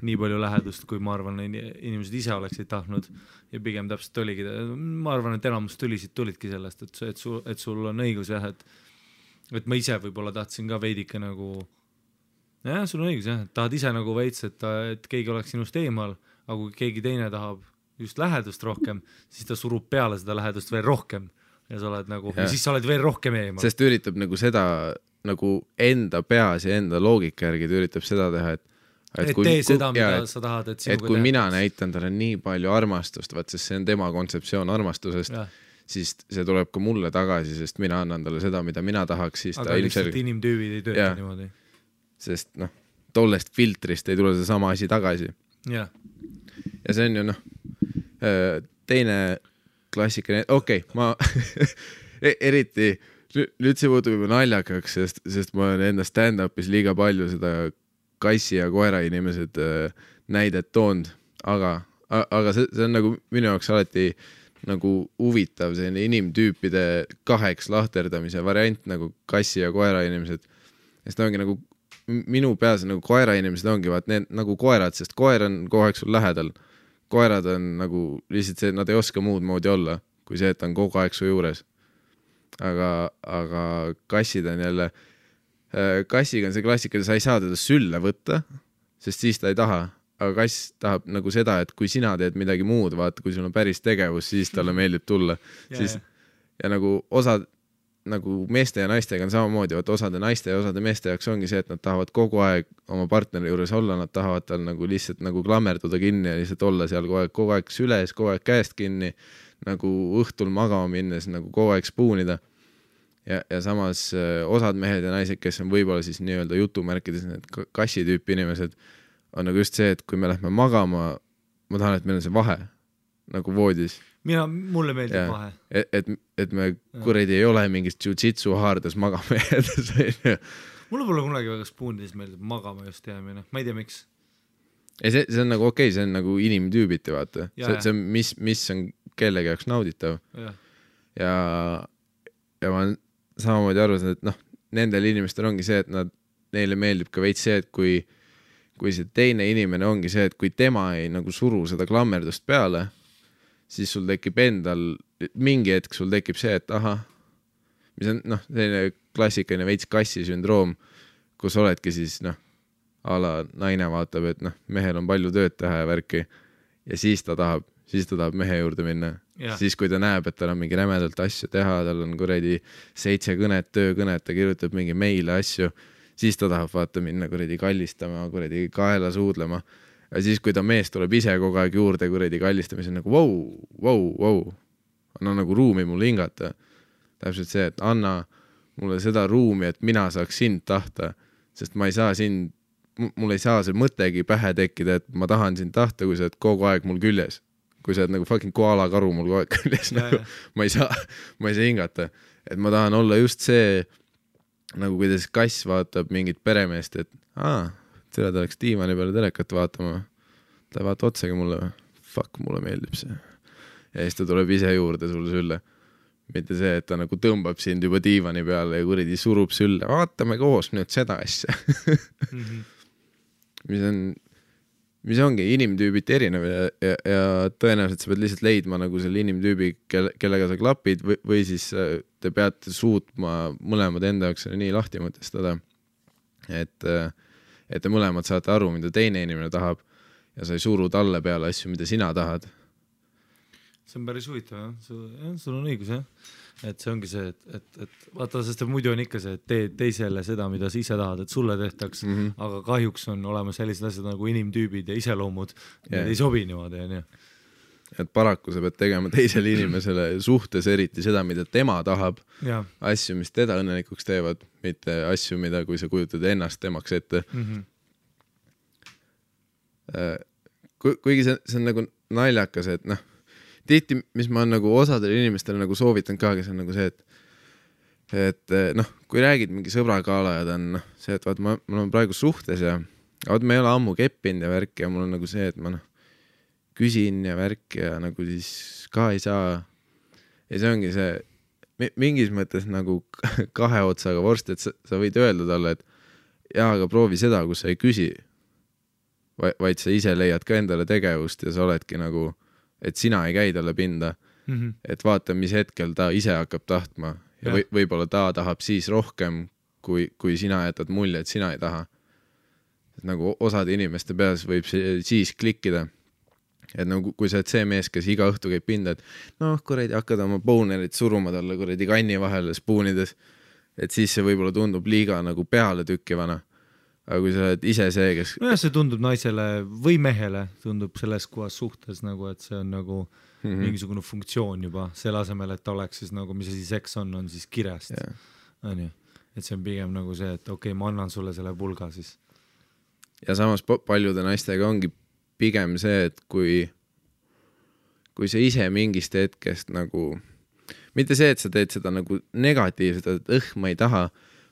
nii palju lähedust, kui ma arvan, inimesed ise oleksid tahtnud ja pigem täpselt oligi. Ma arvan, et enamus tulidki sellest, et sul on õigus, jah, et ma ise võib-olla tahtsin ka veidike nagu, jah, sul on õigus, jah, et tahad ise nagu veits, et keegi oleks sinust eemal, aga kui keegi teine tahab just lähedust rohkem, siis ta surub peale seda lähedust veel rohkem. Ja sa oled nagu, ja siis sa oled veel rohkem eemal.
Sest üritab nagu seda nagu enda peas ja enda loogika järgi üritab seda teha,
et tee seda, mida sa tahad, et sinuga
et kui mina näitan talle nii palju armastust, vaat sest see on tema kontseptsioon armastusest, siis see tuleb ka mulle tagasi, sest mina annan talle seda, mida mina tahaks, siis
aga ta lihtsalt inimtüübid ei tööta niimoodi.
Sest tollest filtrist ei tule see sama asi tagasi.
Ja
see on ju teine klassikaline, ma eriti, nüüd see muutub juba naljakaks, sest ma olen enda stand-upis liiga palju seda kassi ja koera inimesed näidet toonud, aga see on nagu minu jaoks alati nagu huvitav selline inimtüüpide kaheks lahterdamise variant nagu kassi ja koera inimesed. Sest ongi nagu minu peas nagu koera inimesed ongi vaat need nagu koerad, sest koer on kogu aeg sul lähedal. Koerad on nagu lihtsalt see, nad ei oska muud moodi olla, kui see, et ta on kogu aeg su juures. Aga kassid on jälle, kassiga on see klassika, sa ei saa teda sülle võtta, sest siis ta ei taha. Aga kass tahab nagu seda, et kui sina teed midagi muud, vaata, kui sul on päris tegevus, siis talle meeldib tulla. Ja nagu osad nagu meeste ja naistega on samamoodi, vaat osade naiste ja osade meeste jaoks ongi see, et nad tahavad kogu aeg oma partneri juures olla, nad tahavad tal nagu lihtsalt nagu klammerduda kinni ja lihtsalt olla seal kogu aeg süles, kogu aeg käest kinni, nagu õhtul magama minnes nagu kogu aeg spuunida. Ja samas osad mehed ja naised, kes on võib-olla siis nii-öelda jutumärkides need kassitüüpi inimesed, on nagu just see, et kui me lähme magama, ma tahan, et meil on see vahe nagu voodis.
Mulle meeldib vahe.
Et me kuredi ei ole mingist jiu-jitsu haardes magama jäädes.
Mulle pole kunagi väga spuunides meeldib magama just jäämine. Ma ei tea, miks.
See on nagu okei, see on nagu inimtüübiti, vaata. See on, mis on kellegi jaoks nauditav. Ja ma olen samamoodi arvasin, et nendel inimestel ongi see, et neile meeldib ka veits see, et kui see teine inimene ongi see, et kui tema ei nagu suru seda klammerdust peale, siis sul tekib endal, mingi hetk sul tekib see, et mis on selline klassikaline veits kassi sündroom, kus oledki siis a la naine vaatab, et mehel on palju tööd teha ja värki ja siis ta tahab mehe juurde minna. Siis kui ta näeb, et tal on mingi rämedalt asju teha, tal on kuredi 7 kõnet, töökõnet, ta kirjutab mingi meile asju, siis ta tahab vaata minna kuredi kallistama, kuredi kaela suudlema. Ja siis, kui ta mees tuleb ise kogu aeg juurde kuredi kallistamise, on nagu wow. Anna nagu ruumi mulle hingata. Täpselt see, et anna mulle seda ruumi, et mina saaks sind tahta, sest ma ei saa mul ei saa see mõttegi pähe tekkida, et ma tahan sind tahta, kui sa oled kogu aeg mul küljes. Kui sa oled nagu fucking koala karu mul kogu aeg küljes, nagu, ma ei saa hingata. Et ma tahan olla just see, nagu kuidas kass vaatab mingit peremeest, et ta oleks diivani peale telekat vaatama. Ta ei vaata otsagi mulle. Fuck, mulle meeldib see. Ja siis ta tuleb ise juurde sulle sülle. Mitte see, et ta nagu tõmbab sind juba diivani peale ja kuridi surub sülle. Vaatame koos nüüd seda asja. mis ongi inimtüübiti erinev ja tõenäoliselt sa pead lihtsalt leidma nagu selle inimtüübi, kellega sa klapid või siis te peate suutma mõlemad enda jaoks nii lahti mõtestada, et te mõlemad saate aru, mida teine inimene tahab ja sa ei suru talle peale asju, mida sina tahad.
see on päris huvitav jah, sul on õigus jah, et see ongi see, et vaata, sest muidu on ikka see, et tee teisele seda, mida sa ise tahad, et sulle tehtaks, aga kahjuks on olemas sellised asjad nagu inimtüübid ja iseloomud, need ei sobi niimoodi, on ju.
Et paraku sa pead tegema teisele inimesele suhtes eriti seda, mida tema tahab, asju, mis teda õnnelikuks teevad, mitte asju, mida kui sa kujutad ennast temaks ette. Kuigi see on nagu naljakas, et noh, tihti, mis ma on nagu osadele inimestele nagu soovitan ka, kes on nagu see, et noh, kui räägid mingi sõbragaala ja ta on see, et vaat ma olen praegu suhtes ja vaat me ei ole ammu keppinud ja värk ja mul on nagu see, et ma küsin ja värk ja nagu siis ka ei saa. Ja see ongi see mingis mõttes nagu kahe otsaga vorst, et sa võid öelda talle, et jaa, aga proovi seda, kus sa ei küsi, vaid sa ise leiad ka endale tegevust ja sa oledki nagu, et sina ei käi talle pinda, et vaata, mis hetkel ta ise hakkab tahtma ja võib-olla ta tahab siis rohkem, kui sina jätad mulje, et sina ei taha. Et nagu osade inimeste peas võib siis klikkida. Et nagu, kui sa oled see mees, kes iga õhtu käib pinda, et noh, kuradi hakkad oma bonerit suruma talle kuradi kanni vahele spoonides, et siis see võib-olla tundub liiga nagu peale tükkivana. Aga kui sa oled ise see, kes...
No see tundub naisele või mehele, tundub selles kohas suhtes nagu, et see on nagu mingisugune funktsioon juba, selle asemel, et ta oleks siis nagu, mis asi seks on siis kirjast. On ju? Et see on pigem nagu see, et okei, ma annan sulle selle pulga siis.
Ja samas paljude naistega ongi pigem see, et kui sa ise mingist hetkest nagu, mitte see, et sa teed seda nagu negatiivselt, et ma ei taha,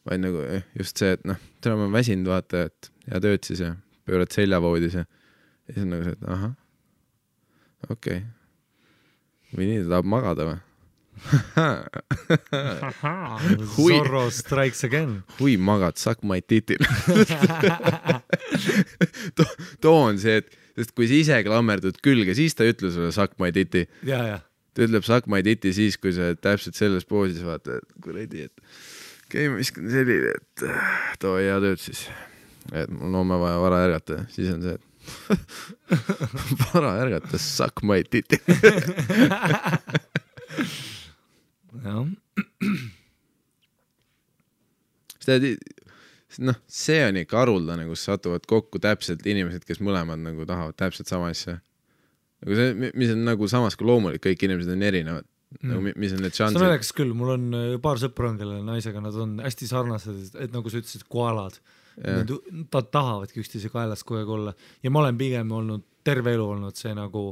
vaid nagu just see, et noh, täna ma väsinud vaata, et ja tööd siis ja pöörad seljavoodis ja siis on nagu see, et aha, okei. Või nii, ta tahab magada või?
Zorro strikes again.
Hui magad, suck my titil. Too on see, et sest kui sa ise klammerdud külge, siis ta ütle sulle suck my titi.
Ja.
Ta ütleb suck my titi siis, kui sa täpselt selles poosis vaata, et kuradi, et okei, ma viskan selline, et too hea tööd siis. Et mul on vaja vara ärgata, siis on see, et vara ärgata, suck my titi.
Jah.
See on ikka haruldane, kus satuvad kokku täpselt inimesed, kes mõlemad nagu tahavad täpselt sama asja. Nagu see, mis on nagu samas kui loomulik, kõik inimesed on erinevad. Nagu, mis on need šansid?
See on näiteks küll, mul on paar sõpra, kelle naisega nad on hästi sarnased, et nagu sa ütlesid, koalad. Nad tahavadki üksteise kaelas kogu aeg olla. Ja ma olen pigem olnud, terve elu olnud see nagu,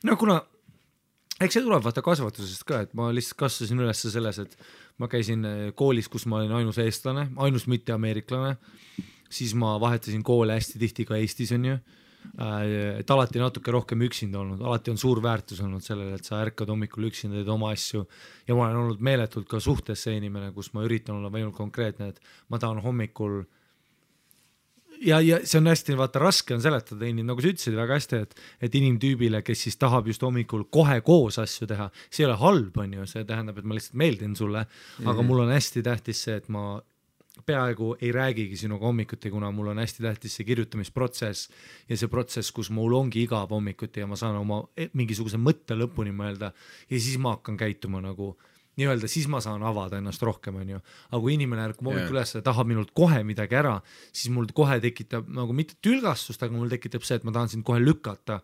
no kuna eks see tuleb vaata kasvatusest ka, et ma lihtsalt kasvasin üles selles, et ma käisin koolis, kus ma olin ainus eestlane, ainus mitte ameeriklane, siis ma vahetasin koole hästi tihti ka Eestis on ju, et alati natuke rohkem üksinda olnud, alati on suur väärtus olnud sellele, et sa ärkad hommikul üksinda, teed oma asju ja ma olen olnud meeletult ka suhtes see inimene, kus ma üritan olla võimult konkreetne, et ma tahan hommikul ja see on hästi, vaata, raske on seletada nagu sa ütlesid väga hästi, et inimtüübile, kes siis tahab just hommikul kohe koos asju teha, see ei ole halb, on ju, see tähendab, et ma lihtsalt meeldin sulle, aga mul on hästi tähtis see, et ma peaaegu ei räägigi sinuga hommikuti, kuna mul on hästi tähtis see kirjutamisprotsess ja see protsess, kus mul ongi igav hommikuti ja ma saan oma mingisuguse mõtte lõpuni mõelda ja siis ma hakkan käituma nagu nii-öelda, siis ma saan avada ennast rohkem, on ju. Aga kui inimene ärkub hommikul üles ja tahab minult kohe midagi ära, siis mul kohe tekitab nagu mitte tülgastust, aga mul tekitab see, et ma tahan sind kohe lükata.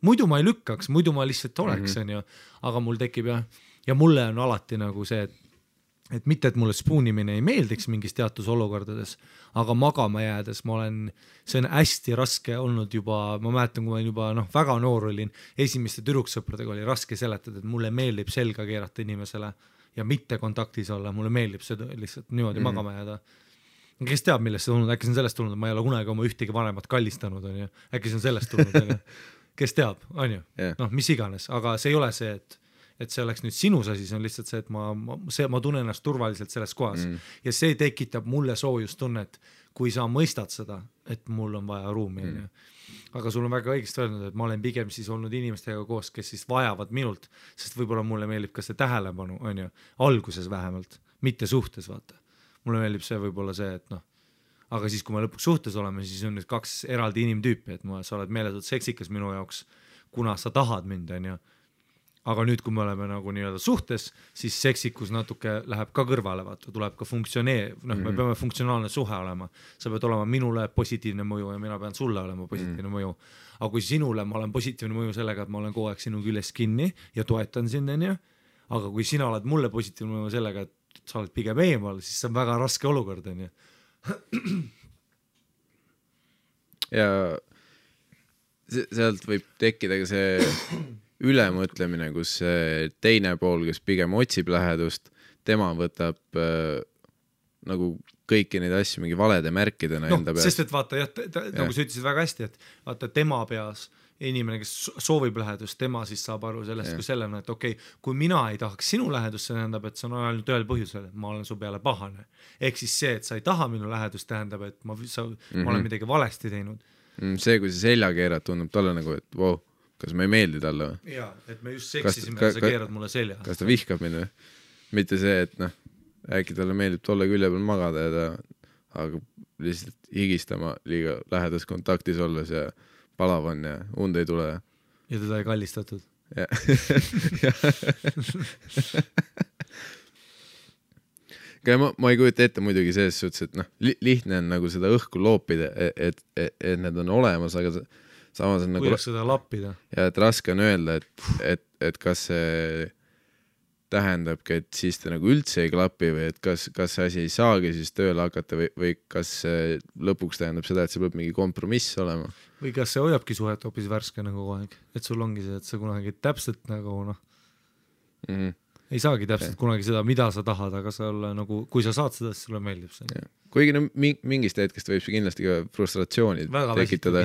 Muidu ma ei lükkaks, muidu ma lihtsalt oleks, on ju. Aga mul tekib ja mulle on alati nagu see, et mitte, et mulle spoonimine ei meeldiks mingis teatud olukordades, aga magama jäädes see on hästi raske olnud juba, ma mäletan, kui ma juba väga noor olin, esimeste tüdruksõpradega oli raske seletada, et mulle meeldib selga keerata inimesele ja mitte kontaktis olla, mulle meeldib seda lihtsalt niimoodi magama jääda. Kes teab, millest see tulnud, äkki see on sellest tulnud, et ma ei ole kunagi oma ühtegi vanemat kallistanud, on ju. Äkki see on sellest tulnud, on ju. Kes teab, on ju. Mis iganes, aga see ei ole see, et see oleks nüüd sinus asi, see on lihtsalt see, et ma tunnen ennast turvaliselt selles kohas ja see tekitab mulle soojustunnet, kui sa mõistad seda, et mul on vaja ruumi. Aga sul on väga õigesti öelnud, et ma olen pigem siis olnud inimestega koos, kes siis vajavad minult, sest võib-olla mulle meeldib ka see tähelepanu, on ju, alguses vähemalt, mitte suhtes, vaata. Mulle meeldib see võib-olla see, et aga siis, kui me lõpuks suhtes oleme, siis on nüüd kaks eraldi inimtüüpi, et sa oled meeletult seksikas minu jaoks, kuna sa tahad mind, on ju. aga nüüd, kui me oleme nagu nii-öelda suhtes, siis seksikus natuke läheb ka kõrvale, vaata, tuleb ka me peame funktsionaalne suhe olema. Sa pead olema minule positiivne mõju ja mina pean sulle olema positiivne mõju. Aga kui sinule ma olen positiivne mõju sellega, et ma olen kogu aeg sinu küljes kinni ja toetan sind, aga kui sina oled mulle positiivne mõju sellega, et sa oled pigem eemal, siis see on väga raske olukord,
ja sealt võib tekkida ka see ülemõtlemine, kus teine pool, kes pigem otsib lähedust, tema võtab nagu kõiki neid asju mingi valede märkidena enda peas.
Sest et vaata, nagu sa ütlesid väga hästi, et vaata tema peas inimene, kes soovib lähedust, tema siis saab aru sellest kui sellena, et okei, kui mina ei tahaks sinu lähedust, see tähendab, et see on ainult ühel põhjusel, et ma olen su peale pahane. Ehk siis see, et sa ei taha minu lähedust, tähendab, et ma olen midagi valesti teinud.
See, kui see selja keerad, tundub talle nagu, et wow, kas ma ei meeldi talle või?
Jaa, et me just seksisime ja sa keerad mulle selja.
Kas ta vihkab mind või? Mitte see, et äkki talle meeldib tolle külje peal magada ja ta hakkab lihtsalt higistama liiga lähedas kontaktis olles ja palav on ja und ei tule.
Ja teda ei kallistatud.
Ma ei kujuta ette muidugi selles suhtes, et lihtne on nagu seda õhku loopida, et need on olemas, aga samas on nagu...
Kuidas seda lappida?
Ja et raske on öelda, et kas see tähendabki, et siis ta nagu üldse ei klapi või et kas see asi ei saagi siis tööle hakata või kas see lõpuks tähendab seda, et see peab mingi kompromiss olema.
Või kas see hoiabki suhet hoopis värske nagu kogu aeg, et sul ongi see, et sa kunagi täpselt nagu ei saagi täpselt kunagi seda, mida sa tahad, aga sa olla nagu, kui sa saad seda, siis sulle meeldib see.
Kuigi mingist hetkest võib see kindlasti ka frustratsiooni tekitada,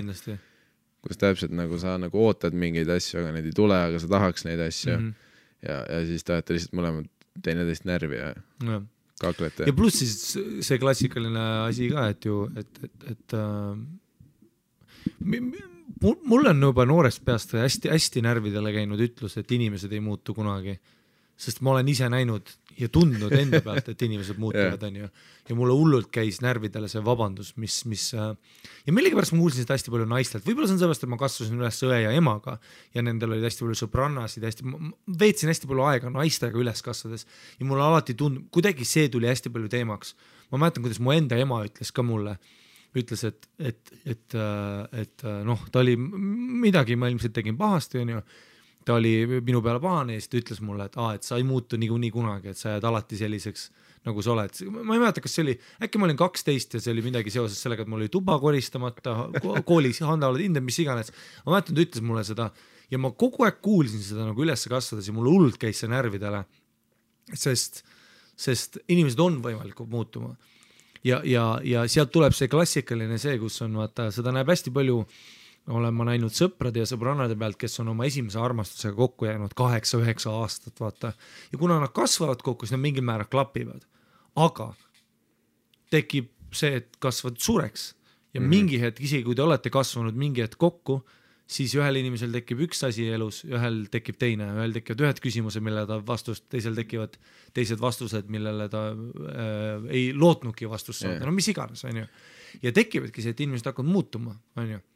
kus täpselt nagu sa nagu ootad mingeid asju, aga need ei tule, aga sa tahaks neid asju ja siis tahate lihtsalt mõlemad teineteist närvi ja kaklete.
Ja pluss siis see klassikaline asi ka, et ju, et mul on juba noorest peast hästi närvidele käinud ütlus, et inimesed ei muutu kunagi. Sest ma olen ise näinud ja tundnud enda pealt, et inimesed muutuvad, on ju. Ja mulle hullult käis närvidele see vabandus, mis ja millegipärast ma kuulsin seda hästi palju naistelt. Võib-olla see on sellest, et ma kasvasin üles õe ja emaga ja nendel olid hästi palju sõbrannasid, veetsin hästi palju aega naistega üles kasvades ja mulle alati kuidagi see tuli hästi palju teemaks. Ma mäletan, kuidas mu enda ema ütles ka mulle, ütles, et ta oli midagi, ma ilmselt tegin pahasti, on ju. Ta oli minu peale pahane ja siis ta ütles mulle, et sa ei muutu nii kunagi, et sa jääd alati selliseks, nagu sa oled. Ma ei mäleta, kas see oli, äkki ma olin 12 ja see oli midagi seoses sellega, et mul oli tuba koristamata, koolis handaoled hinded, mis iganes. Ma mäletan, ta ütles mulle seda ja ma kogu aeg kuulsin seda nagu üles kasvades ja mulle hullult käis see närvidele, sest inimesed on võimalikud muutuma. Ja sealt tuleb see klassikaline see, kus on, vaata, seda näeb hästi palju olen ma näinud sõprade ja sõbrannade pealt, kes on oma esimese armastusega kokku jäänud 8-9 aastat, vaata. Ja kuna nad kasvavad kokku, siis nad mingil määral klapivad. Aga tekib see, et kasvad suureks. Ja mingi hetk, isegi kui te olete kasvanud mingi hetk kokku, siis ühel inimesel tekib üks asi elus, ühel tekib teine, ühel tekivad ühed küsimused, millele ta vastust, teisel tekivad teised vastused, millele ta ei lootnudki vastust saada. No mis iganes, on ju. Ja tekivadki see, et inimesed hakkavad muutuma, on ju.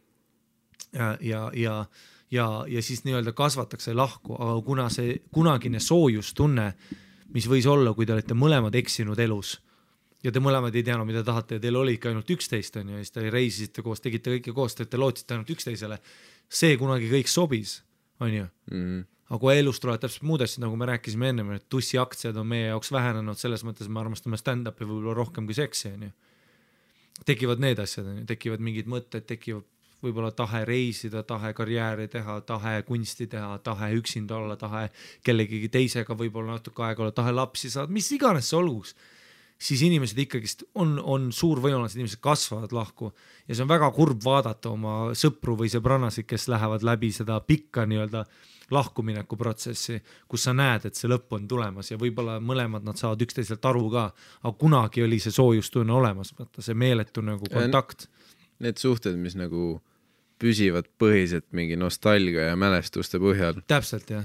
Ja siis nii-öelda kasvatakse lahku, aga kuna see kunagine soojustunne, mis võis olla, kui te olete mõlemad eksinud elus ja te mõlemad ei teadnud, mida tahate ja teil oli ikka ainult 11 on ja siis te reisisite koos, tegite kõike koos, te lootsite ainult 11-le, see kunagi kõik sobis, on ju. Aga kui elus tulevad täpselt muud asjad, nagu me rääkisime enne, et tussi aktsiad on meie jaoks vähenenud, selles mõttes me armastame stand-upi võib-olla rohkem kui seksi, on ju. Tekivad need asjad, on ju, tekivad mingid mõtted, tekivad võib-olla tahe reisida, tahe karjääri teha, tahe kunsti teha, tahe üksinda olla, tahe kellegi teisega võib-olla natuke aega olla, tahe lapsi saada, mis iganes see olguks, siis inimesed ikkagist on suur võimalus, inimesed kasvavad lahku ja see on väga kurb vaadata oma sõpru või sõbrannasid, kes lähevad läbi seda pikka nii-öelda lahkumineku protsessi, kus sa näed, et see lõpp on tulemas ja võib-olla mõlemad nad saavad üksteiselt aru ka, aga kunagi oli see soojustunne olemas, vaata see meeletu nagu kontakt.
Need suhted, mis nagu püsivad põhiselt mingi nostalgia ja mälestuste põhjal.
Täpselt, jah.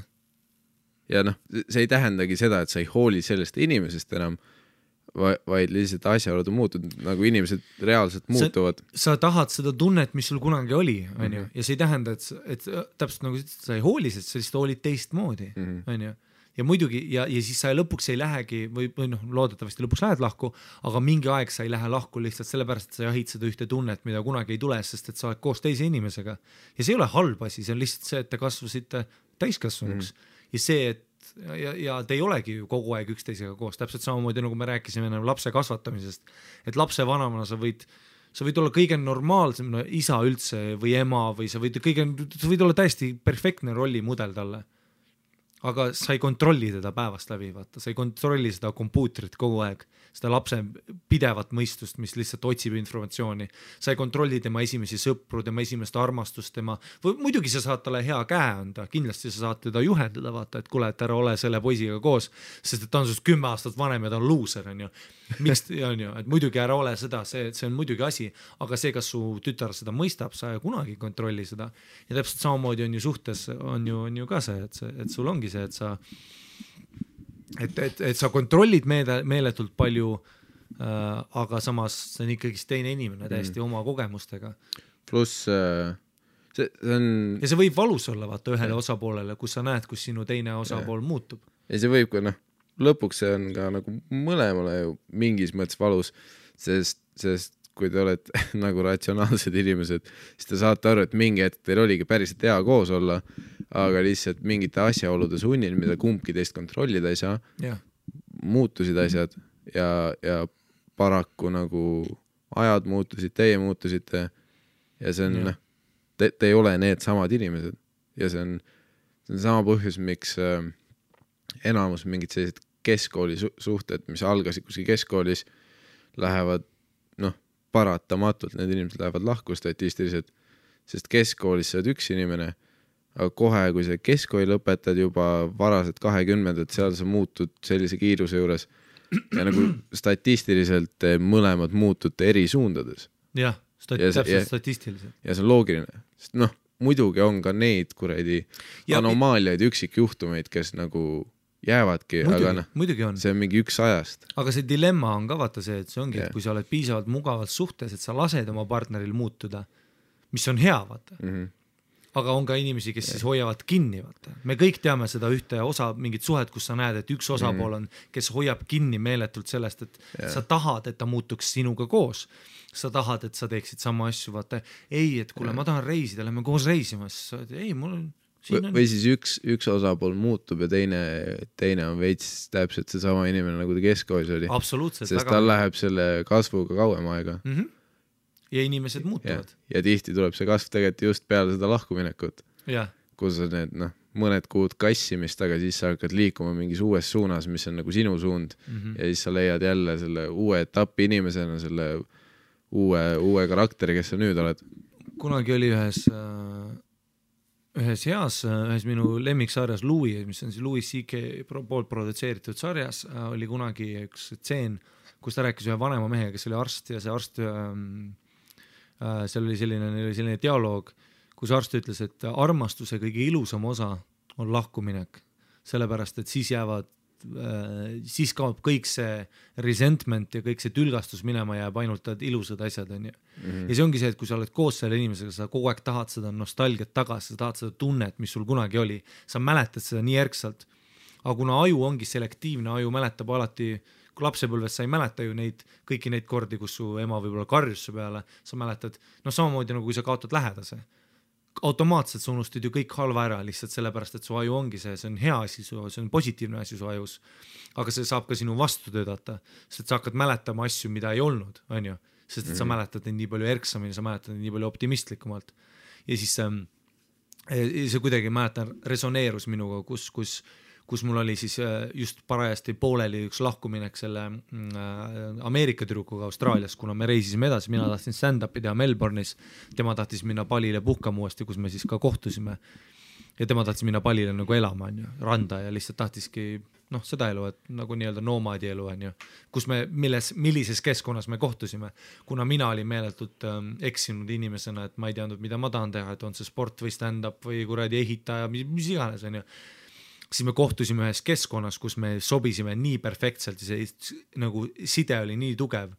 Ja see ei tähendagi seda, et sa ei hooli sellest inimesest enam, vaid lihtsalt asjaolud on muutunud, nagu inimesed reaalselt muutuvad.
Sa tahad seda tunnet, mis sul kunagi oli, on ju, ja see ei tähenda, et täpselt nagu sa ei hooli, sest sa lihtsalt hoolid teistmoodi, on ju. Ja muidugi, ja siis sa lõpuks ei lähegi või noh, loodetavasti lõpuks lähed lahku, aga mingi aeg sa ei lähe lahku lihtsalt sellepärast, et sa jahid seda ühte tunnet, mida kunagi ei tule, sest et sa oled koos teise inimesega. Ja see ei ole halb asi, see on lihtsalt see, et te kasvasite täiskasvanuks ja see, et ja te ei olegi ju kogu aeg üksteisega koos, täpselt samamoodi nagu me rääkisime lapse kasvatamisest, et lapse vanemana sa võid olla kõige normaalsem isa üldse või ema või sa võid olla täiesti perfektne rollimudel talle. Aga sa ei kontrolli teda päevast läbi, vaata, sa ei kontrolli seda kompuutrit kogu aeg, seda lapse pidevat mõistust, mis lihtsalt otsib informatsiooni. Sa ei kontrolli tema esimesi sõpru, tema esimest armastust, muidugi sa saad talle hea käe anda, kindlasti sa saad teda juhendada, vaata, et kuule, et ära ole selle poisiga koos, sest et ta on sust 10 aastat vanem ja ta on loser, on ju. Miks, on ju, et muidugi ära ole seda, see on muidugi asi, aga see, kas su tütar seda mõistab, sa kunagi kontrolli seda. Ja täpselt samamoodi on ju suhtes, on ju ka see, et sul ongi see, et sa kontrollid meeletult palju, aga samas see on ikkagi teine inimene täiesti oma kogemustega.
Pluss see on...
Ja see võib valus olla, vaata, ühele osapoolele, kus sa näed, kus sinu teine osapool muutub.
Ja see võib ka, lõpuks see on ka nagu mõlemale ju mingis mõttes valus, sest kui te olete nagu ratsionaalsed inimesed, siis te saate aru, et mingi hetk teil oligi päriselt hea koos olla, aga lihtsalt mingite asjaolude sunnil, mida kumbki teist kontrollida ei saa, muutusid asjad ja paraku nagu ajad muutusid, teie muutusite ja see on, te ei ole need samad inimesed ja see on sama põhjus, miks enamus mingid sellised keskkooli suhted, mis algasid kuskil keskkoolis, lähevad paratamatult, need inimesed lähevad lahku statistiliselt, sest keskkoolis sa oled üks inimene, aga kohe, kui sa keskkooli lõpetad juba varaselt 20, seal sa muutud sellise kiiruse juures ja nagu statistiliselt mõlemad muutute eri suundades.
Jah, täpselt statistiliselt.
Ja see on loogiline, sest muidugi on ka neid kuradi anomaaliaid, üksikjuhtumeid, kes nagu jäävadki,
muidugi on.
See on mingi üks ajast.
Aga see dilemma on ka vaata see, et see ongi, et kui sa oled piisavalt mugavalt suhtes, et sa lased oma partneril muutuda, mis on hea, vaata. Aga on ka inimesi, kes siis hoiavad kinni, vaata. Me kõik teame seda ühte osa, mingit suhet, kus sa näed, et üks osapool on, kes hoiab kinni meeletult sellest, et sa tahad, et ta muutuks sinuga koos. Sa tahad, et sa teeksid sama asju, vaata. Ei, et kuule, ma tahan reisida, lähme koos reisima. Ei, mul on
või siis üks osapool muutub ja teine on veits täpselt see sama inimene, nagu ta keskkoolis oli.
Absoluutselt.
Sest tal läheb selle kasvuga kauem aega.
Ja inimesed muutuvad.
Ja tihti tuleb see kasv tegelikult just peale seda lahkuminekut. Kus on need mõned kuud kassimist, aga siis sa hakkad liikuma mingis uues suunas, mis on nagu sinu suund ja siis sa leiad jälle selle uue etapi inimesena, selle uue karakteri, kes sa nüüd oled.
Kunagi oli ühes minu lemmiksarjas Louis, mis on siis Louis C.K. poolt produtseeritud sarjas, oli kunagi üks tseen, kus ta rääkis ühe vanema mehega, kes oli arst ja see arst, seal oli selline dialoog, kus arst ütles, et armastuse kõige ilusam osa on lahkuminek, sellepärast, et siis kaob kõik see resentment ja kõik see tülgastus minema jääb ainult ilusad asjad, on ju. Ja see ongi see, et kui sa oled koos selle inimesega, sa kogu aeg tahad seda nostalgiat tagasi, sa tahad seda tunnet, mis sul kunagi oli, sa mäletad seda nii järgselt. Aga kuna aju ongi selektiivne, aju mäletab alati, kui lapsepõlves sa ei mäleta ju kõiki neid kordi, kus su ema võib-olla karjus su peale, sa mäletad, samamoodi nagu kui sa kaotad lähedase. Automaatselt sa unustad ju kõik halva ära lihtsalt sellepärast, et su aju ongi see on hea asi, see on positiivne asi su ajus, aga see saab ka sinu vastu töötada, sest sa hakkad mäletama asju, mida ei olnud, on ju, sest et sa mäletad neid nii palju erksamini, sa mäletad neid nii palju optimistlikumalt ja siis see kuidagi mäletan resoneerus minuga, kus mul oli siis just parajasti pooleli üks lahkuminek selle Ameerika tüdrukuga Austraalias, kuna me reisisime edasi, mina tahtsin stand-upi teha Melbourne'is, tema tahtis minna Palile puhkama uuesti, kus me siis ka kohtusime ja tema tahtis minna Palile nagu elama, on ju, randa ja lihtsalt tahtiski seda elu, et nagu nii-öelda nomaadi elu, on ju, kus me, millises keskkonnas me kohtusime, kuna mina olin meeletult eksinud inimesena, et ma ei teadnud, mida ma tahan teha, et on see sport või stand-up või kuradi ehitaja, mis iganes, on ju. siis me kohtusime ühes keskkonnas, kus me sobisime nii perfektselt ja see nagu side oli nii tugev.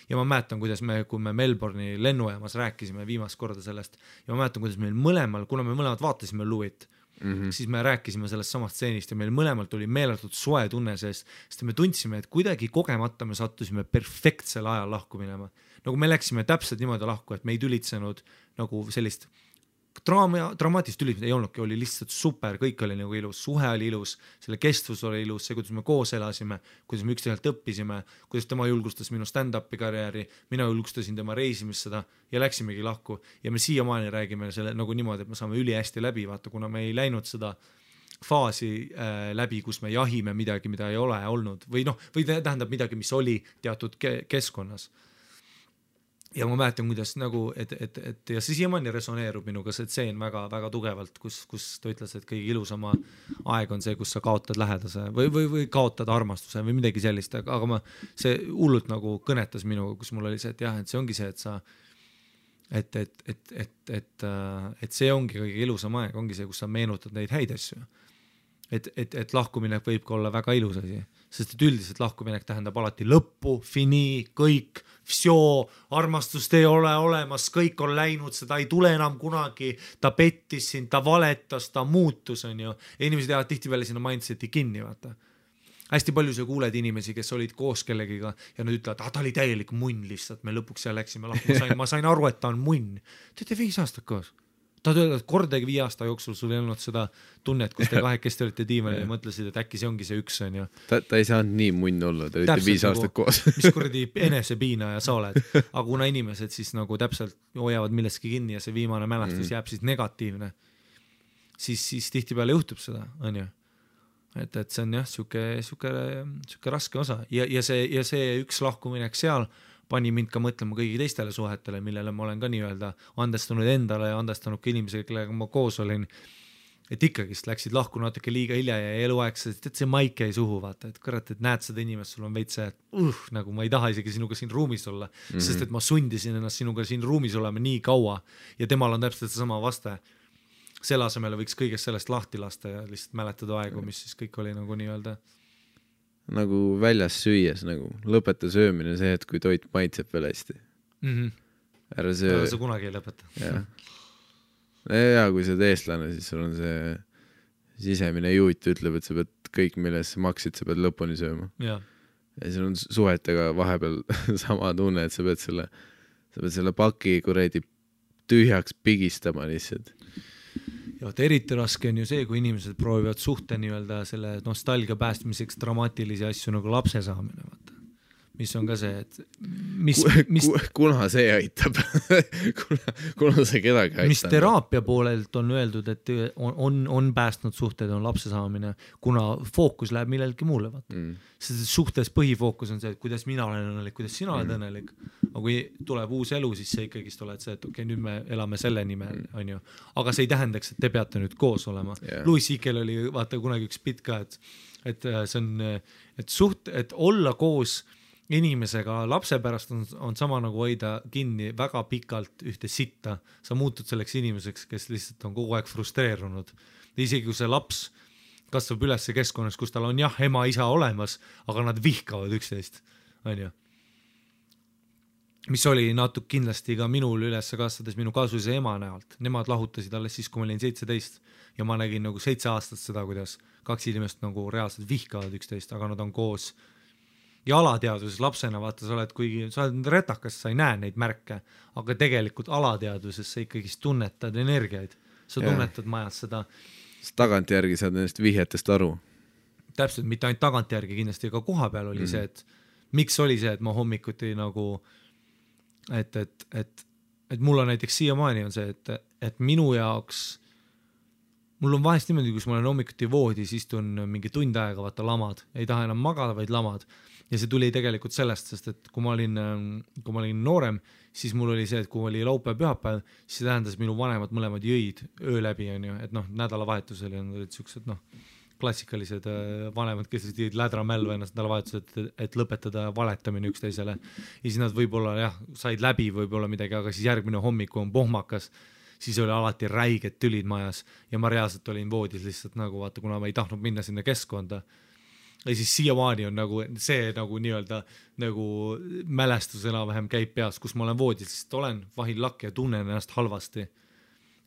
Ja ma mäletan, kuidas kui me Melbourne'i lennujaamas rääkisime viimast korda sellest ja ma mäletan, kuidas meil mõlemal, kuna me mõlemad vaatasime Louis't, siis me rääkisime sellest samast stseenist ja meil mõlemalt oli meeletult soe tunne seest, sest me tundsime, et kuidagi kogemata me sattusime perfektsel ajal lahku minema. Nagu me läksime täpselt niimoodi lahku, et me ei tülitsenud nagu sellist dramaatilist tülitsemist ei olnudki, oli lihtsalt super, kõik oli nagu ilus, suhe oli ilus, selle kestvus oli ilus, see, kuidas me koos elasime, kuidas me üksteiselt õppisime, kuidas tema julgustas minu stand-upi karjääri, mina julgustasin tema reisimist seda ja läksimegi lahku ja me siiamaani räägime selle nagu niimoodi, et me saame ülihästi läbi, vaata, kuna me ei läinud seda faasi läbi, kus me jahime midagi, mida ei ole olnud või tähendab midagi, mis oli teatud keskkonnas. Ja ma mäletan, kuidas nagu, et ja see siiamaani resoneerub minuga see tseen väga tugevalt, kus ta ütles, et kõige ilusama aeg on see, kus sa kaotad lähedase või kaotad armastuse või midagi sellist, aga see hullult nagu kõnetas minuga, kus mul oli see, et jah, et see ongi see, et sa et see ongi kõige ilusam aeg, ongi see, kus sa meenutad neid häid asju. Et lahkuminek võib ka olla väga ilus asi, sest et üldiselt lahkuminek tähendab alati lõppu, fini, kõik, armastust ei ole olemas, kõik on läinud, seda ei tule enam kunagi, ta pettis sind, ta valetas, ta muutus, on ju. Ja inimesed jäävad tihtipeale sinna mindseti kinni, vaata. Hästi palju sa kuuled inimesi, kes olid koos kellegiga ja nad ütlevad, ta oli täielik munn lihtsalt, me lõpuks seal läksime lahku, ma sain aru, et ta on munn. Te olete 5 aastat koos. Ta öeldud, et kordagi 5 aasta jooksul sul ei olnud seda tunnet, kus te kahekesti olite diivanil ja mõtlesid, et äkki see ongi see üks, on ju.
Ta ei saanud nii munn olla, ta olite 5 aastat koos.
Mis kuradi enesepiina ja sa oled. Aga kuna inimesed siis nagu täpselt hoiavad millestki kinni ja see viimane mälestus jääb siis negatiivne, siis tihtipeale juhtub seda, on ju. Et see on jah, siuke raske osa ja see üks lahkuminek seal pani mind ka mõtlema kõigi teistele suhetele, millele ma olen ka nii-öelda andestanud endale ja andestanud ka inimesega, kellega ma koos olin, et ikkagist läksid lahku natuke liiga hilja ja eluaegselt, et see maik jäi suhu, vaata, et kurat, et näed seda inimest, sul on veits see, et nagu ma ei taha isegi sinuga siin ruumis olla, sest et ma sundisin ennast sinuga siin ruumis olema nii kaua ja temal on täpselt seesama vaste. Selle asemele võiks kõigest sellest lahti lasta ja lihtsalt mäletada aegu, mis siis kõik oli nagu nii-öelda
nagu väljas süües, nagu lõpeta söömine see, et kui toit maitseb veel hästi. Ära söö.
Sa kunagi ei lõpeta.
Ja kui sa oled eestlane, siis sul on see sisemine juut ütleb, et sa pead kõik, milles sa maksid, sa pead lõpuni sööma. Ja sul on suhetega vahepeal sama tunne, et sa pead selle paki kuradi tühjaks pigistama lihtsalt.
Ja eriti raske on ju see, kui inimesed proovivad suhte nii-öelda selle nostalgia päästmiseks dramaatilisi asju nagu lapse saamine, vaata. Mis on ka see, et
kuna see aitab kuna see kedagi aitab.
Mis teraapia poolelt on öeldud, et on päästnud suhted, on lapse saamine, kuna fookus läheb millelgi muule, vaata. Sest suhtes põhifookus on see, et kuidas mina olen õnnelik, kuidas sina oled õnnelik. Aga kui tuleb uus elu, siis see ikkagi oled see, et okei, nüüd me elame selle nimel, on ju. Aga see ei tähendaks, et te peate nüüd koos olema. Louis C.K. oli vaata kunagi üks pitt ka, et see on, et olla koos inimesega lapse pärast on sama nagu hoida kinni väga pikalt ühte sitta. Sa muutud selleks inimeseks, kes lihtsalt on kogu aeg frustreerunud. Isegi kui see laps kasvab üles keskkonnas, kus tal on jah, ema, isa olemas, aga nad vihkavad üksteist, on ju. Mis oli natuke kindlasti ka minul üles kasvades minu kaasuse ema näolt. Nemad lahutasid alles siis, kui ma olin 17 ja ma nägin nagu 7 aastat seda, kuidas 2 inimest nagu reaalselt vihkavad üksteist, aga nad on koos. Ja alateaduses lapsena, vaata, sa oled retakas, sa ei näe neid märke, aga tegelikult alateaduses sa ikkagi tunnetad energiaid. Sa tunnetad majad seda.
Tagantjärgi saad nendest vihjetest aru.
Täpselt, mitte ainult tagantjärgi kindlasti, aga koha peal oli see, et miks oli see, et ma hommikuti nagu, et mul on näiteks siiamaani on see, et minu jaoks, mul on vahest niimoodi, kus ma olen hommikuti voodis, istun mingi tund aega, vaata lamad, ei taha enam magada, vaid lamad. Ja see tuli tegelikult sellest, sest et kui ma olin noorem, siis mul oli see, et kui oli laupäev pühapäev, siis see tähendas minu vanemad mõlemad jõid öö läbi, on ju, et nädalavahetusel olid siuksed klassikalised vanemad, kes jõid lädramälva ennast nädalavahetusel, et lõpetada valetamine üksteisele. Ja siis nad võib-olla said läbi võib-olla midagi, aga siis järgmine hommiku on pohmakas siis oli alati räiged tülid majas ja ma reaalselt olin voodis lihtsalt nagu vaata, kuna ma ei tahtnud minna sinna keskkonda. Ja siis siiamaani on nagu see nagu nii-öelda nagu mälestus enam-vähem käib peas, kus ma olen voodis, sest olen vahil lakk ja tunnen ennast halvasti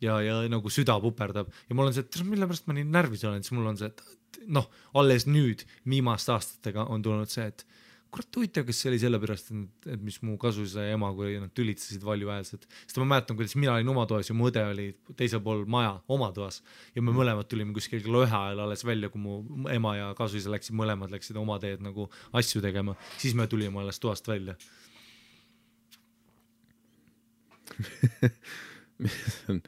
ja nagu süda puperdab ja mul on see, et mille pärast ma nii närvis olen, siis mul on see, et noh, alles nüüd viimaste aastatega on tulnud see, et kurat huvitav, kas see oli sellepärast, et mis mu kasuisa ja ema, kui nad tülitasid valjuhäälselt. Sest ma mäletan, kuidas mina olin oma toas ja mu õde oli teisel pool maja oma toas ja me mõlemad tulime kuskil kella 1 ajal alles välja, kui mu ema ja kasuisa mõlemad läksid oma teed nagu asju tegema. Siis me tulime alles toast välja.
See on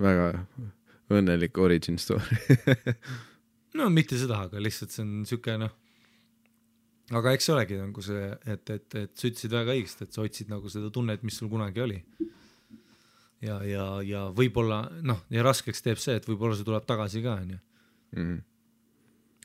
väga õnnelik origin story.
No mitte seda, aga lihtsalt see on siuke noh. Aga eks see olegi nagu see, et sa ütlesid väga õigesti, et sa otsid nagu seda tunnet, mis sul kunagi oli. Ja võib-olla, noh, ja raskeks teeb see, et võib-olla see tuleb tagasi ka, on ju.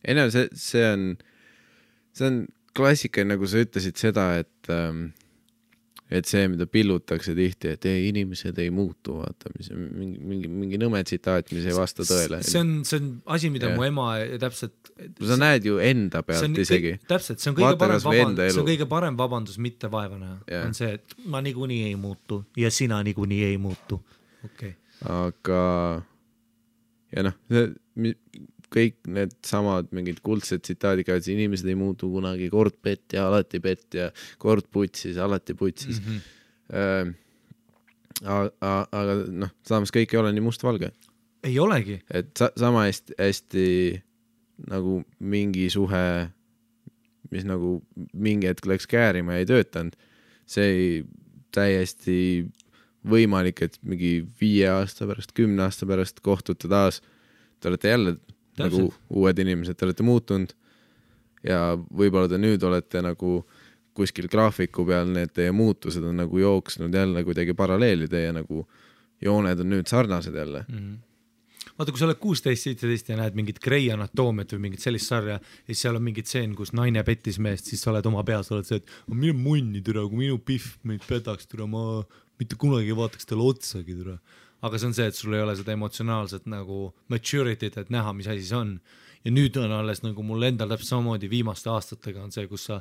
Ei no, see on klassika, nagu sa ütlesid seda, et see, mida pillutakse tihti, et ei, inimesed ei muutu, vaata, mis mingi nõme tsitaat, mis ei vasta tõele.
See on asi, mida mu ema täpselt...
Sa näed ju enda pealt isegi.
Täpselt, see on kõige parem vabandus mitte vaevana. On see, et ma niikuinii ei muutu ja sina niikuinii ei muutu. Okay.
Aga ja noh, kõik need samad mingid kuldsed tsitaadid, et inimesed ei muutu kunagi, kord pett ja alati pett ja kord putsis, alati putsis. Aga noh, samas kõik ei ole nii mustvalge.
Ei olegi.
Et sama hästi nagu mingi suhe, mis nagu mingi hetk läks käärima ja ei töötanud, see ei täiesti võimalik, et mingi 5 aasta pärast, 10 aasta pärast kohtute taas, te olete jälle nagu uued inimesed, te olete muutunud ja võib-olla te nüüd olete nagu kuskil graafiku peal, need teie muutused on nagu jooksnud jälle kuidagi paralleeli, teie nagu jooned on nüüd sarnased jälle.
Vaata, kui sa oled 16-17 ja näed mingit Grey Anatoomiat või mingit sellist sarja ja siis seal on mingid tseen, kus naine pettis meest, siis sa oled oma peas, oled see, et minu munni türa, kui minu pihv meid petaks türa, ma mitte kunagi vaataks talle otsagi türa. Aga see on see, et sul ei ole seda emotsionaalset nagu maturity't, et näha, mis asi see on. Ja nüüd on alles nagu mul endal täpselt samamoodi viimaste aastatega on see, kus sa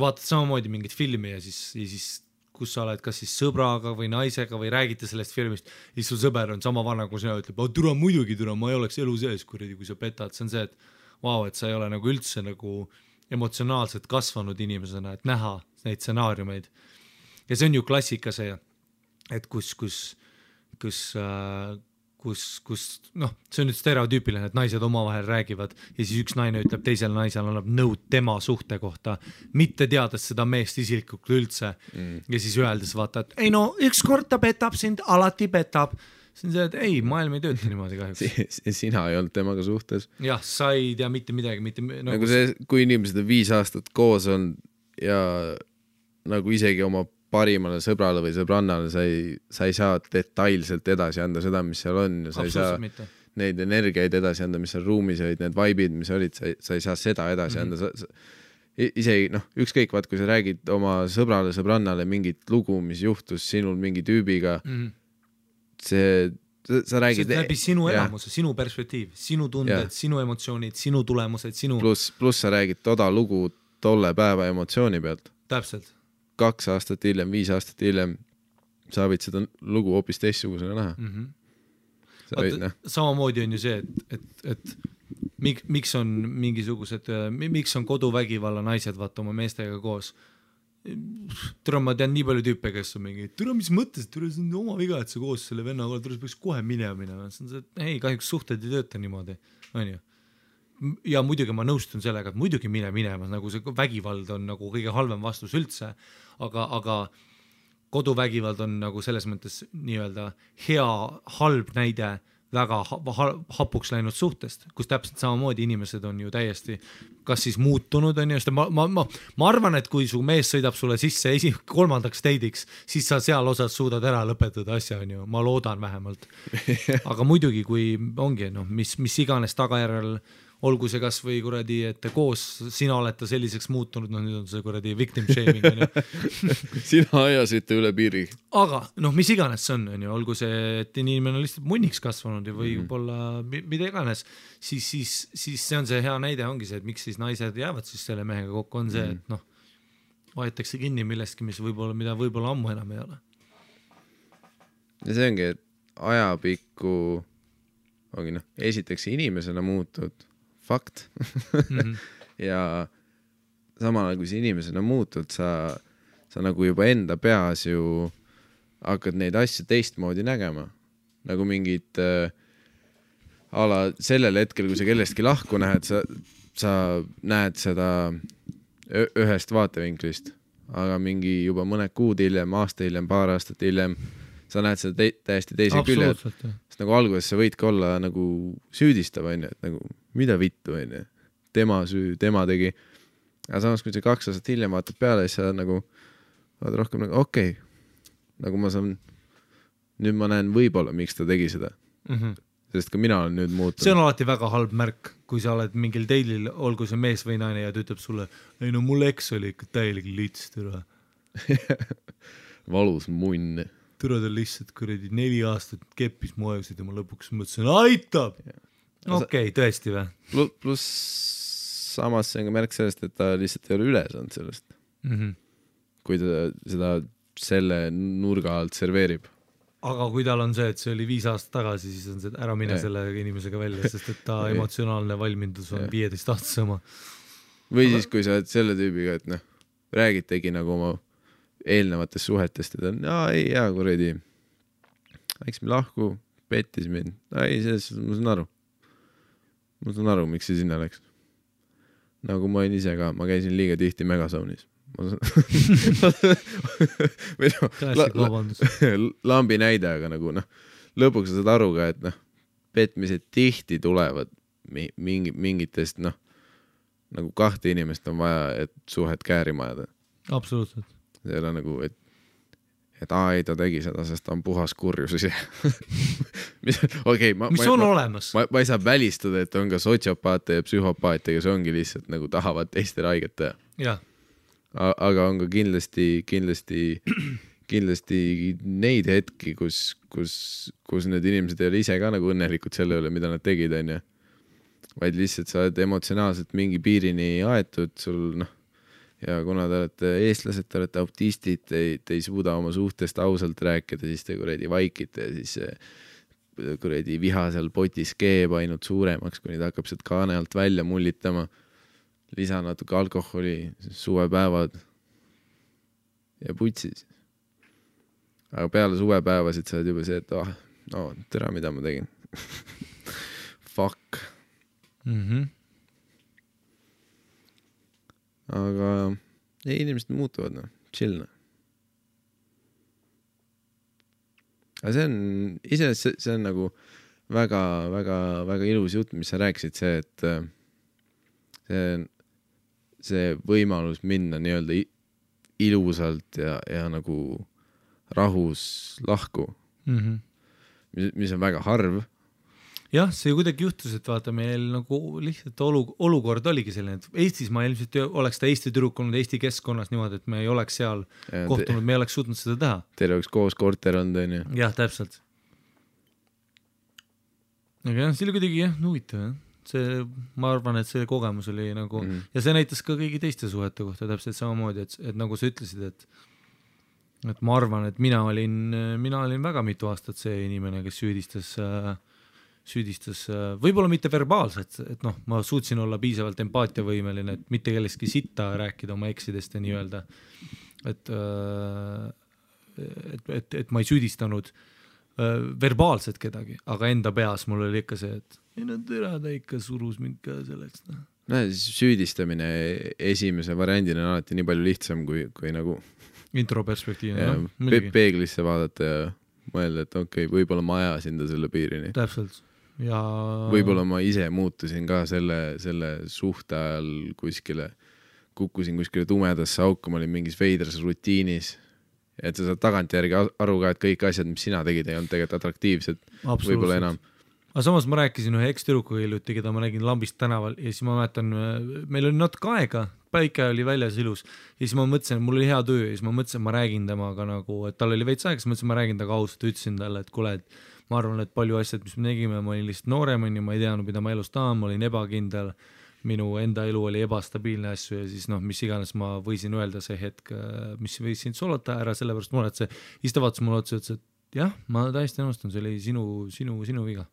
vaatad samamoodi mingit filmi ja siis kus sa oled kas siis sõbraga või naisega või räägite sellest filmist, siis su sõber on sama vana, kui sina ütleb, türa muidugi, türa, ma ei oleks elu sees, kui sa petad. See on see, et vau, et sa ei ole nagu üldse nagu emotsionaalselt kasvanud inimesena, et näha neid stsenaariumeid. Ja see on ju klassika see, et kus noh, see on nüüd stereotüüpiline, et naised omavahel räägivad ja siis üks naine ütleb teisele naisele annab nõud tema suhte kohta, mitte teades seda meest isiklikult üldse ja siis öeldes vaata, et ei no, üks kord ta petab sind, alati petab. See on see, et ei, maailm ei tööta niimoodi kahjuks.
Sina ei olnud temaga suhtes.
Jah, sa ei tea mitte midagi.
Nagu see, kui inimesed on 5 aastat koos on ja nagu isegi oma parimale sõbrale või sõbrannale sa ei saa detailselt edasi anda seda, mis seal on ja sa ei saa neid energiaid edasi anda, mis seal ruumis olid, need vaibid, mis olid, sa ei saa seda edasi anda. Isegi, noh, ükskõik vaat, kui sa räägid oma sõbrale, sõbrannale mingit lugu, mis juhtus sinul mingi tüübiga, sa räägid...
See läbi sinu elamuse, sinu perspektiiv, sinu tunded, sinu emotsioonid, sinu tulemused, sinu...
Plus sa räägid toda lugu tolle päeva emotsiooni pealt.
Täpselt.
2 aastat hiljem, 5 aastat hiljem sa võid seda lugu hoopis teistsugusena näha.
Samamoodi on ju see, et miks on mingisugused, miks on koduvägivalla naised vaata oma meestega koos. Türa, ma tean nii palju tüüpe, kes on mingi, türa, mis mõttes, türa, see on oma viga, et sa koos selle vennaga, türa, peaks kohe minema. See on see, et ei, kahjuks suhted ei tööta niimoodi, on ju. Ja muidugi ma nõustun sellega, et muidugi minema, nagu see vägivald on nagu kõige halvem vastus üldse, aga koduvägivald on nagu selles mõttes nii-öelda hea, halb näide väga hapuks läinud suhtest, kus täpselt samamoodi inimesed on ju täiesti kas siis muutunud, on ju, ma arvan, et kui su mees sõidab sulle sisse 3. deidiks, siis sa seal osas suudad ära lõpetada asja, on ju, ma loodan vähemalt. Aga muidugi, kui ongi, no, mis iganes tagajärjel olgu see kas või kuradi, et koos sina oled ta selliseks muutunud, nüüd on see kuradi victim shaming on ju.
Sina ajasite üle piiri.
Aga mis iganes see on ju, olgu see, et inimene on lihtsalt munniks kasvanud või võib-olla mida iganes, siis see on see hea näide ongi see, et miks siis naised jäävad siis selle mehega kokku, on see, et vaetakse kinni millestki, mida võib-olla ammu enam ei ole.
Ja see ongi, et ajapikku ongi esiteks inimesena muutud fakt ja samal ajal kui see inimesena muutud, sa nagu juba enda peas ju hakkad neid asju teistmoodi nägema. Nagu mingid ala sellel hetkel, kui sa kellestki lahku näed, sa näed seda ühest vaatevinklist, aga mingi juba mõned kuud hiljem, aasta hiljem, paar aastat hiljem sa näed seda täiesti teise külje, sest nagu alguses sa võidki olla nagu süüdistav, on ju, et nagu mida vittu, on ju, tema süü, tema tegi. Aga samas, kui sa 2 aastat hiljem vaatad peale, siis sa nagu vaatad rohkem nagu okei, nagu ma saan, nüüd ma näen võib-olla, miks ta tegi seda. Sest ka mina olen nüüd muutunud.
See on alati väga halb märk, kui sa oled mingil teilil, olgu see mees või naine ja ta ütleb sulle, ei no mul eks oli ikka täielik lits, türa.
Valus munn.
Türa ta lihtsalt kuradi 4 aastat keppis mu ajusid ja ma lõpuks mõtlesin, aitab! Okei, tõesti või?
Plus samas see on ka märk sellest, et ta lihtsalt ei ole üle saanud sellest. Kui ta seda selle nurga alt serveerib.
Aga kui tal on see, et see oli 5 aastat tagasi, siis on see ära mine selle inimesega välja, sest et ta emotsionaalne valmindus on 15 aastas oma.
Või siis, kui sa oled selle tüübiga, et räägitegi nagu oma eelnevatest suhetest, et on, ei, hea kuradi, eks me lahku, pettis mind. Ei, selles ma saan aru. Ma saan aru, miks see sinna läks. Nagu ma olin ise ka, ma käisin liiga tihti Megasaunis. Lambi näide, aga nagu lõpuks sa saad aru ka, et petmised tihti tulevad mingitest nagu 2 inimest on vaja, et suhet käärima ajada.
Absoluutselt.
See ei ole nagu, et ei, ta tegi seda, sest ta on puhas kurjus ise. mis
on olemas?
Ma ei saa välistada, et on ka sotsiopaate ja psühhopaate, kes ongi lihtsalt nagu tahavad teistele haiget teha.
Ja.
Aga on ka kindlasti neid hetki, kus need inimesed ei ole ise ka nagu õnnelikud selle üle, mida nad tegid, on ju. Vaid lihtsalt sa oled emotsionaalselt mingi piirini aetud, sul ja kuna te olete eestlased, te olete autistid, te ei suuda oma suhtest ausalt rääkida, siis te kuradi vaikite ja siis kuradi viha seal potis keeb ainult suuremaks, kuni ta hakkab sealt kaane alt välja mullitama. Lisa natuke alkoholi, suvepäevad ja putsis. Aga peale suvepäevasid sa oled juba see, et tere, mida ma tegin. Fuck. Aga inimesed muutuvad, chill. Aga see on nagu väga, väga, väga ilus jutt, mis sa rääkisid, see, et see võimalus minna nii-öelda ilusalt ja nagu rahus lahku, mis on väga harv.
Jah, see kuidagi juhtus, et vaata meil nagu lihtsalt olukord oligi selline, et Eestis ma ilmselt oleks ta Eesti tüdruk olnud Eesti keskkonnas niimoodi, et me ei oleks seal kohtunud, me ei oleks suutnud seda teha.
Teil oleks koos korter olnud, on ju?
Jah, täpselt. Aga jah, see oli kuidagi huvitav. Ma arvan, et see kogemus oli nagu ja see näitas ka kõigi teiste suhete kohta täpselt samamoodi, et nagu sa ütlesid, et ma arvan, et mina olin väga mitu aastat see inimene, kes süüdistas võib-olla mitte verbaalselt, et ma suutsin olla piisavalt empaatiavõimeline, et mitte kellestki sitta rääkida oma eksidest ja nii öelda, et ma ei süüdistanud verbaalselt kedagi, aga enda peas mul oli ikka see, et ta ikka surus mind ka selleks.
Süüdistamine esimese variandina on alati nii palju lihtsam kui nagu
introperspektiivne.
Peeglisse vaadata ja mõelda, et okei, võib-olla ma ajasin ta selle piirini.
Täpselt. Ja...
Võib-olla ma ise muutusin ka selle suhte ajal kukkusin kuskile tumedasse auku, ma olin mingis veidras rutiinis, et sa saad tagantjärgi aru ka, et kõik asjad, mis sina tegid, ei olnud tegelikult atraktiivsed, võib-olla enam.
aga samas ma rääkisin ühe ekstürukuga hiljuti, keda ma nägin Lambist tänaval ja siis ma mäletan, meil oli natuke aega, päike oli väljas ilus ja siis ma mõtlesin, et mul oli hea töö ja siis ma mõtlesin, et ma räägin temaga nagu, et tal oli veits aega, siis mõtlesin, et ma räägin temaga ausalt, ütlesin talle, et kuule, et ma arvan, et palju asjad, mis me negime, ma olin lihtsalt noorem, ma ei teadnud, mida ma elus tahan, ma olin ebakindel, minu enda elu oli ebastabiilne asju ja siis mis iganes ma võisin öelda see hetk, mis võisin solata ära, sellepärast mulle, et see, siis ta vaatas mulle otsa, ütles, et jah, ma täiesti nõustun, see oli sinu viga.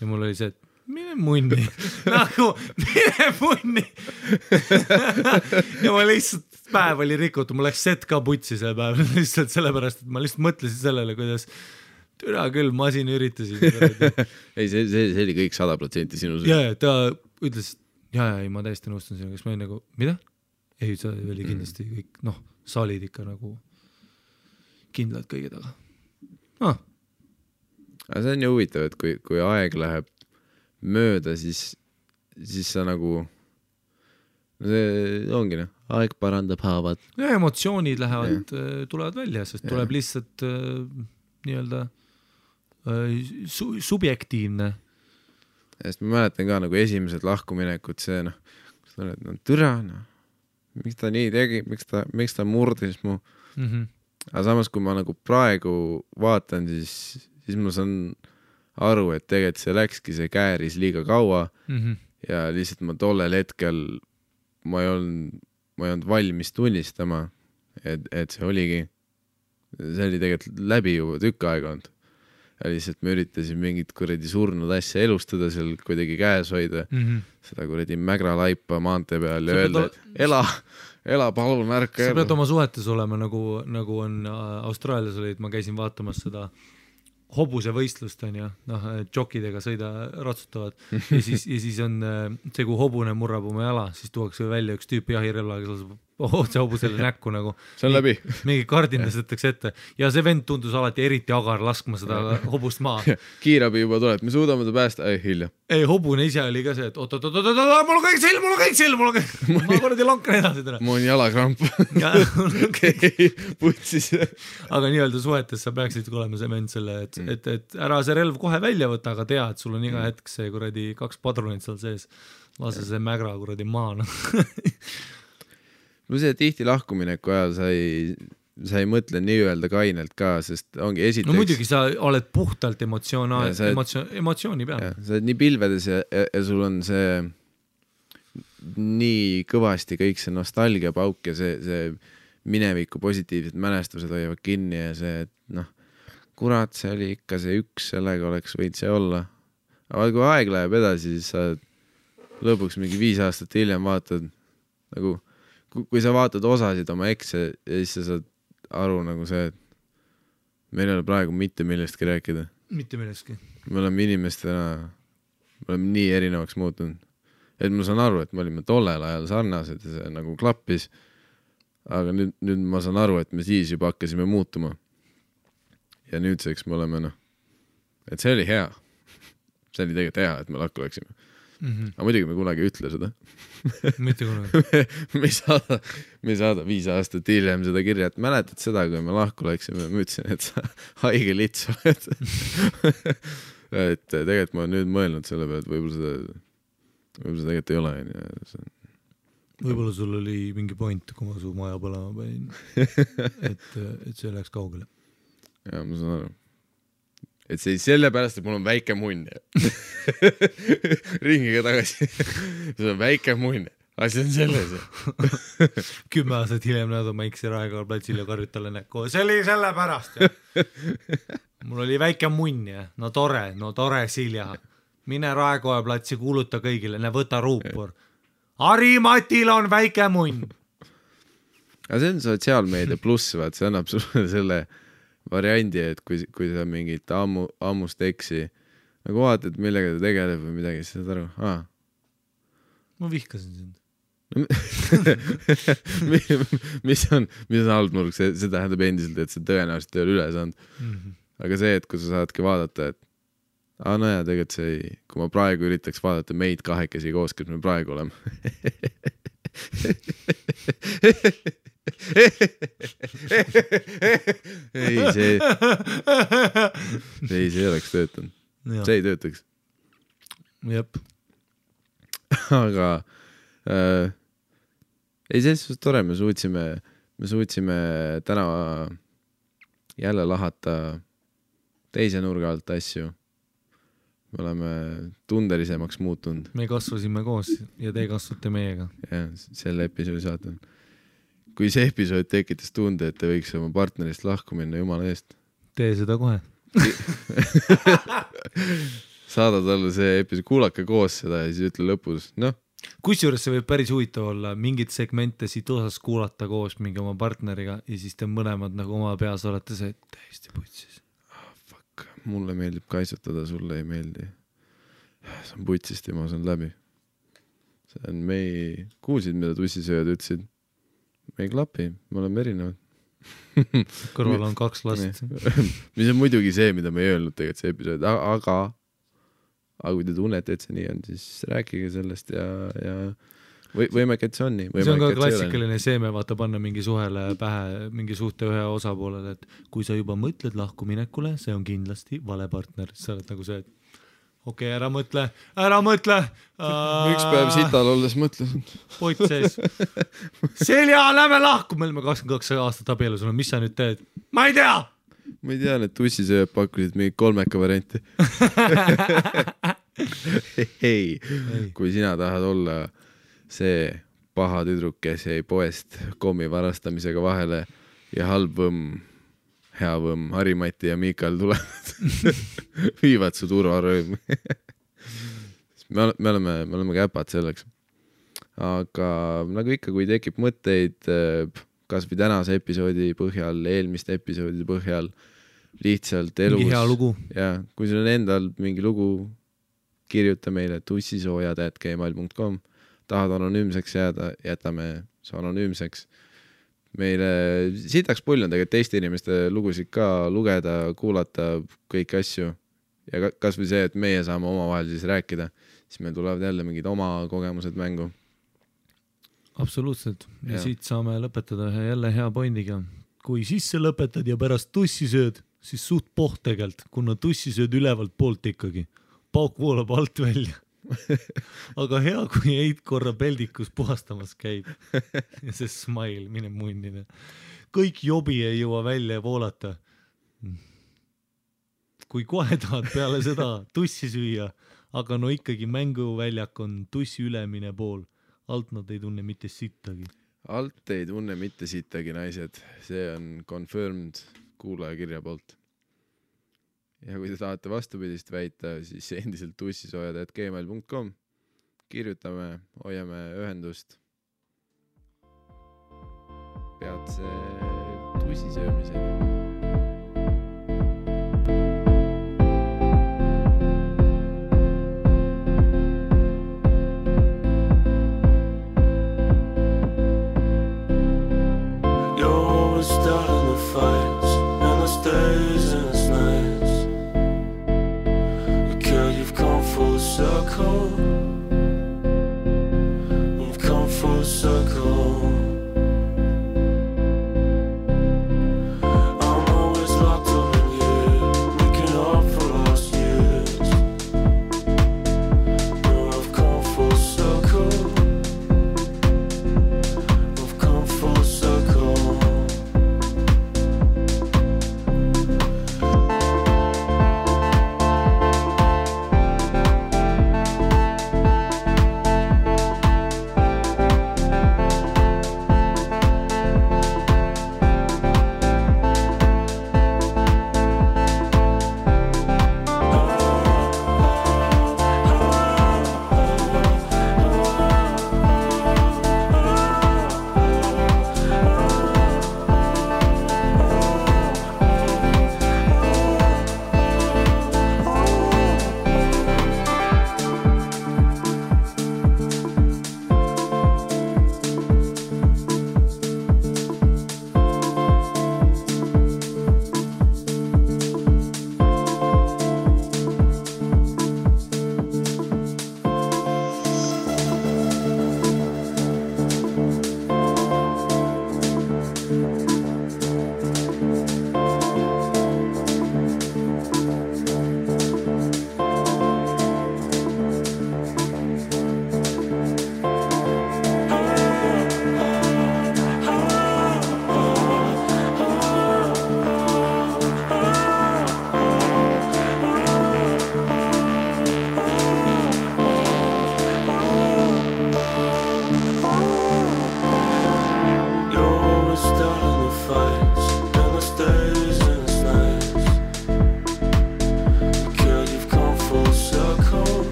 Ja mul oli see, et mine munni, nagu mine munni. Ja ma lihtsalt, päev oli rikutud, mul läks set ka putsi see päev, lihtsalt sellepärast, et ma lihtsalt mõtlesin sellele, kuidas türa küll, ma siin üritasin.
Ei, see oli kõik 100% sinu.
Ja ta ütles, ei, ma täiesti nõustun sinuga, kas ma olin nagu, mida? Ei, see oli kindlasti kõik, saalid ikka nagu kindlad kõige taga.
Aga see on ju huvitav, et kui aeg läheb mööda, siis sa nagu, see ongi aeg parandab haavad.
Ja emotsioonid lähevad, tulevad välja, sest tuleb lihtsalt nii-öelda subjektiivne.
Sest ma mäletan ka nagu esimesed lahkuminekud, see türa, miks ta nii tegi, miks ta murdis mu. Aga samas, kui ma nagu praegu vaatan, siis ma saan aru, et tegelikult see läkski, see kääris liiga kaua ja lihtsalt ma tollel hetkel ma ei olnud valmis tunnistama, et see oli tegelikult läbi juba tükk aega olnud. Ja lihtsalt me üritasin mingit kuradi surnud asja elustada seal kuidagi käes hoida, seda kuradi mägra laipa maantee peal ja öelda, et ela palun ärka.
Sa pead oma suhetes olema, nagu on Austraalias olid, ma käisin vaatamas seda hobuse võistlust on ja džokidega ratsutavad ja siis on see, kui hobune murrab oma jala, siis tuuakse välja üks tüüp jahirelvaga, kes laseb otse hobusele näkku nagu.
See on läbi.
Mingi kardindas võtakse ette ja see vend tundus alati eriti agar laskma seda hobust maa.
Kiirabi juba tuleb, me suudame ta päästa, hilja.
Ei, hobune ise oli ka see, et oot, mul on kõik silm, ma korradi lankan edasi täna.
Mul on jalakramp. Putsis.
Aga nii-öelda suhetes sa peaksid olema see vend selle, et ära see relv kohe välja võtta, aga tea, et sul on iga hetk see kuradi 2 padrunit seal sees. Lase see mägra kuradi maana.
No see tihti lahkumineku ajal sa ei mõtle nii-öelda kainelt ka, sest ongi esiteks...
No muidugi sa oled puhtalt emotsiooni peal.
Sa oled nii pilvedes ja sul on see nii kõvasti kõik see nostalgia pauk ja see mineviku positiivsed mälestused hoiavad kinni ja see, et kurat, see oli ikka see üks, sellega oleks võid see olla. Aga kui aeg läheb edasi, siis sa lõpuks mingi 5 aastat hiljem vaatad nagu kui sa vaatad osasid oma ekse ja siis sa saad aru nagu see, et meil ei ole praegu mitte millestki rääkida.
Mitte millestki.
Me oleme inimestena, me oleme nii erinevaks muutunud. Et ma saan aru, et me olime tollel ajal sarnased ja see nagu klappis, aga nüüd ma saan aru, et me siis juba hakkasime muutuma. Ja nüüdseks me oleme, et see oli hea. See oli tegelikult hea, et me lakku läksime. Aga muidugi me kunagi ütle seda.
Mitte kunagi.
Me ei saada 5 aastat hiljem seda kirja, et mäletad seda, kui me lahku läksime, ma ütlesin, et sa haige lits oled. Et tegelikult ma olen nüüd mõelnud selle peale, et võib-olla seda tegelikult ei ole.
Võib-olla sul oli mingi point, kui ma su maja põlema panin, et see läks kaugele.
Ja, ma saan aru. Et see sellepärast, et mul on väike munn. Ringiga tagasi. See on väike munn. Asi on selles.
10 aastat hiljem näed oma X-i Raekoja platsil ja karjud talle näkku. See oli sellepärast. Mul oli väike munn ja no tore Silja. Mine Raekoja platsi, kuuluta kõigile, võta ruupur. Harimatil on väike munn.
Aga see on sotsiaalmeedia pluss, vaat see annab sulle selle variandi, et kui sa mingit ammust eksi nagu vaatad, millega ta tegeleb või midagi, siis saad aru,
Ma vihkasin sind.
mis on halb nurk, see tähendab endiselt, et see tõenäoliselt ei ole üle saanud. Aga see, et kui sa saadki vaadata, et tegelikult see, kui ma praegu üritaks vaadata meid kahekesi koos, kes me praegu oleme. ei, see oleks töötanud. See ei töötaks.
Jep.
aga ei, selles suhtes tore, me suutsime täna jälle lahata teise nurga alt asju. Me oleme tundelisemaks muutunud.
Me kasvasime koos ja te kasvate meiega.
Ja, selle episoodi saatan. Kui see episood tekitas tunde, et te võiks oma partnerist lahku minna, jumala eest.
Tee seda kohe.
Saada talle see episood, kuulake koos seda ja siis ütle lõpus, noh.
Kusjuures see võib päris huvitav olla, mingid segmente siit osas kuulata koos mingi oma partneriga ja siis te mõlemad nagu oma peas olete see täiesti putsis.
Mulle meeldib kaitsutada, sulle ei meeldi. See on putsist ja ma saan läbi. See on kuulsid, mida tussisööjad ütlesid. Me ei klapi, me oleme erinevad.
Kõrval on 2 last.
Mis on muidugi see, mida me ei öelnud tegelikult see episood, aga kui te tunnete, et see nii on, siis rääkige sellest ja võimalik, et see on nii.
See on ka klassikaline seeme, vaata panna mingi suhele pähe, mingi suhte ühe osapoolele, et kui sa juba mõtled lahkuminekule, see on kindlasti vale partner. Sa oled nagu see, et okei, ära mõtle.
Üks päev sital olles mõtlesin.
Poit sees. Selja, lähme lahku. Me oleme 22 aastat abielus, mis sa nüüd teed? Ma ei tea.
Ma ei tea, need tussisööjad pakkusid mingi 3 varianti. Hei, kui sina tahad olla see paha tüdruk, kes jäi poest kommi varastamisega vahele ja halb võmm, hea võmm, Harimati ja Miikal tulevad, viivad su turvarõõm. me oleme käpad selleks. Aga nagu ikka, kui tekib mõtteid, kas või tänase episoodi põhjal, eelmiste episoodide põhjal, lihtsalt elus.
Mingi hea lugu.
Ja, kui sul on endal mingi lugu, kirjuta meile tussisoojad@gmail.com. Tahad anonüümseks jääda, jätame see anonüümseks. Meile sitaks pull on tegelikult teiste inimeste lugusid ka lugeda, kuulata kõiki asju. Ja kas või see, et meie saame omavahel siis rääkida, siis meil tulevad jälle mingid oma kogemused mängu.
Absoluutselt. Ja siit saame lõpetada jälle hea pointiga. Kui sisse lõpetad ja pärast tussi sööd, siis suht poht tegelt, kuna tussi sööd ülevalt poolt ikkagi. Pauk voolab alt välja. Aga hea, kui heid korra peldikus puhastamas käib. Ja see smile, mine munnine. Kõik jobi ei jõua välja voolata. Kui kohe tahad peale seda tussi süüa, aga no ikkagi mänguväljak on tussi ülemine pool. Alt nad ei tunne mitte sittagi.
Alt ei tunne mitte sittagi, naised. See on confirmed kuulaja kirja poolt. Ja kui te tahate vastupidist väita, siis endiselt tussisoojad@gmail.com. Kirjutame, hoiame ühendust. Peatse tussisöömiseni.
Starting the fights and the days and the nights. Girl, you've come full circle.